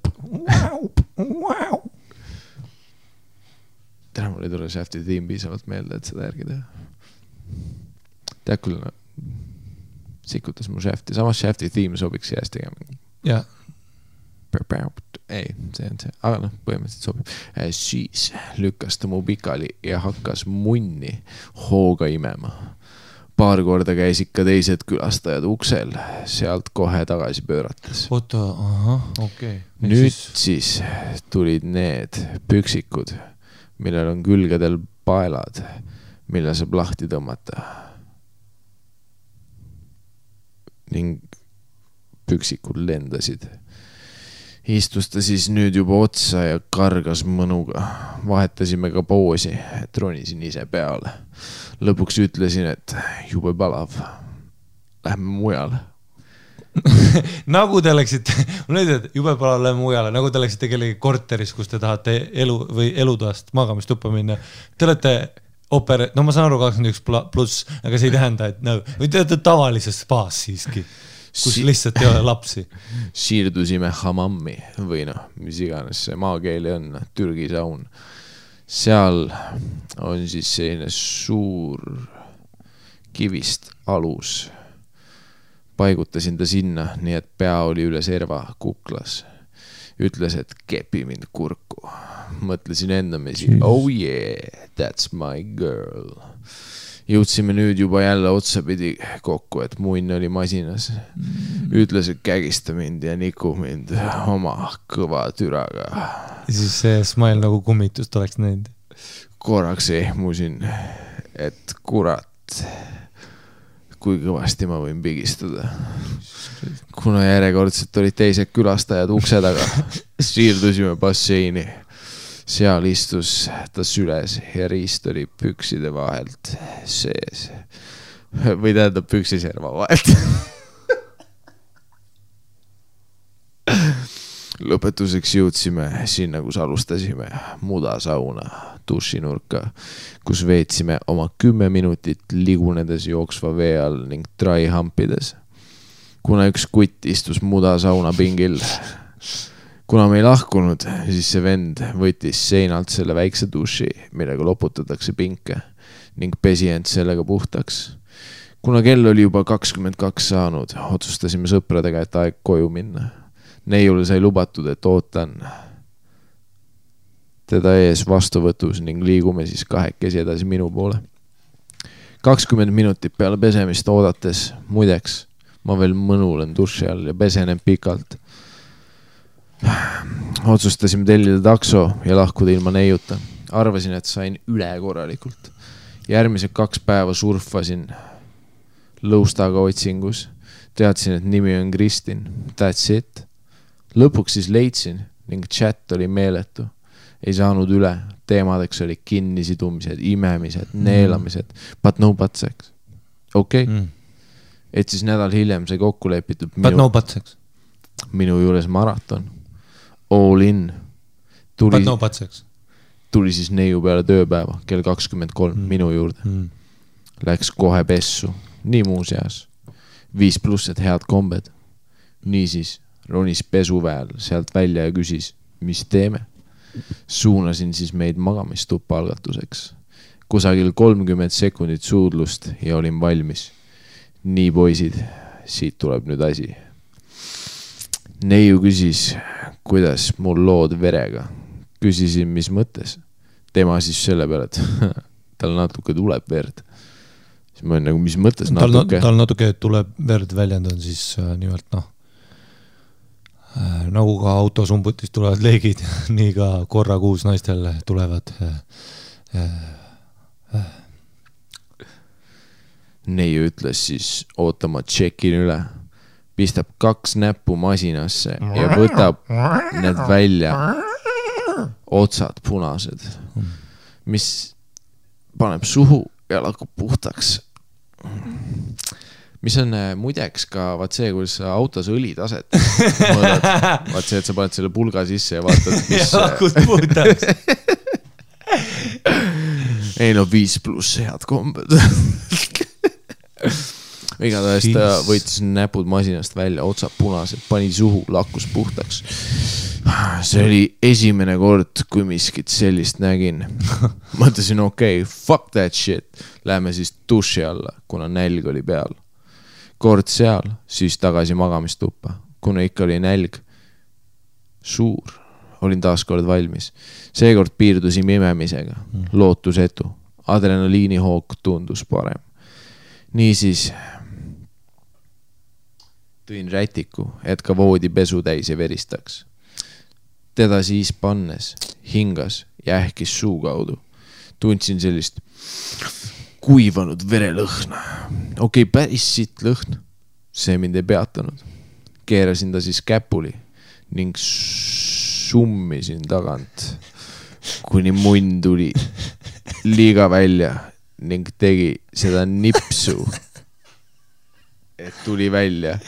Täna mul ei tule shafti tiim piisavalt meelde, et seda järgi teha. Tead küll, sikutas mu shafti. Samas shafti tiim sobiks jääst tegema. Jah. Ei, see on see, aga põhimõtteliselt sobib. Siis lükkas ta mu pikali ja hakkas munni hooga imema. Paar korda käis ikka teised külastajad uksel, sealt kohe tagasi pöörates. Oota, okei. Nüüd siis tulid need püksikud, millel on külgedel paelad, mille saab lahti tõmmata. Ning püksikud lendasid. Istus ta siis nüüd juba otsa ja kargas mõnuga. Vahetasime ka poosi, et ronisin ise peale. Lõpuks ütlesin, et jube palav. Lähme mujale. Nagu te läksite, jube palav lähme mujale, nagu te läksite kellegi korteris, kus te tahate elutoast magamistuppa minna. Te olete ma saan aru 21+, aga see ei tähenda, et või te olete tavalises spaas siiski. Kus lihtsalt ei ole lapsi. Siirdusime hamammi või mis iganes see maakeeli on, Türgi saun. Seal on siis selline suur kivist alus. Paigutasin ta sinna, nii et pea oli üle serva kuklas. Ütles, et kepi mind kurku. Mõtlesin endamisi, oh yeah, that's my girl. Jõudsime nüüd juba jälle otsapidi kokku, et munn oli masinas. Ütles, et kägista mind ja niku mind oma kõva türaga. Ja siis see smile nagu kummitust oleks näinud. Korraks ehmusin, et kurat, kui kõvasti ma võin pigistada. Kuna järjekordselt olid teised külastajad ukse taga, siirdusime basseini. Seal istus ta süles ja riist oli pükside vahelt sees. Või tähendab püksiserva vahelt. Lõpetuseks jõudsime sinna, kus alustasime mudasauna dušinurka, kus veetsime oma 10 minutit ligunedes jooksva vee all ning trai hampides. Kuna üks kutt istus mudasauna pingil, kuna me ei lahkunud, siis see vend võttis seinalt selle väikse duši, millega loputatakse pinke ning pesi end sellega puhtaks. Kuna kell oli juba 22 saanud, otsustasime sõpradega, et aeg koju minna. Neiule sai lubatud, et ootan teda ees vastuvõtus ning liigume siis kahekesi edasi minu poole. 20 minutit peale pesemist oodates, muideks, ma veel mõnulen duši all ja pesenen pikalt. Otsustasime tellida takso ja lahkuda ilma neiuta. Arvasin, et sain üle korralikult. Järgmised 2 päeva surfasin lõustaga otsingus. Teadsin, et nimi on Kristin. That's it. Lõpuks siis leidsin ning chat oli meeletu. Ei saanud üle. Teemadeks oli kinnisidumised, imemised, neelamised. But no but sex. Okei. Et siis nädal hiljem sai kokku lepitud but no but sex. Minu juures maraton. All in. But no but sex. Tuli siis neiu peale tööpäeva, kell 23 minu juurde. Läks kohe pessu. Nii muu seas. 5+ head kombed. Niisiis ronis pesuväel sealt välja ja küsis, mis teeme? suunasin siis meid magamistuppa algatuseks. Kusagil 30 sekundit suudlust ja olin valmis. Nii poisid, siit tuleb nüüd asi. Neiu küsis, kuidas mul lood verega. Küsisin, mis mõttes. Tema siis selle peale, et tal natuke tuleb verd. Siis ma olen nagu, mis mõttes natuke? Tal natuke tuleb verd väljend on siis nimelt nagu ka autosumbutist tulevad leegid, nii ka korra kuus naistel tulevad Neiu ütles siis, ootama tšekin üle, pistab 2 näppu masinasse ja võtab need välja, otsad punased, mis paneb suhu ja lakub puhtaks. Mis on muideks ka vaat see, kuidas autos õlitaset mõõdad. Vaat see, et sa paned selle pulga sisse ja vaatad, mis... Ja lakud puhtaks. Ei no 5+ head kombed. Igatahes ta võitis näpud masinast välja, otsad punased, pani suhu, lakkus puhtaks. See oli esimene kord, kui miskit sellist nägin. Mõtlesin, okei, fuck that shit. Läheme siis duši alla, kuna nälg oli peal. Kord seal, siis tagasi magamistuppa. Kuna ikka oli nälg suur, olin taas kord valmis. Seekord piirdusin imemisega, lootusetu. Adrenaliini hoog tundus parem. Niisiis tõin rätiku, et ka voodi pesu täis ja veristaks. Teda siis pannes, hingas ja ähkis suu kaudu. Tundsin sellist kuivanud verelõhna. Okei, päris siit lõhn. See mind ei peatanud. Keerasin ta siis käpuli ning summisin tagant, kuni munn tuli liiga välja ning tegi seda nipsu, et tuli välja.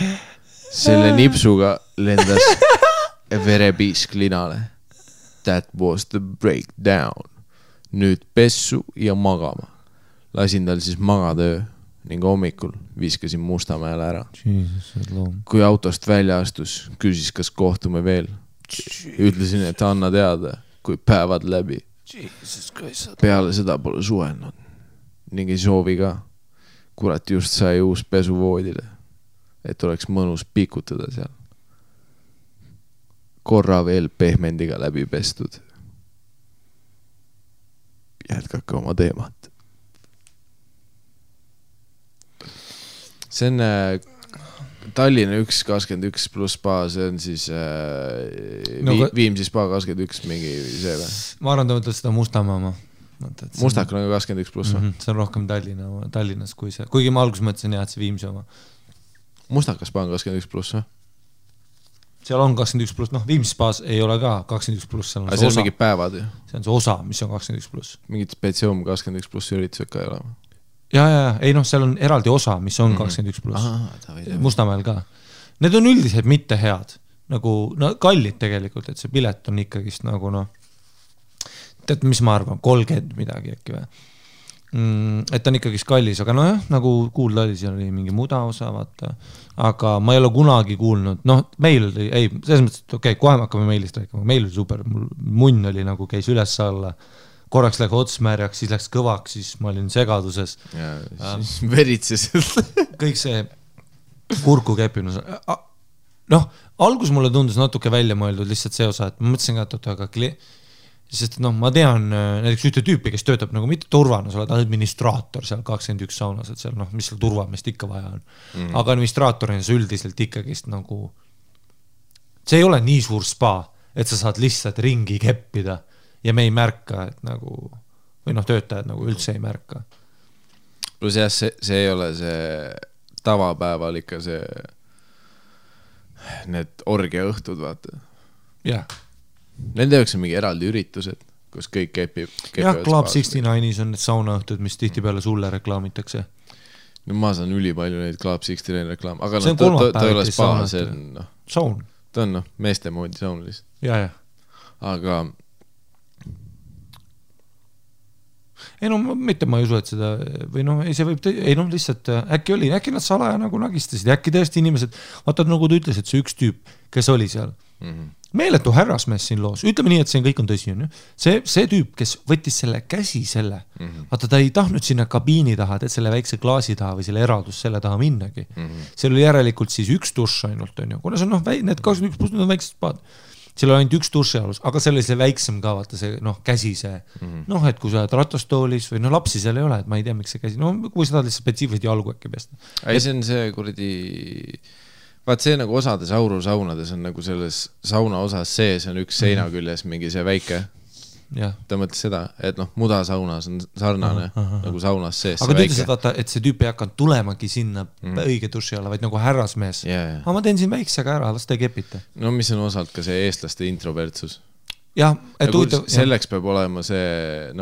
Selle nipsuga lendas verepiisk linale. That was the breakdown. Nüüd pessu ja magama. Lasin tal siis magatöö ning hommikul viskasin Mustamäele ära. Kui autost välja astus, küsis, kas kohtume veel. Ütlesin, et anna teada, kui päevad läbi. Peale seda pole suhelnud. Ning ei soovi ka. Kurat just sai uus pesu voodile, et oleks mõnus pikutada seal. Korra veel pehmendiga läbi pestud. Jätkake oma teemat. See on Tallinna 1.21+ spa, see on siis Viimsi spa 21 mingi see või? Ma arvan, ta mõtled seda Mustamaa. Mustakul on 21+ või? See on rohkem Tallinnas kui see. Kuigi ma alguses mõtlesin jah, et see Viimsi oma. Mustakas spa on 21+ või? Seal on 21+, Viimsi spaas ei ole ka 21+. See on mingid päevad ju? See on see osa, mis on 21+. Mingid spetsium 21+ üritused ka ei ole? Ja, ei seal on eraldi osa, mis on 21+. Mustamäel ka. Need on üldiselt mitte head. Nagu kallid tegelikult, et see pilet on ikkagist nagu tead, mis ma arvan, 30 midagi äkki või. Et on ikkagist kallis, aga jah, nagu kuulda oli, seal oli mingi muda osa, vaata. Aga ma ei ole kunagi kuulnud, meil oli, selles mõttes, et okei, kohe me hakkame meilist rääkima, meil oli super, munn oli nagu käis üles alla, korraks läks otsmärjaks, siis läks kõvaks, siis ma olin segaduses. Ja siis veritses. Kõik see kurku kepinus. Algus mulle tundus natuke välja mõeldud lihtsalt see osa, et ma mõtlesin ka, et aga sest ma tean näiteks ühte tüüpi, kes töötab nagu mitte turvana, sa oled administraator seal 21 saunas, et seal mis seal turvamist ikka vaja on. Aga administraatorina sa üldiselt ikkagist nagu see ei ole nii suur spa, et sa saad lihtsalt ringi keppida ja me ei märka, et nagu või töötajad nagu üldse ei märka. Plus jah, see ei ole see tavapäeval ikka see need orgia õhtud, vaata. Jah. Nende jaoks on mingi eraldi üritused, kus kõik kepib. Jah, Club 69-is on need saunaõhtud, mis tihti peale sulle reklaamitakse. No ma saan üli palju neid Club 69 reklaam, aga see on ta ei ole spa, see on saun. Ta on meeste moodi saun lihtsalt. Ja. Aga mitte ma ei usu, et seda või see võib, lihtsalt äkki nad salaja nagu nagistasid, äkki tõesti inimesed, vaata nagu ta ütles, et see üks tüüp, kes oli seal, meeletu härrasmees siin loos, ütleme nii, et see kõik on tõsi, on ju. See tüüp, kes võttis selle käsi vaata ta ei tahtnud sinna kabiini taha, et selle väikse klaasi taha või selle eraldus selle taha minnagi. Seal oli järelikult siis üks dušš ainult, on ju, kuna see on need 21 pluss, need on väiksed spaad. Seal oli ainult üks duši alus, aga seal oli see väiksem ka, vaata see käsi see, et kui sa oled ratastoolis või lapsi seal ei ole, et ma ei tea, miks see käsi, kui sa tahad lihtsalt spetsiifiliselt jalgu äkki pesta. Ei, see on see kuradi, vaat see nagu osades aurusaunades on nagu selles sauna osas sees on üks seina küljes mingi see väike. Ta mõtles seda, et mudasaunas on sarnane nagu saunas sees. Aga ta ütles, et vaata, et see tüüp ei hakanud tulemagi sinna õige duši alla, vaid nagu härrasmees. Aga ma teen siin väiksega ära, las ta ei kepita. No mis on osalt ka see eestlaste introvertsus. Jah, et selleks peab olema see,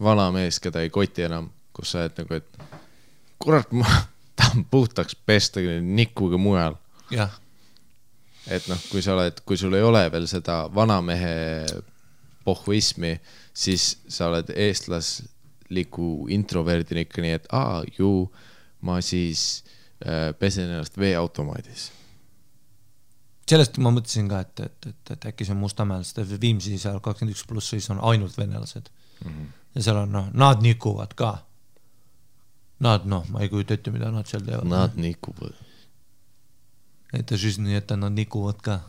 vana mees, keda ei koti enam, kus sa et nagu, et kurat, ma tahan puhtaks pesta nikuga mujal. Jah. Et kui sa oled, kui sul ei ole veel seda vanamehe pohhuismi, siis sa oled eestlasliku introverdin ikka nii, et ma siis pesen ennast veeautomaadis. Sellest ma mõtlesin ka, et äkki see on Mustamäel, sest Viimsi seal 21 pluss siis on ainult venelased. Ja seal on, nad nikuvad ka. Nad, ma ei kujuta ette, mida nad seal teevad. Nad nikuvad. Et nii, et nad nikuvad ka.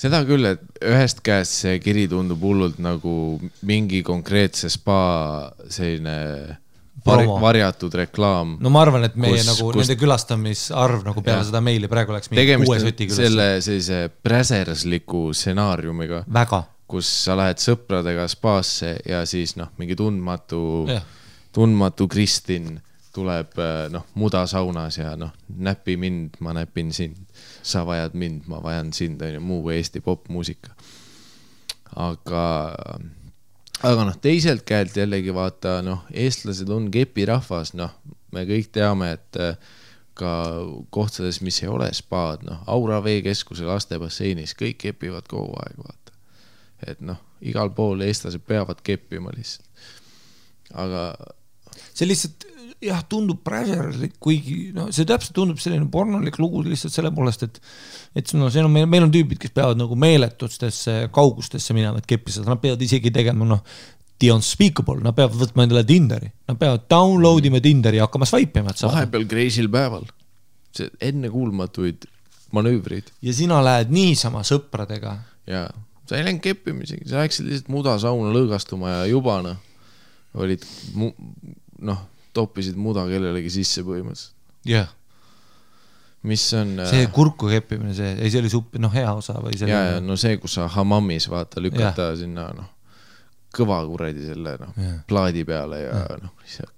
Seda küll, et ühest käest see kiri tundub hullult nagu mingi konkreetse spa selline varjatud reklaam. No ma arvan, et meie nende külastamisarv nagu peale seda meili praegu läks mingi 6 süti külastamist. Selle sellise präsersliku stsenaariumiga, väga. Kus sa lähed sõpradega spaasse ja siis mingi tundmatu Kristin tuleb mudasaunas ja näpi mind, ma näpin sind, sa vajad mind, ma vajan sind, muu Eesti popmuusika. Aga teiselt käelt jällegi vaata, eestlased on kepirahvas, me kõik teame, et ka kohtades, mis ei ole spaad, Aura veekeskuse lastebasseinis, kõik kepivad kogu aeg, vaata. Et igal pool eestlased peavad keppima lihtsalt. Aga see lihtsalt jah, tundub präserlik, kuigi see täpselt tundub selline pornolik lugu lihtsalt selle poolest, et meil on tüübid, kes peavad nagu meeletutesse kaugustesse minema, et keppised, nad peavad isegi tegema the unspeakable, nad peavad võtma endale Tinderi, nad peavad downloadima Tinderi ja hakkama swipe'ima. Vahepeal kreisil päeval, see enne kuulmatuid manöövrid. Ja sina lähed niisama sõpradega. Ja, sa ei läinud keppimisegi, sa läksid lihtsalt mudasauna lõõgastuma ja juba olid toppisid muda kellelegi sisse põhimõtteliselt. Jah. Mis on... See kurku keppimine, see oli suppi, hea osa või see... Ja, see, kus sa hamamis vaata, lükata sinna, kõva kuradi selle, plaadi peale ja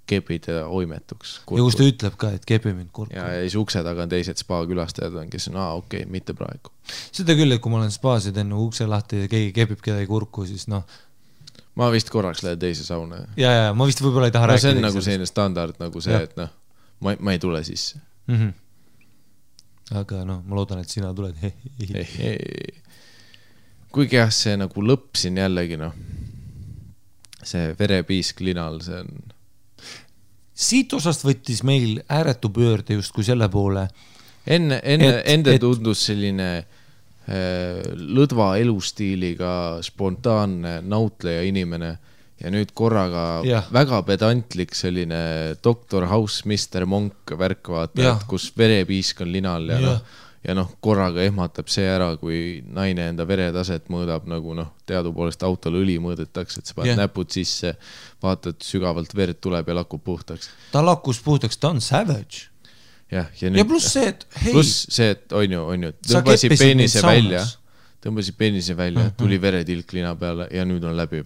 kepid ja oimetuks. Kurku. Ja kus ta ütleb ka, et kepi mind kurku. Ja siis ukse taga on teised spa külastajad, kes on, okei, mitte praegu. Seda küll, et kui ma olen spaas ja teen ukse lahti ja keegi kepib kedagi kurku, siis Ma vist korraks lähed teise sauna. Ja, ma vist võib-olla ei taha rääkida. See on nagu selline standard, nagu see, et ma ei tule sisse. Aga ma loodan, et sina tuled. Kuigi jah, see nagu lõpsin jällegi, see verepiisk linal, see on... Siit osast võttis meil ääretu pöörde just kui selle poole. Ende tundus selline... lõdva elustiiliga spontaanne nautleja inimene ja nüüd korraga väga pedantlik selline Dr. House, Mr. Monk värk vaata, kus verepiisk on linal ja korraga ehmatab see ära, kui naine enda veretaset mõõdab nagu teadupoolest autol õli mõõdetakse, et sa paned näpud sisse, vaatad sügavalt verd tuleb ja lakub puhtaks. Ta lakkus puhtaks, ta on savage. Ja pluss see, et on ju, tõmbasid peenise välja, tuli veretilk lina peale ja nüüd on läbi.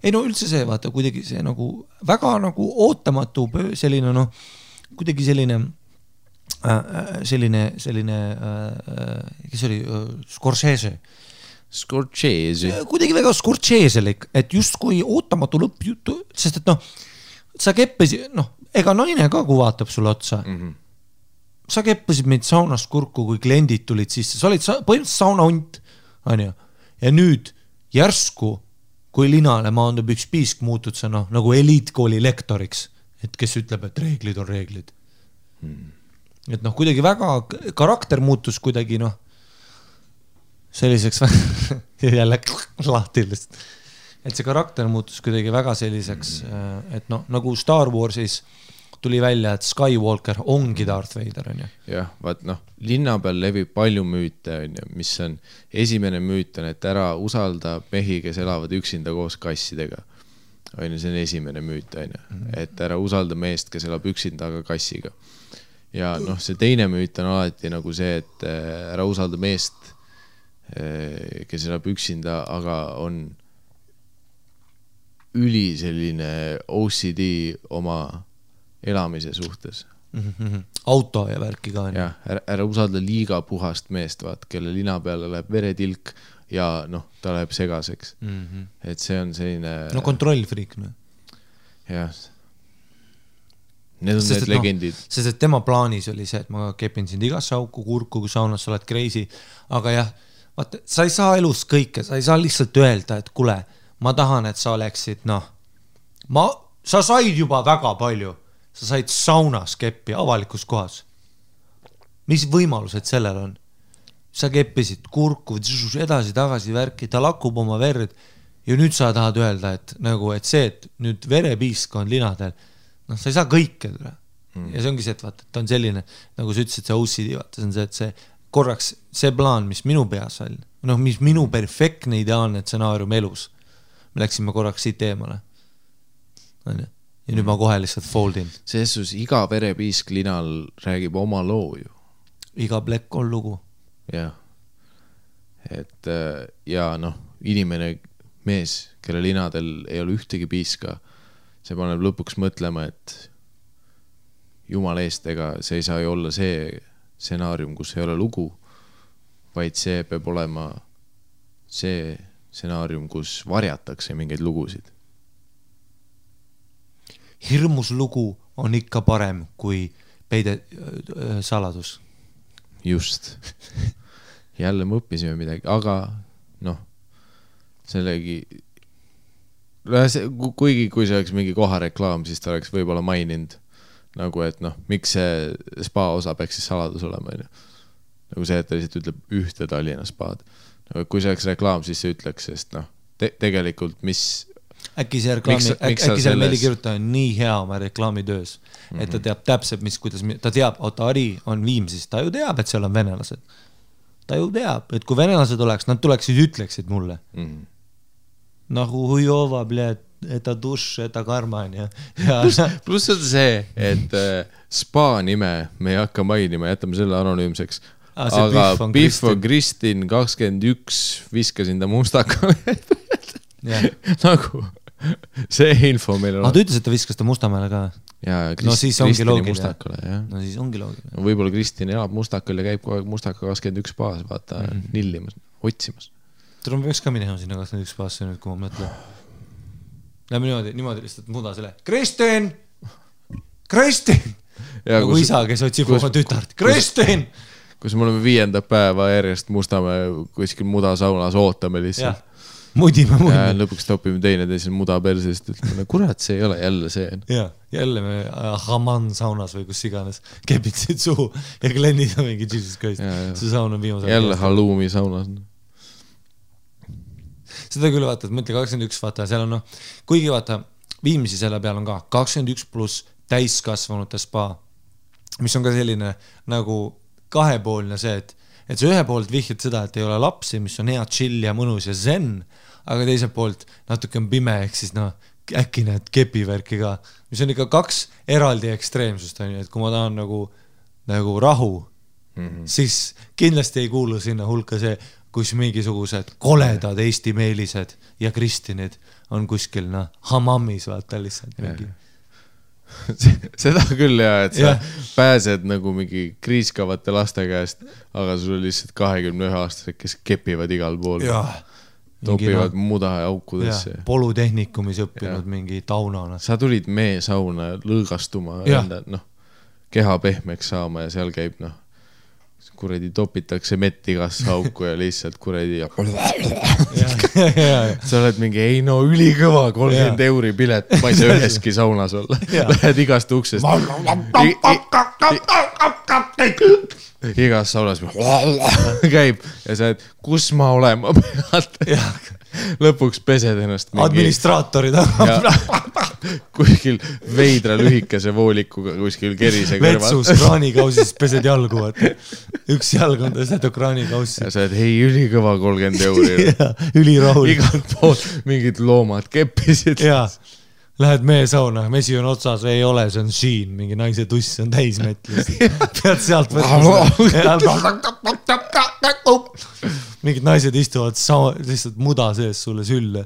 Ei üldse see, vaata, kuidagi see nagu väga nagu ootamatu selline, kuidagi selline kes oli Scorsese. Kuidagi väga Scorseselik, et just kui ootamatu lõppjutu, sest et sa keppesid, ega naine ka, kui vaatab sulle otsa. Sa keppasid meid saunast kurku, kui kliendid tulid sisse. Sa olid põhimõtteliselt saunahunt, ja nüüd järsku, kui linale maandub üks piisk, muutud sa nagu eliitkooli lektoriks, et kes ütleb, et reeglid on reeglid. Et kuidagi väga karakter muutus kuidagi, selliseks jälle lahti lihtsalt. Et see karakter muutus kuidagi väga selliseks, et noh, nagu Star Warsis tuli välja, et Skywalker ongi Darth Vader, on ju. Jah, vaat noh, linna peal levib palju müüte, on ju, mis on, esimene müüt on, et ära usalda mehi, kes elavad üksinda koos kassidega. On ju, see on esimene müüt, on ju, et ära usalda meest, kes elab üksinda, aga kassiga. Ja noh, see teine müüt on alati nagu see, et ära usalda meest, kes elab üksinda, aga on üli selline OCD oma elamise suhtes. Auto ja värki ka. Ja, ära usalda liiga puhast meest, vaat, kelle lina peale läheb veretilk ja noh, ta läheb segaseks. Et see on selline... No kontrollfriik. Jah. Need on need legendid. Sest et tema plaanis oli see, et ma kepin sind igasse auku, kurku, kui saunas sa oled crazy. Aga jah, vaata, sa ei saa elus kõike, sa ei saa lihtsalt öelda, et kule, ma tahan, et sa oleksid, noh, sa said juba väga palju, sa said saunas keppi avalikus kohas. Mis võimalused sellel on? Sa keppisid kurku, edasi, tagasi värki, ta lakub oma verd ja nüüd sa tahad öelda, et nagu, et see, et nüüd verepiisk on linadel, noh, sa ei saa kõike. Ja see ongi see, et vaata, ta on selline, nagu sa ütlesid, see OCD, vaata, see on see, et see korraks, see plaan, mis minu peas oli, noh, mis minu perfektne ideaalne stsenaarium elus, me läksime korraks siit eemale. Ja nüüd ma kohe lihtsalt foldin. Seesus iga verepiisk linal räägib oma loo ju. Iga plekk on lugu. Jah. Et ja noh, inimene mees, kelle linadel ei ole ühtegi piiska, see paneb lõpuks mõtlema, et jumal eest, ega see ei saa ju olla see stsenaarium, kus ei ole lugu, vaid see peab olema see stsenaarium, kus varjatakse mingeid lugusid. Hirmus lugu on ikka parem kui peide saladus. Just. Jälle me õppisime midagi, aga noh, sellegi, kuigi kui see oleks mingi kohareklaam, siis ta oleks võib-olla maininud, nagu et noh, miks see spa osa peaks siis saladus olema, nagu see, et ta lihtsalt ütleb ühte Tallinna spaad. Kui see oleks reklaam, siis see ütleks, sest noh, tegelikult mis... Äkki see meelikirjutaja on nii hea oma reklaamitöös, et ta teab täpselt, kuidas ta teab, Ari on Viimsis, ta ju teab, et seal on venelased. Ta ju teab, et kui venelased oleks, nad tuleksid, ütleksid mulle. Nagu hujova, eta duš, eta karman. Pluss on see, et spa nime me ei hakka mainima, jätame selle anonüümseks. Aga Biff on Kristin 21 viskasin ta mustakale. Nagu see info meil on. Ta ütles, et ta viskas ta Mustamäele ka. No siis ongi loogiline. No siis ongi loogiline. Võib-olla Kristin elab Mustakal ja käib kogu aeg Mustaka 21 baas, vaata, nillimas, otsimas. Tuleb peaks ka minema sinna 21 baasse nüüd, kui ma mõtlen. Lähme niimoodi lihtsalt muda selle. Kristin! Nagu isa, kes otsib oma tütart. Kristin! Kus me oleme 5. päeva järjest Mustamäe kuskil muda saunas ootame lihtsalt. Mudime. Lõpuks topime teisel muda persest, ütleme, kurat, see ei ole jälle see. Ja, jälle me Haman saunas või kus iganes kepitsid suhu ja Glennid on mingi Jesus Christ. See saun on viimase. Jälle halloumi saunas. Seda küll vaata, et mõtle 21 vaata, seal on kuigi vaata, Viimsi selle peal on ka 21 pluss täiskasvanute spa, mis on ka selline nagu kahepoolne see, et see ühe poolt vihjad seda, et ei ole lapsi, mis on hea chill ja mõnus ja zen, aga teiselt poolt natuke on pime, ehk siis äkki need kepivärki ka, mis on ikka 2 eraldi ekstreemsust, et kui ma tahan nagu rahu, siis kindlasti ei kuulu sinna hulka see, kus mingisugused koledad Eesti meelised ja Kristinid on kuskil hamammis vaata lihtsalt mingi. Seda küll ja, et sa pääsed nagu mingi kriiskavate laste käest, aga sul on lihtsalt 21-aastased, kes kepivad igal pool. Topivad muda ja aukudesse. Polutehnikumis õppinud mingi taunana. Sa tulid meesauna lõõgastuma, keha pehmeks saama ja seal käib kuredi topitakse mett igasse auku ja lihtsalt kuredi sa oled mingi, ei no ülikõva 30 euri pilet, ma ei saa üheski saunas olla. Lähed igast uksest. igas saunas käib ja sa oled, kus ma olema pead. Lõpuks pesed ennast administraatorid kuskil veidra lühikese voolikuga kuskil kerise kõrval. Vetsus kraanikausis pesed jalgu, üks jalg on tõstetud kraanikaussi. Ja sa oled, hei, ülikõva 30 euri. Ülirahul. Igalt poolt mingid loomad keppisid. Jaa, lähed meesauna, mesi on otsas, ei ole, see on siin, mingi naise tuss on täismetlist. Pead sealt mingid naised istuvad lihtsalt muda sees sulle sülle.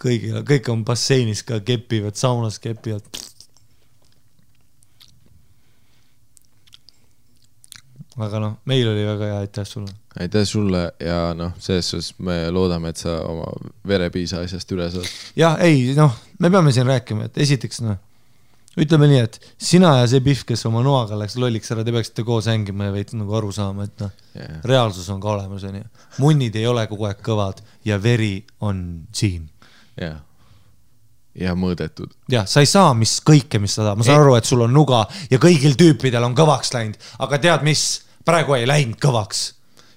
Kõik on basseinis ka kepivad, saunas kepivad. Aga noh, meil oli väga hea, aitäh sulle. Aitäh sulle ja selles suhtes me loodame, et sa oma verepiisa asjast üle saad. Jah, ei, me peame siin rääkima, et esiteks ütleme nii, et sina ja see Pihv, kes oma noaga läks lolliks ära, te peaksite koos hängima ja veits aru saama, et reaalsus on ka olemas. Munnid ei ole kogu aeg kõvad ja veri on siin. Ja mõõdetud. Ja, sa ei saa kõike, mis sa tahad. Ma saan aru, et sul on nuga ja kõigil tüüpidel on kõvaks läinud, aga tead mis? Praegu ei läinud kõvaks.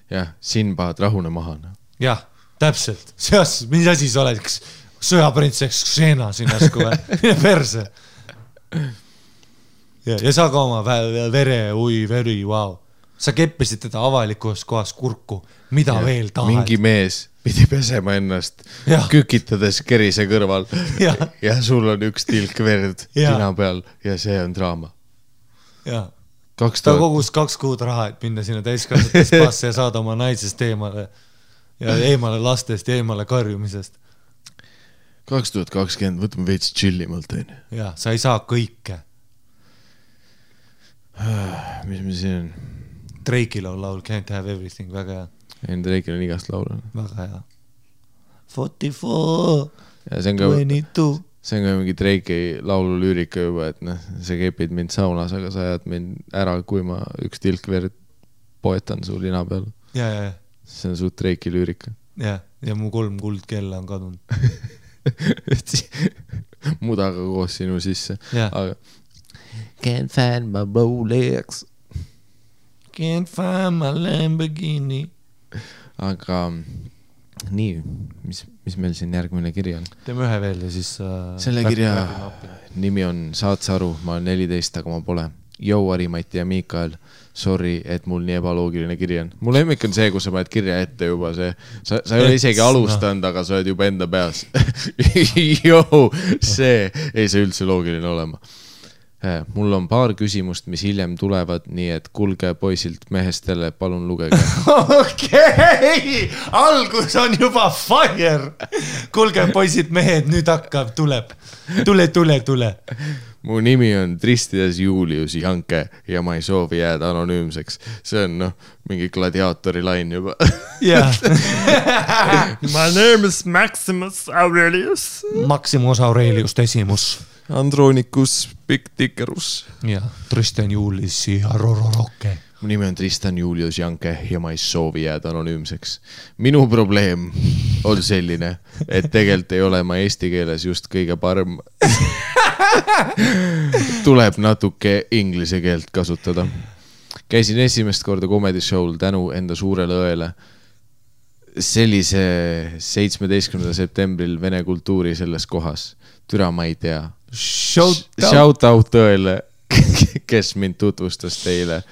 Jah, siin pahad rahune maha. Jah, täpselt. Mis asi sa oled? Sõjaprintseks Xena siin äsku või? Mine perse. Ja sa ka oma veri, wow. Sa keppisid teda avalikus kohas kurku. Mida veel tahad? Mingi mees pidi pesema ennast kükitades kerise kõrval ja sul on üks tilk verd tina peal ja see on draama. Ta kogus 2 kuud raha, et minna sinna täiskasvatud spaasse ja saada oma naisest eemale ja eemale lastest ja eemale karjumisest. 2020, võtame veits chillimalt. Ja, sa ei saa kõike. Mis me siin on? Drake'il on laul Can't Have Everything, väga hea. Drake'il on igast laul. Väga hea. 44, ja see on ka 22. See on ka mingi Drake'i laulu lüürika juba, et sa kepid mind saunas, aga sa ajad mind ära, kui ma üks tilk verd poetan su lina peal. Ja. See on suht Drake'i lüürika. Ja mu 3 kuldkella on kadunud. Mudaga koos sinu sisse. Aga Can't find my Rolex. Can't find my Lamborghini. Aga nii, mis meil siin järgmine kiri on? Teeme ühe veel ja siis... Selle kirja nimi on Saad sa aru, ma olen 14, aga ma pole. Jou, Ari-Mati ja Miikael, sorry, et mul nii ebaloogiline kiri on. Mul lemmik on see, kus sa paned kirja ette juba see. Sa ei ole isegi alustanud, aga sa oled juba enda peas. Jou, see ei saa üldse loogiline olema. Mul on paar küsimust, mis hiljem tulevad, nii et kulge poisilt mehestele, palun lugege. Okei, algus on juba fire. Kulge poisid mehed, nüüd hakkab, tuleb. Tule. Mu nimi on Tristides Julius Janke ja ma ei soovi jääda anonüümseks. See on mingi gladiaatori lain juba. My name is Maximus Aurelius. Maximus Aurelius Decimus. Andronicus Picticerus. Ja, Tristan Julius ja Rororoke. Mu nimi on Tristan Julius Janke ja ma ei soovi jääda anonüümseks. Minu probleem on selline, et tegelikult ei ole ma eesti keeles just kõige parem. Tuleb natuke inglise keelt kasutada. Käisin esimest korda comedy show'l tänu enda suurele õele. Sellise 17. septembril Vene kultuuri selles kohas. Türa ma ei tea. Shout out õele, kes mind tutvustas teile.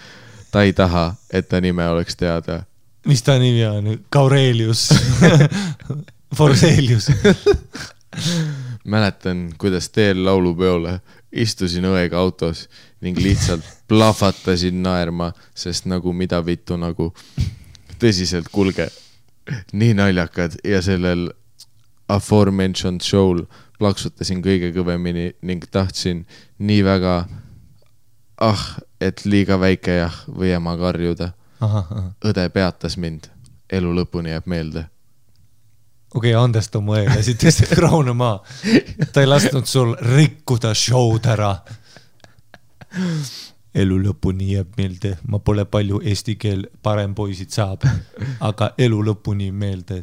Ta ei taha, et ta nime oleks teada. Mis ta nimi on? Kaurelius. Forselius. Mäletan, kuidas teel laulupeole istusin õega autos ning lihtsalt plahvatasin naerma, sest nagu mida vittu nagu tõsiselt kulge. Nii naljakad ja sellel aforementioned show'l plaksutasin kõige kõvemini ning tahtsin nii väga et liiga väike või ema karjuda. Õde peatas mind. Elu lõpuni jääb meelde. Okei, andesta mu eele, siit tõstab raune maa. Ta ei lasknud sul rikkuda show'd ära. Elu lõpuni jääb meelde. Ma pole palju eesti keel parem poisid saab, aga elu lõpuni meelde.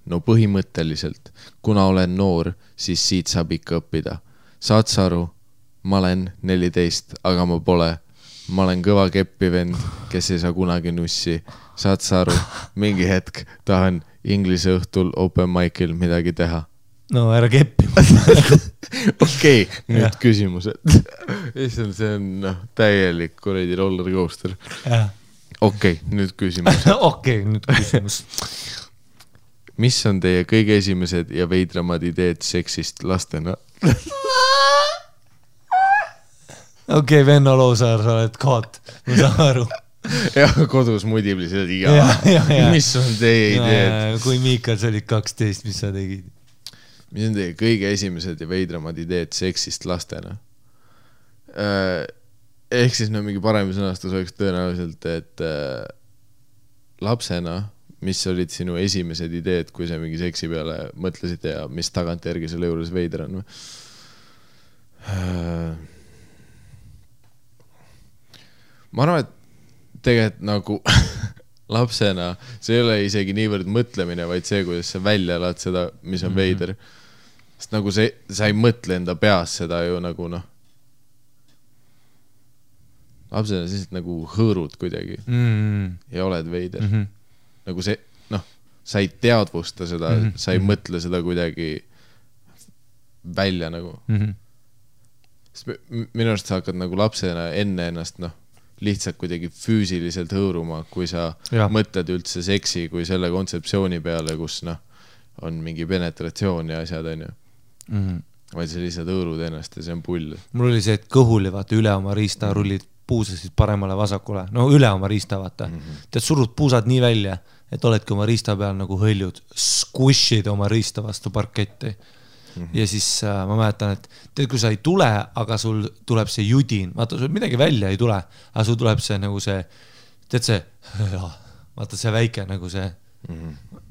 No põhimõtteliselt, kuna olen noor, siis siit saab ikka õppida. Saad sa aru? Ma olen 14, aga ma pole. ma olen kõva keppi vend, kes ei saa kunagi nussi. Saad sa aru, mingi hetk tahan inglise õhtul open mic'il midagi teha. No ära keppi. Okei, nüüd küsimused. See on täielik kuradi roller coaster. Okei, nüüd küsimus. Okei, nüüd küsimus. Mis on teie kõige esimesed ja veidramad ideed seksist lastena? Okei, Venno Loosaar, sa oled koot. Ma saan aru. Ja kodus mudiblised Mis on teie ideed? Kui Miikal sa olid 12, mis sa tegid? Mis on teie kõige esimesed ja veidramad ideed seksist lastena? Ehk siis mingi parem sõnastus oleks tõenäoliselt, et lapsena, mis olid sinu esimesed ideed, kui sa mingi seksi peale mõtlesid ja mis tagantjärgi selle juures veider on? Ma arvan, et tegelikult nagu lapsena see ei ole isegi niivõrd mõtlemine, vaid see, kuidas sa välja elad seda, mis on veider. Sest nagu sa ei mõtle enda peas seda ju nagu lapsena siis nagu hõõrud kuidagi ja oled veider. Nagu see, sa ei teadvusta seda, sa ei mõtle seda kuidagi välja nagu. Minu arust sa hakkad nagu lapsena enne ennast lihtsalt kuidagi füüsiliselt hõõruma, kui sa mõtled üldse seksi kui selle kontseptsiooni peale, kus on mingi penetratsioon ja asjad, on ju. Vaid sa lihtsalt hõõrud ennast ja see on pull. Mul oli see, et kõhuli vaata üle oma riista rullid puusasid paremale vasakule. No üle oma riista vaata. Tead, surud puusad nii välja, et oledki oma riista peal nagu hõljud, squishid oma riista vastu parketti. Ja siis ma mäletan, et tead, kui sa ei tule, aga sul tuleb see judin, vaata, sul midagi välja ei tule, aga sul tuleb see nagu see, tead see, vaata see väike nagu see,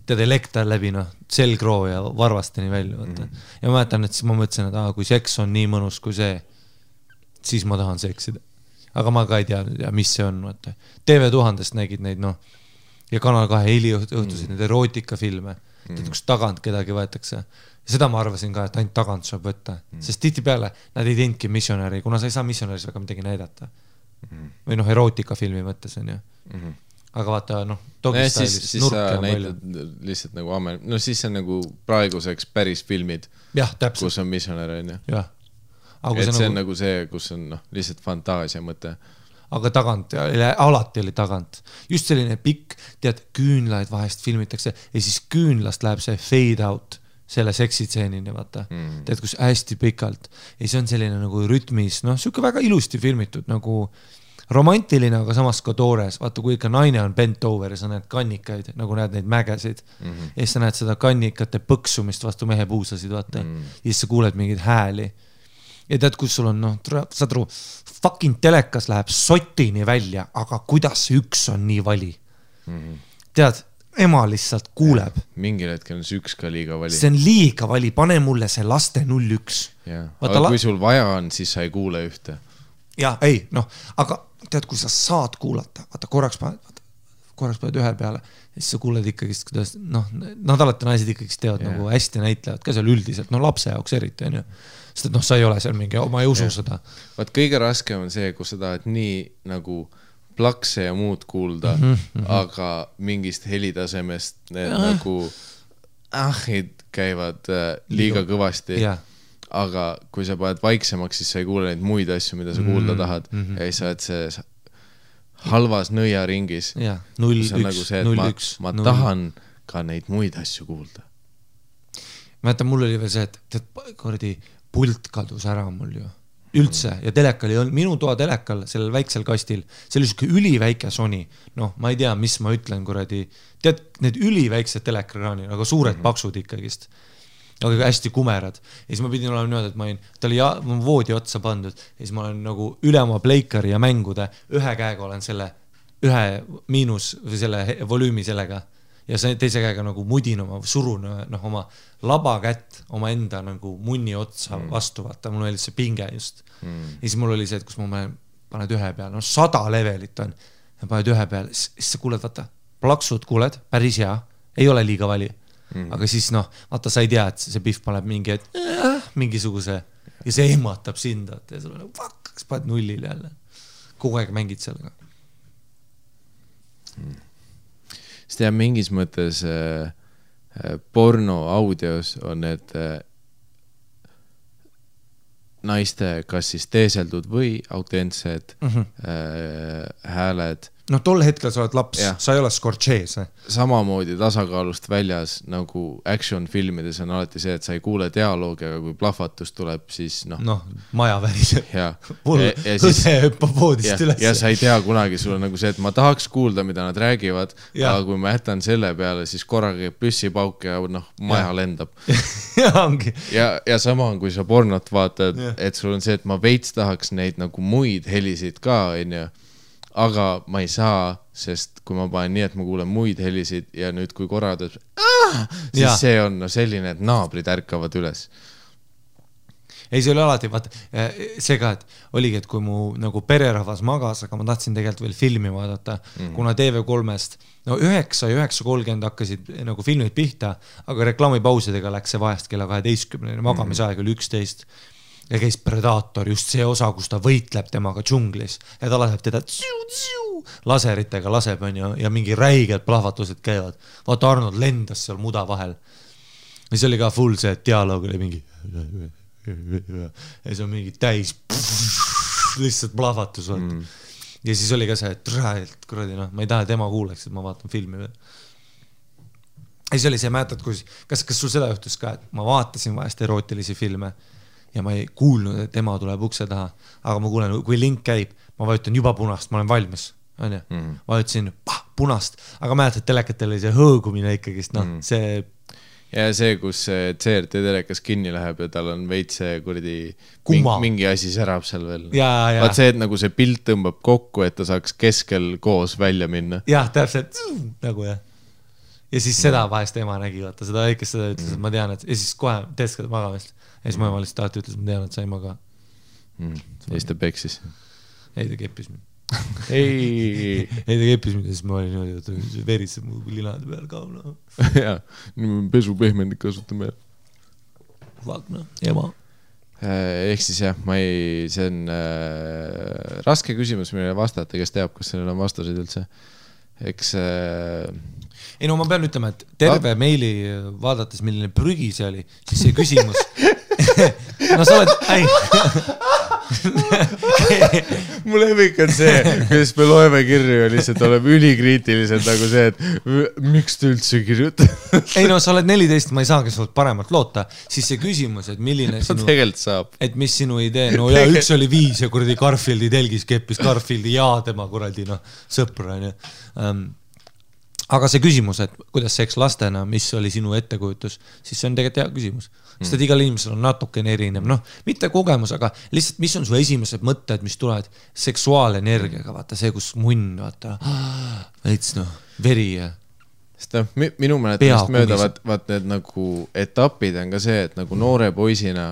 tead elekter läbi, selgroo ja varvasteni välja, vaata. Ja ma mäletan, et siis ma mõtlesin, et kui seks on nii mõnus kui see, siis ma tahan seksida. Aga ma ka ei tea, mis see on, vaata. TV1000-st nägid neid, ja Kanal 2 heliõhtusid need erootikafilme, tead, kus tagant kedagi võetakse. Ja seda ma arvasin ka, et ainult tagant saab võtta. Sest tihti peale nad ei teinudki missionäri, kuna sa ei saa missionäris väga midagi näidata. Või erootikafilmi mõttes on ju. Aga vaata, dogistailis siis sa näitad lihtsalt nagu siis see on nagu praeguseks päris filmid, kus on missionär on ju. Jah. Et see on nagu see, kus on lihtsalt fantaasia mõte. Aga tagant, alati oli tagant. Just selline pikk, tead, küünlaid vahest filmitakse ja siis küünlast läheb see fade out selle seksitseenini, vaata. Tead, kus hästi pikalt. Ja see on selline nagu rütmis, siuke väga ilusti filmitud, nagu romantiline, aga samas ka toores. Vaata, kui ikka naine on bent over ja sa näed kannikaid, nagu näed neid mägesid. Ja siis sa näed seda kannikate põksumist vastu mehe puusasid, vaata. Ja siis sa kuuled mingeid hääli. Ja tead, kus sul on, saad aru, fucking telekas läheb sotini välja, aga kuidas üks on nii vali? Tead, ema lihtsalt kuuleb. Mingil hetkel on see üks ka liiga vali. See on liiga vali, pane mulle see laste 01. Aga kui sul vaja on, siis sa ei kuule ühte. Ja, ei, aga tead, kui sa saad kuulata, vaata, korraks paned ühe peale, siis sa kuuled ikkagi, kuidas, nad alati naised ikkagi teevad nagu hästi näitlevad, ka seal üldiselt, lapse jaoks eriti, on ju. Sest et sa ei ole seal mingi, ma ei usu seda. Vaat kõige raskem on see, kus sa tahad nii nagu plakse ja muud kuulda, aga mingist helitasemest need nagu ahid käivad liiga kõvasti. Aga kui sa paned vaiksemaks, siis sa ei kuule neid muid asju, mida sa kuulda tahad. Ja siis sa oled see halvas nõiaringis. See on nagu see, et ma tahan ka neid muid asju kuulda. Mäletan, mul oli veel see, et pult kadus ära mul ju. Üldse. Ja telekal ei olnud, minu toa telekal, sellel väiksel kastil, see oli siuke üliväike Sony. Ma ei tea, mis ma ütlen, kuradi. Tead, need üliväiksed telekraanid, aga suured paksud ikkagist. Aga hästi kumerad. Ja siis ma pidin olema niimoodi, et ta oli voodi otsa pandud. Ja siis ma olen nagu üle oma pleikari ja mängude ühe käega olen selle ühe miinus või selle volüümi sellega. Ja teise käega nagu mudin surun oma laba kätt oma enda nagu munni otsa vastu, vaata, mul oli see pinge just. Ja siis mul oli see, et kus ma paned ühe peale, 100 levelit on, ja paned ühe peale, siis sa kuuled, vaata, plaksud kuuled, päris hea, ei ole liiga vali, aga siis vaata, sa ei tea, et see pihv paneb mingisuguse, ja see ehmatab sind, ja sul on fuck, kas paned nullile jälle. kogu aeg mängid sellega. Sest jah, mingis mõttes porno audios on need naiste kas siis teeseldud või autentsed hääled. No tol hetkel sa oled laps, sa ei ole Scorsese. Samamoodi tasakaalust väljas nagu action filmides on alati see, et sa ei kuule dialoogi, aga kui plahvatus tuleb, siis maja väriseb. Hõse hüppab voodist üles. Ja sa ei tea kunagi, sul on nagu see, et ma tahaks kuulda, mida nad räägivad, aga kui ma jätan selle peale, siis korraga püssipauk ja maja lendab. Ja sama on, kui sa pornot vaatad, et sul on see, et ma veits tahaks neid nagu muid helisid ka, aga ma ei saa, sest kui ma panen nii, et ma kuulen muid helisid ja nüüd kui korra teeb, siis see on selline, et naabrid ärkavad üles. Ei, see oli alati, vaata, see ka, et oligi, et kui mu nagu pererahvas magas, aga ma tahtsin tegelikult veel filmi vaadata, kuna TV3-st 9 ja 9.30 hakkasid nagu filmid pihta, aga reklaamipausidega läks see vahest kella 12, magamisaeg oli 11 ja käis Predator, just see osa, kus ta võitleb temaga džunglis ja ta laseb teda laseritega laseb ja mingi räiged plahvatused käivad. Vaata, Arnold lendas seal muda vahel. Ja see oli ka full see, et dialoog oli mingi ja see on mingi täis lihtsalt plahvatus. Ja siis oli ka see, et kuradi, ma ei taha tema kuuleks, et ma vaatan filmi veel. Ja siis oli see, mäletad, kas sul seda juhtus ka, et ma vaatasin vahest erootilisi filme ja ma ei kuulnud, et ema tuleb ukse taha, aga ma kuulen, kui link käib, ma vajutan juba punast, ma olen valmis, vajutasin punast, aga mäletad, telekatel oli see hõõgumine ikkagist, see... Ja see, kus CRT telekas kinni läheb ja tal on veits see kuradi mingi asi särab seal veel. Vaat see, et nagu see pilt tõmbab kokku, et ta saaks keskel koos välja minna. Jah, täpselt, nagu jah. Ja siis seda vahest ema nägi, vaata, seda väikest seda ütles, et ma tean, et ja siis kohe teeskad magamist. Ja siis ma ema lihtsalt alati ütles, et ma tean, et sa ei maga. Ja siis ta peksis. Ei, ta keppis mind. Ei, ta keppis mind ja siis ma olin niimoodi, et veritseb mu linade peal ka. Jaa, pesupehmendik kasutame. Vagna, ema. Ehk siis jah, see on raske küsimus meile vastata, kes teab, kas sellel on vastuseid üldse. Eks... Ei, no ma pean ütlema, et terve meili vaadates, milline prügi see oli, siis see küsimus... No sa oled... Mul lemmik on see, kuidas me loeme kirju ja lihtsalt oleme ülikriitilised nagu see, et miks te üldse kirjuta? Ei no, sa oled 14, ma ei saagi sult paremalt loota. Siis see küsimus, et milline sinu... Tegelikult saab. Et mis sinu idee... No ja üks oli 5 ja kuradi Garfieldi telgis keppis Garfieldi ja tema kuradi sõpra. Aga see küsimus, et kuidas seks lastena, mis oli sinu ettekujutus, siis see on tegelikult hea küsimus. Sest et igal inimesel on natukene erinev, mitte kogemus, aga lihtsalt mis on su esimesed mõtted, mis tulevad seksuaalenergiaga, vaata see, kus munn, vaata, veits veri ja... Sest minu mäletamist mööda, vaat need nagu etapid on ka see, et nagu noore poisina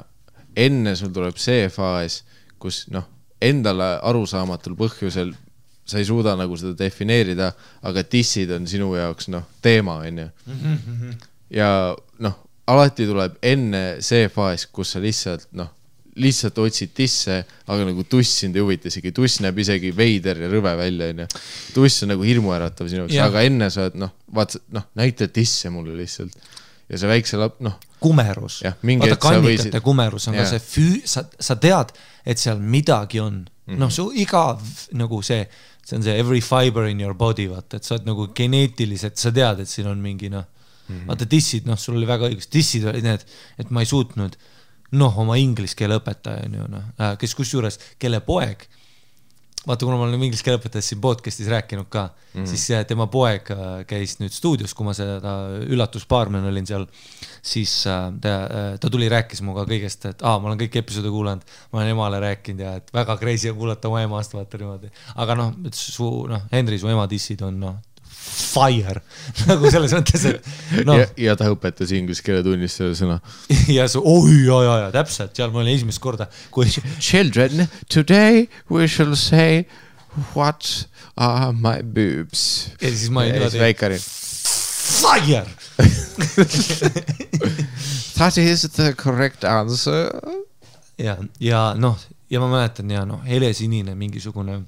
enne sul tuleb see faas, kus endale arusaamatul põhjusel sa ei suuda nagu seda defineerida, aga tissid on sinu jaoks teema, ja alati tuleb enne see faas, kus sa lihtsalt otsid tisse, aga nagu tuss sind ei huvita isegi, tuss näeb isegi veider ja rõve välja, tuss on nagu hirmuäratav sinu jaoks, aga enne sa oled, näita tisse mulle lihtsalt ja see väikse kumerus, vaata kannikate kumerus on ka see sa tead, et seal midagi on, su iga nagu see on see every fiber in your body, vaata, et sa oled nagu geneetiliselt, sa tead, et siin on mingi vaata tissid, sul oli väga õigus, tissid olid need, et ma ei suutnud oma inglise keele õpetaja, kes kusjuures, kelle poeg, vaata, kuna ma olen inglise keele õpetajast siin podcastis rääkinud ka, siis tema poeg käis nüüd stuudios, kui ma seda üllatuspaarmen olin seal, siis ta tuli rääkis muga kõigest, et ma olen kõik episoode kuulanud, ma olen emale rääkinud ja et väga crazy on kuulata oma emast, vaata niimoodi. Aga Henri, su ema tissid on fire, nagu selles mõttes, et ja ta õpetas inglise keele tunnis selle sõna. Ja täpselt, seal ma olin esimest korda, kui Children, today we shall say what are my boobs. Ja siis ma olin väikari. Fire! That is the correct answer. Ja ma mäletan, helesinine mingisugune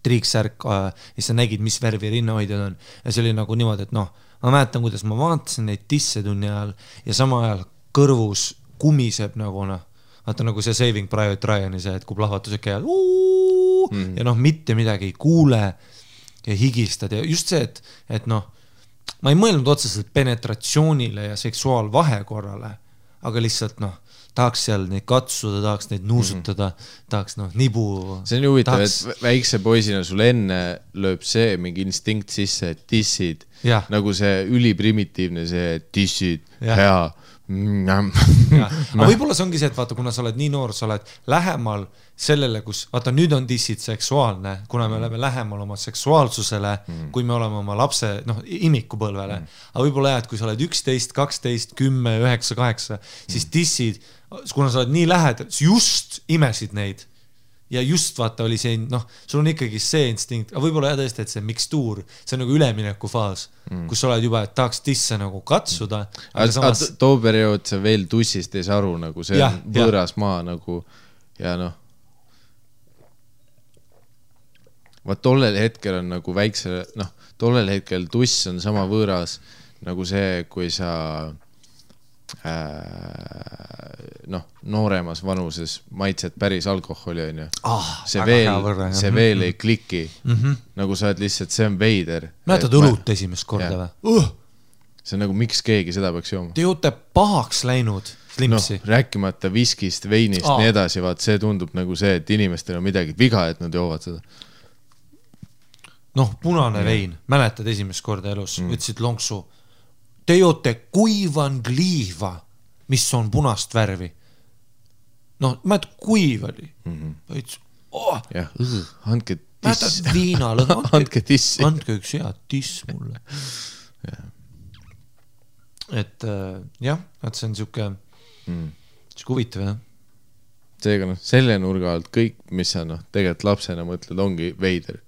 triiksärk ja sa nägid, mis värvi rinnahoidjad on ja see oli nagu niimoodi, et noh, ma mäletan, kuidas ma vaatasin neid disse tunni ajal ja sama ajal kõrvus kumiseb nagu noh, vaata nagu see Saving Private Ryan'i see, et kui plahvatused käivad ja noh, mitte midagi ei kuule ja higistad ja just see, et noh, ma ei mõelnud otseselt penetratsioonile ja seksuaalvahekorrale, aga lihtsalt noh, tahaks seal neid katsuda, tahaks neid nuusutada, tahaks noh, nibu. See on huvitav, et väikse poisina sul enne lööb see mingi instinkt sisse, et tissid, nagu see üliprimitiivne see, et tissid, hea. Aga võib-olla see ongi see, et vaata, kuna sa oled nii noor, sa oled lähemal sellele, kus, vaata, nüüd on dissid seksuaalne, kuna me oleme lähemal oma seksuaalsusele, kui me oleme oma lapse, noh, imikupõlvele. Aga võib-olla jah, et kui sa oled 11, 12, 10, 9, 8, siis dissid, kuna sa oled nii lähedal, just imesid neid. Ja just vaata oli see, noh, sul on ikkagi see instinkt, aga võib-olla jah tõesti, et see mikstuur, see on nagu ülemineku faas, kus sa oled juba, et tahaks tisse nagu katsuda. Aga samas... too periood sa veel tussist ei saa aru, nagu see on võõras maa nagu ja noh. Vaat tollel hetkel on nagu väikse, noh, tollel hetkel tuss on sama võõras nagu see, kui sa noh, nooremas vanuses maitsed päris alkoholi on ju. See veel ei kliki. Nagu sa oled lihtsalt, see on veider. Mäletad õlut esimest korda või? See on nagu, miks keegi seda peaks jooma? Te joote pahaks läinud slimpsi. No, rääkimata viskist, veinist, nii edasi, vaat see tundub nagu see, et inimestel on midagi viga, et nad joovad seda. Noh, punane vein. Mäletad esimest korda elus? Ütlesid lonksu. Te joote kuivan kliiva, mis on punast värvi. Noh, ma et kuiv oli. Jah, andke tiss. Mäletad viinal, andke tissi. Andke üks hea tiss mulle. Et jah, et see on siuke huvitav, jah. Seega noh, selle nurga alt kõik, mis sa noh, tegelikult lapsena mõtled, ongi veider.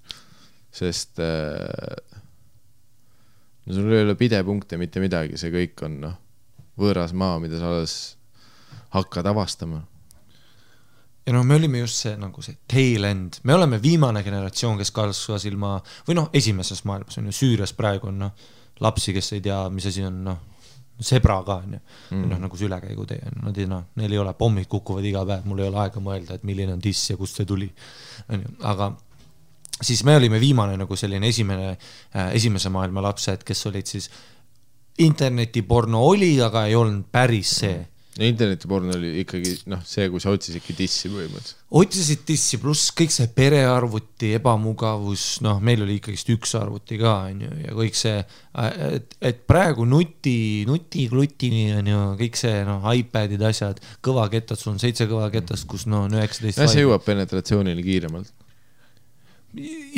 Sest no sul ei ole pidepunkte mitte midagi, see kõik on noh, võõras maa, mida sa alles hakkad avastama. Ja noh, me olime just see, nagu see tail end. Me oleme viimane generatsioon, kes kasvas ilma, või noh, esimeses maailmas on ju Süürias praegu on noh, lapsi, kes ei tea, mis asi on noh, sebra ka on ju. Noh, nagu see ülekäigu tee. Neil ei ole, pommid kukuvad iga päev, mul ei ole aega mõelda, et milline on tiss ja kust see tuli. Aga siis me olime viimane nagu selline esimese maailma lapsed, kes olid siis internetiporno oli, aga ei olnud päris see. Internetiporno oli ikkagi noh, see, kui sa otsisidki tissi põhimõtteliselt. Otsisid tissi, pluss kõik see perearvuti, ebamugavus, noh, meil oli ikkagist üks arvuti ka, ja kõik see, et praegu nuti-klutini on ju, kõik see, noh, iPadid asjad, kõvaketad, sul on 7 kõvaketast, kus no 19. Ja see jõuab penetratsioonile kiiremalt.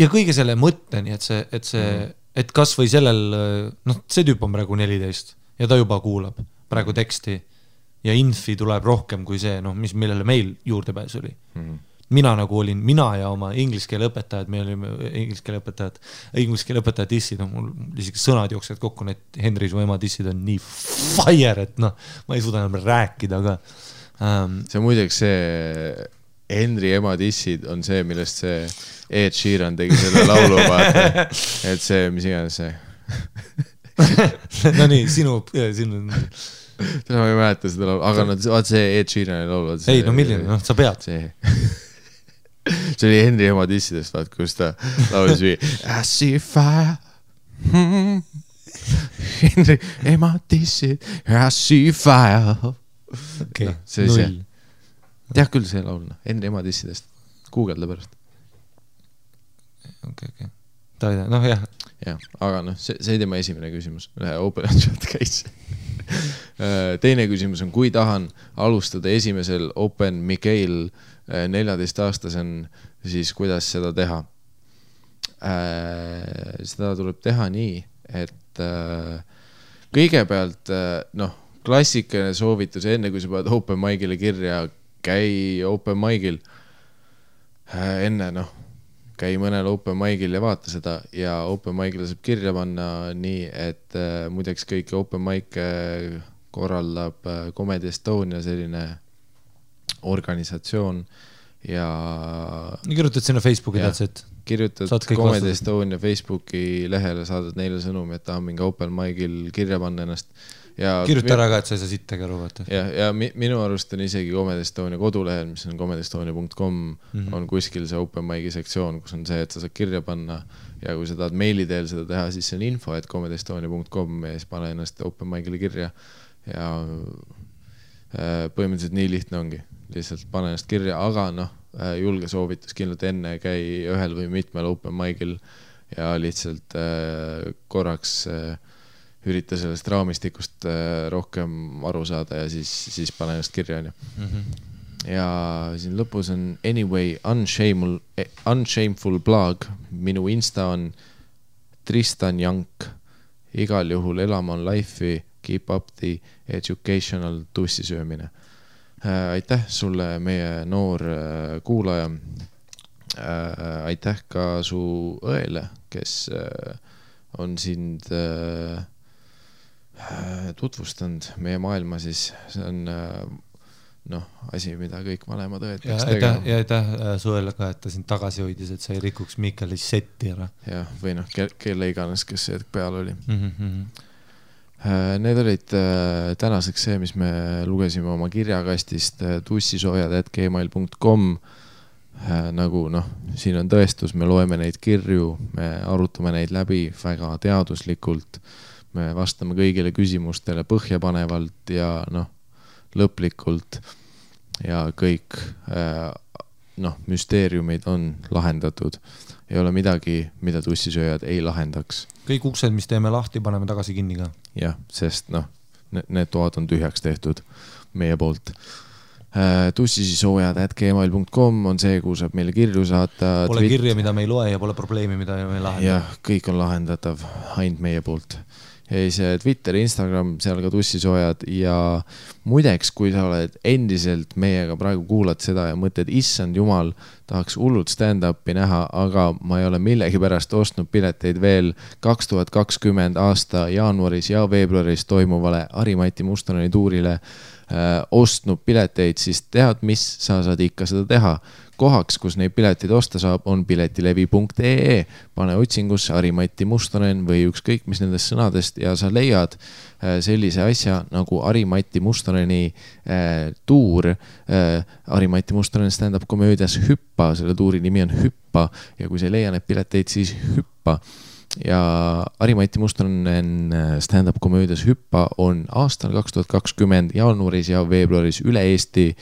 Ja kõige selle mõtteni, et kas või sellel, noh, see tüüp on praegu 14 ja ta juba kuulab praegu teksti ja infi tuleb rohkem kui see, noh, millele meil juurdepääs oli. Mina nagu olin, mina ja oma inglise keele õpetajad, me olime inglise keele õpetajad dissid, noh, mul isegi sõnad jooksevad kokku, need Henri su ema dissid on nii fire, et noh, ma ei suuda enam rääkida, aga see muideks see Henri ema dissid on see, millest see Ed Sheeran tegi selle laulu vaata, et see, mis iganes see no nii, sinu ma ei mäleta seda laulu, aga vaat see Ed Sheerani laulu ei, no milline, noh, sa pead see oli Henri ema dissidest, vaat, kus ta laulis I see fire Henri ema dissid I see fire okay, see oli see tead küll see laul, Henri ema dissidest Googleda pärast okay. noh jah aga noh, see ei tema esimene küsimus Open Chat Case teine küsimus on, kui tahan alustada esimesel Open Mikael 14-aastasen, siis kuidas seda teha? Seda tuleb teha nii, et kõigepealt noh, klassikaline soovitus enne, kui sa paned Open Mic'ile kirja, käi Open Mic'il enne, noh, käi mõnel Open Mic'il ja vaata seda ja Open Mic'ile saab kirja panna nii, et muideks kõik Open Mic korraldab Comedy Estonia selline organisatsioon ja kirjutad sinna Facebooki Jah. that's it. kirjutad Saad kõik Comedy vastused. Estonia Facebooki lehele, saadad neile sõnumi, et tahan mingi open mic'il kirja panna ennast. Ja Kirjuta ära ka, et sa ei saa sittagi aru, vaata. ja minu arust on isegi Comedy Estonia kodulehel, mis on comedyestonia.com, on kuskil see open mic'i sektsioon, kus on see, et sa saad kirja panna ja kui sa tahad meili teel seda teha, siis see on info, et comedyestonia.com ja siis pane ennast open mic'ile kirja ja põhimõtteliselt nii lihtne ongi. Lihtsalt pane ennast kirja, aga julge soovitus kindlalt enne käi ühel või mitmel open mic'il ja lihtsalt korraks ürita sellest raamistikust rohkem aru saada ja siis pane ennast kirja. Ja siin lõpus on Anyway Unshameful blog, minu Insta on Tristan Jank, igal juhul elama on life'i, keep up the educational tussisöömine. Aitäh sulle, meie noor kuulaja. Aitäh ka su õele, kes on sind tutvustanud meie maailma, siis see on asi, mida kõik vanemad õed peaks tegema. Ja aitäh suele ka, et ta sind tagasi hoidis, et sa ei rikuks Mikkeli setti ära. Ja, või kelle iganes, kes see peal oli. Need olid tänaseks see, mis me lugesime oma kirjakastist tussisoojad@gmail.com. Nagu siin on tõestus, me loeme neid kirju, me arutame neid läbi väga teaduslikult, me vastame kõigile küsimustele põhjapanevalt ja lõplikult ja kõik müsteeriumid on lahendatud. Ei ole midagi, mida tussisööjad ei lahendaks. Kõik uksed, mis teeme lahti, paneme tagasi kinni ka. Jah, sest need toad on tühjaks tehtud meie poolt. tussisisoojad@gmail.com on see, kuhu saab meile kirju saata. Pole kirja, mida me ei loe ja pole probleemi, mida me ei lahenda. Jah, kõik on lahendatav ainult meie poolt. Ja see Twitter, Instagram, seal ka tussisoojad ja muideks, kui sa oled endiselt meiega praegu kuulad seda ja mõtled, issand jumal, tahaks hullult stand-upi näha, aga ma ei ole millegi pärast ostnud pileteid veel 2020 aasta jaanuaris ja veebruaris toimuvale Harimati Mustoneni tuurile ostnud pileteid, siis tead, mis sa saad ikka seda teha. Kohaks, kus neid pileteid osta saab, on piletilevi.ee. Pane otsingusse Harimati Mustonen või ükskõik mis nendest sõnadest ja sa leiad sellise asja nagu Harimati Mustoneni tuur. Harimati Mustonen stand-up komöödias Hüppa, selle tuuri nimi on Hüppa ja kui sa leia need pileteid, siis hüppa. Ja Harimati Mustonen stand-up komöödias Hüppa on aastal 2020 jaanuaris ja veebruaris üle Eesti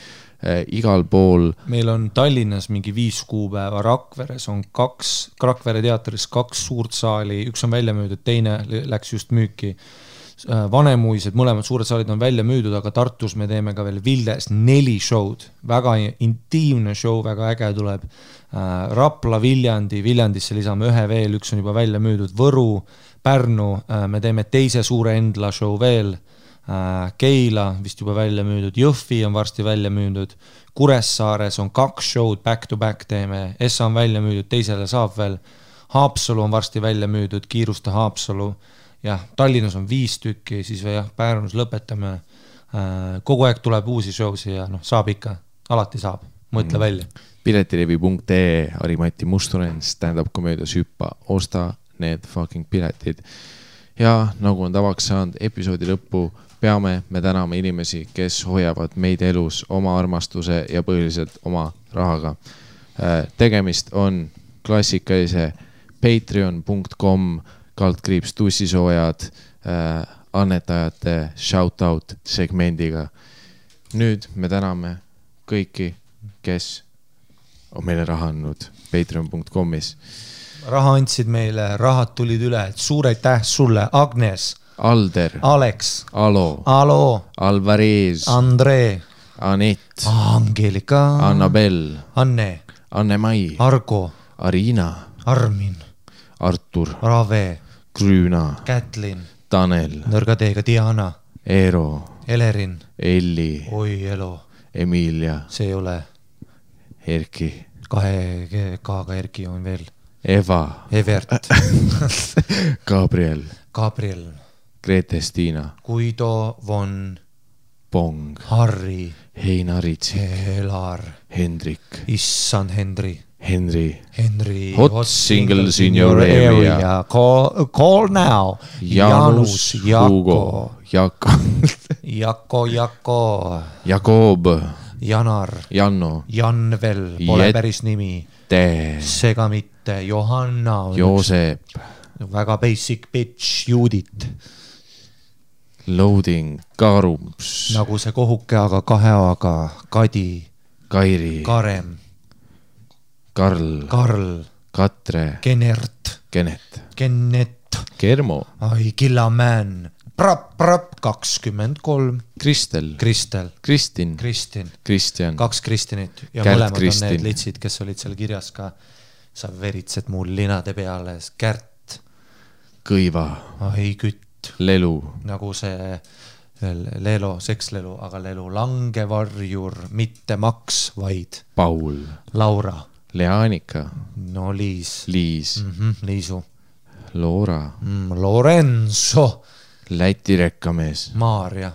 igal pool. Meil on Tallinnas mingi 5 kuupäeva, Rakveres on 2, Rakvere teatris 2 suurt saali, üks on välja müüdud, teine läks just müüki. Vanemuised, mõlemad suured saalid on välja müüdud, aga Tartus me teeme ka veel Vildes 4 show'd, väga intiimne show, väga äge tuleb. Rapla, Viljandisse lisame 1 veel, üks on juba välja müüdud, Võru, Pärnu, me teeme teise suure Endla show veel, Keila vist juba välja müüdud, Jõhvi on varsti välja müüdud, Kuressaares on 2 show'd back to back teeme, Essa on välja müüdud, teisele saab veel, Haapsalu on varsti välja müüdud, kiirusta Haapsalu, jah, Tallinnas on 5 tükki, siis Pärnus lõpetame, kogu aeg tuleb uusi show'si ja saab ikka, alati saab, mõtle välja. Piletilevi.ee, Harimati Mustonen, stand-up komöödias Hüppa, osta need fucking piletid. Ja nagu on tavaks saanud episoodi lõppu, peame me tänama inimesi, kes hoiavad meid elus oma armastuse ja põhiliselt oma rahaga. Tegemist on klassikalise patreon.com/tussisoojad annetajate shoutout segmendiga. Nüüd me täname kõiki, kes on meile raha andnud patreon.comis. Raha andsid meile, rahad tulid üle, suur aitäh sulle, Agnes, Alder, Alex, Alo, Alvarez, Andre, Anett, Angelika, Annabel, Anne, Anne-Mai, Argo, Arina, Armin, Artur, Rave, Grüüna, Kätlin, Tanel, Nõrgateega Diana, Eero, Elerin, Elli, Oi Elo, Emilia, see ei ole, Erki, 2 K-ga Erki on veel, Eva, Evert, Gabriel, Gabriel, Grete Stina, Guido von Pong, Harri, Heinaritsi, Elar, Hendrik, issand Henry, Henry, Hot singles in your area. Call now. Janus, Hugo, Jako, Jakob, Janar, Janno, Janvel, pole päris nimi. Sega mitte, Johanna, Joosep, väga basic bitch, Judit. Loading, Karums, nagu see kohuke, aga 2 A-ga, Kadi, Kairi, Karem, Karl, Katre, Kenert, Kennet, Kermo, ai, Killamän, Prap, 23, Kristel, Kristin, Kristjan, 2 Kristinit ja Kärt mõlemad Kristin. on need litsid, kes olid seal kirjas ka. Sa veritsed mul linade peale, Kärt, Kõiva, ai, Kütt, Lelu, nagu see Lelo, sekslelu, aga Lelu, Langevarjur, mitte Maks, vaid Paul, Laura, Leanika, no Liis, Liisu, Loora, Lorenzo, Läti rekkamees, Maarja,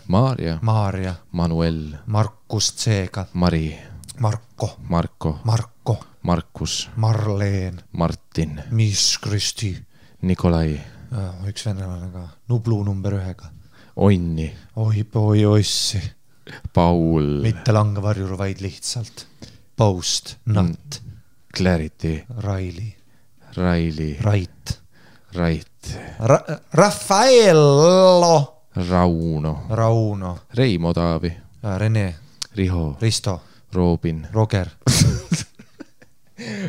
Manuel, Markus Tseega, Mari, Marko, Markus, Marleen, Martin, Miss Kristi, Nikolai, üks venelane ka, Nublu number 1-ga, Onni, oi ossi, Paul, mitte Langevarjur, vaid lihtsalt Post, Nat, Clarity, Raili, Rait, Raffaello, Rauno, Reimo Taavi, Rene, Riho, Risto, Robin, Roger,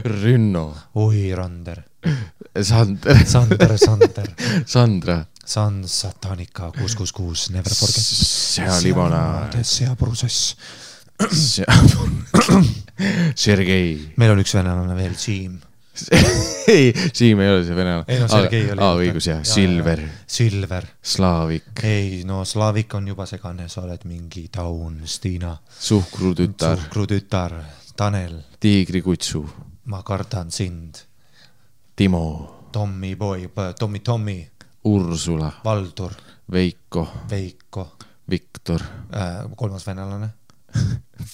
Rünno, oi Rander, Sander, Sandra, Sandra, Satanika 666, never forget. Sealimonaad, Seaprotsess. Sergei. Meil on üks venelane veel, Siim. Ei, Siim ei ole see venelane. Ei no Sergei oli. Õigus jah, Silver, Slaavik. Ei no Slaavik on juba segane, sa oled mingi Taun, Stiina. Suhkrutütar, Tanel. Tiigrikutsu. Ma kardan sind. Timo. Tommy, Ursula, Valdur, Veiko, Viktor, 3. venelane,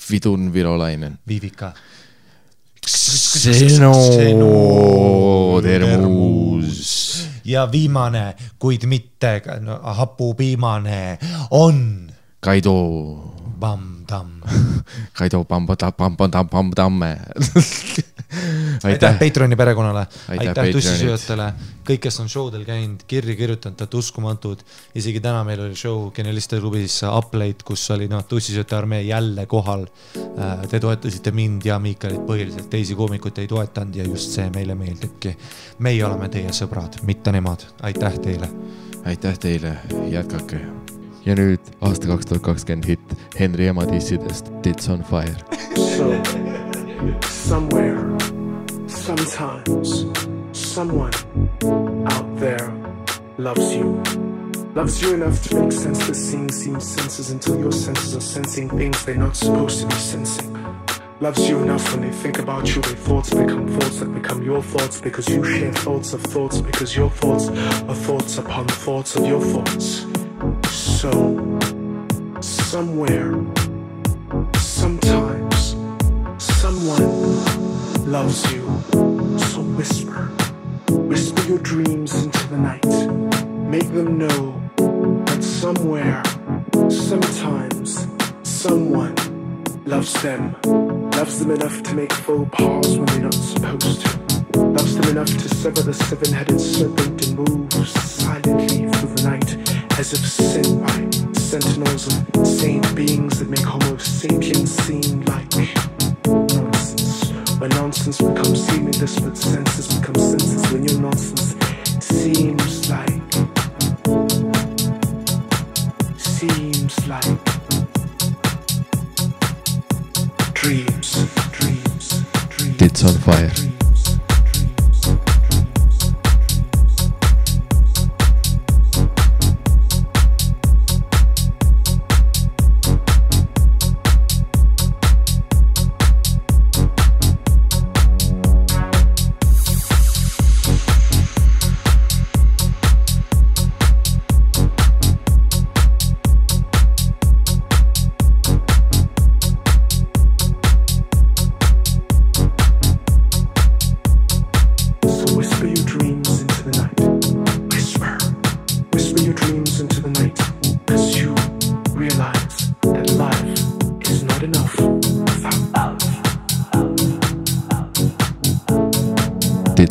Vidun Virolainen, Viivika, Termus ja viimane, kuid mitte hapupiimane on Kaido Bam-Tamm. Kaido Bam-Tamme. Aitäh Patreoni perekonnale, aitäh tussisööjatele, kõik, kes on showdel käinud, kirja kirjutanud, et uskumatud. Isegi täna meil oli show Genialiste klubis Uplate, kus oli tussisööjate armee jälle kohal. Te toetasite mind ja Miikalit põhiliselt, teisi koomikut ei toetanud ja just see meile meeldibki. Meie oleme teie sõbrad, mitte nemad. Aitäh teile. Aitäh teile, jätkake. Ja nüüd aasta 2020 hit Henri ema dissidest Tits on Fire. So, somewhere, sometimes, someone out there loves you enough to make sense that seeing seems senses until your senses are sensing things they're not supposed to be sensing. Loves you enough when they think about you, their thoughts become thoughts that become your thoughts because you share thoughts of thoughts because your thoughts are thoughts upon thoughts of your thoughts. So, somewhere, sometimes, someone loves you. So whisper your dreams into the night. Make them know that somewhere, sometimes, someone loves them enough to make faux pas when they're not supposed to. Loves them enough to sever the 7-headed serpent and move silently through the night as if sent by sentinels of saint beings that make Homo sapiens seem like nonsense. When nonsense becomes seemingly, but senses become senses when your nonsense seems like dreams. Tits on Fire.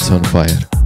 It's on fire.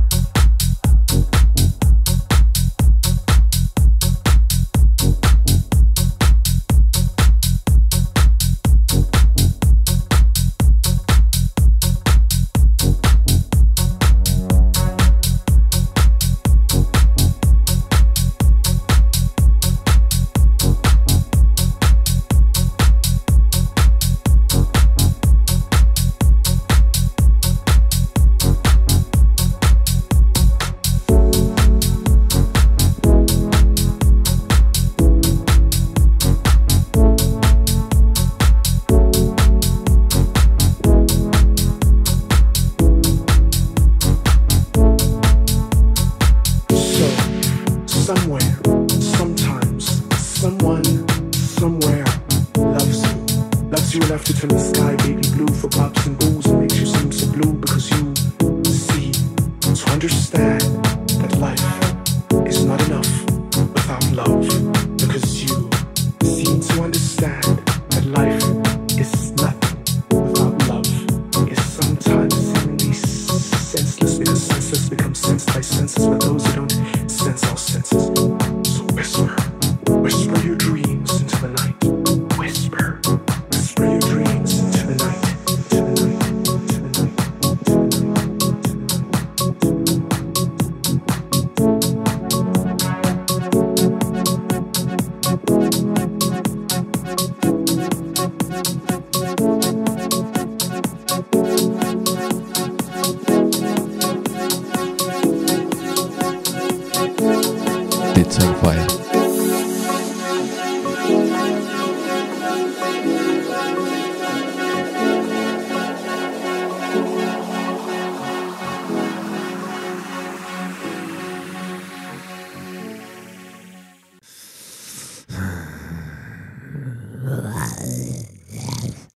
It's on fire.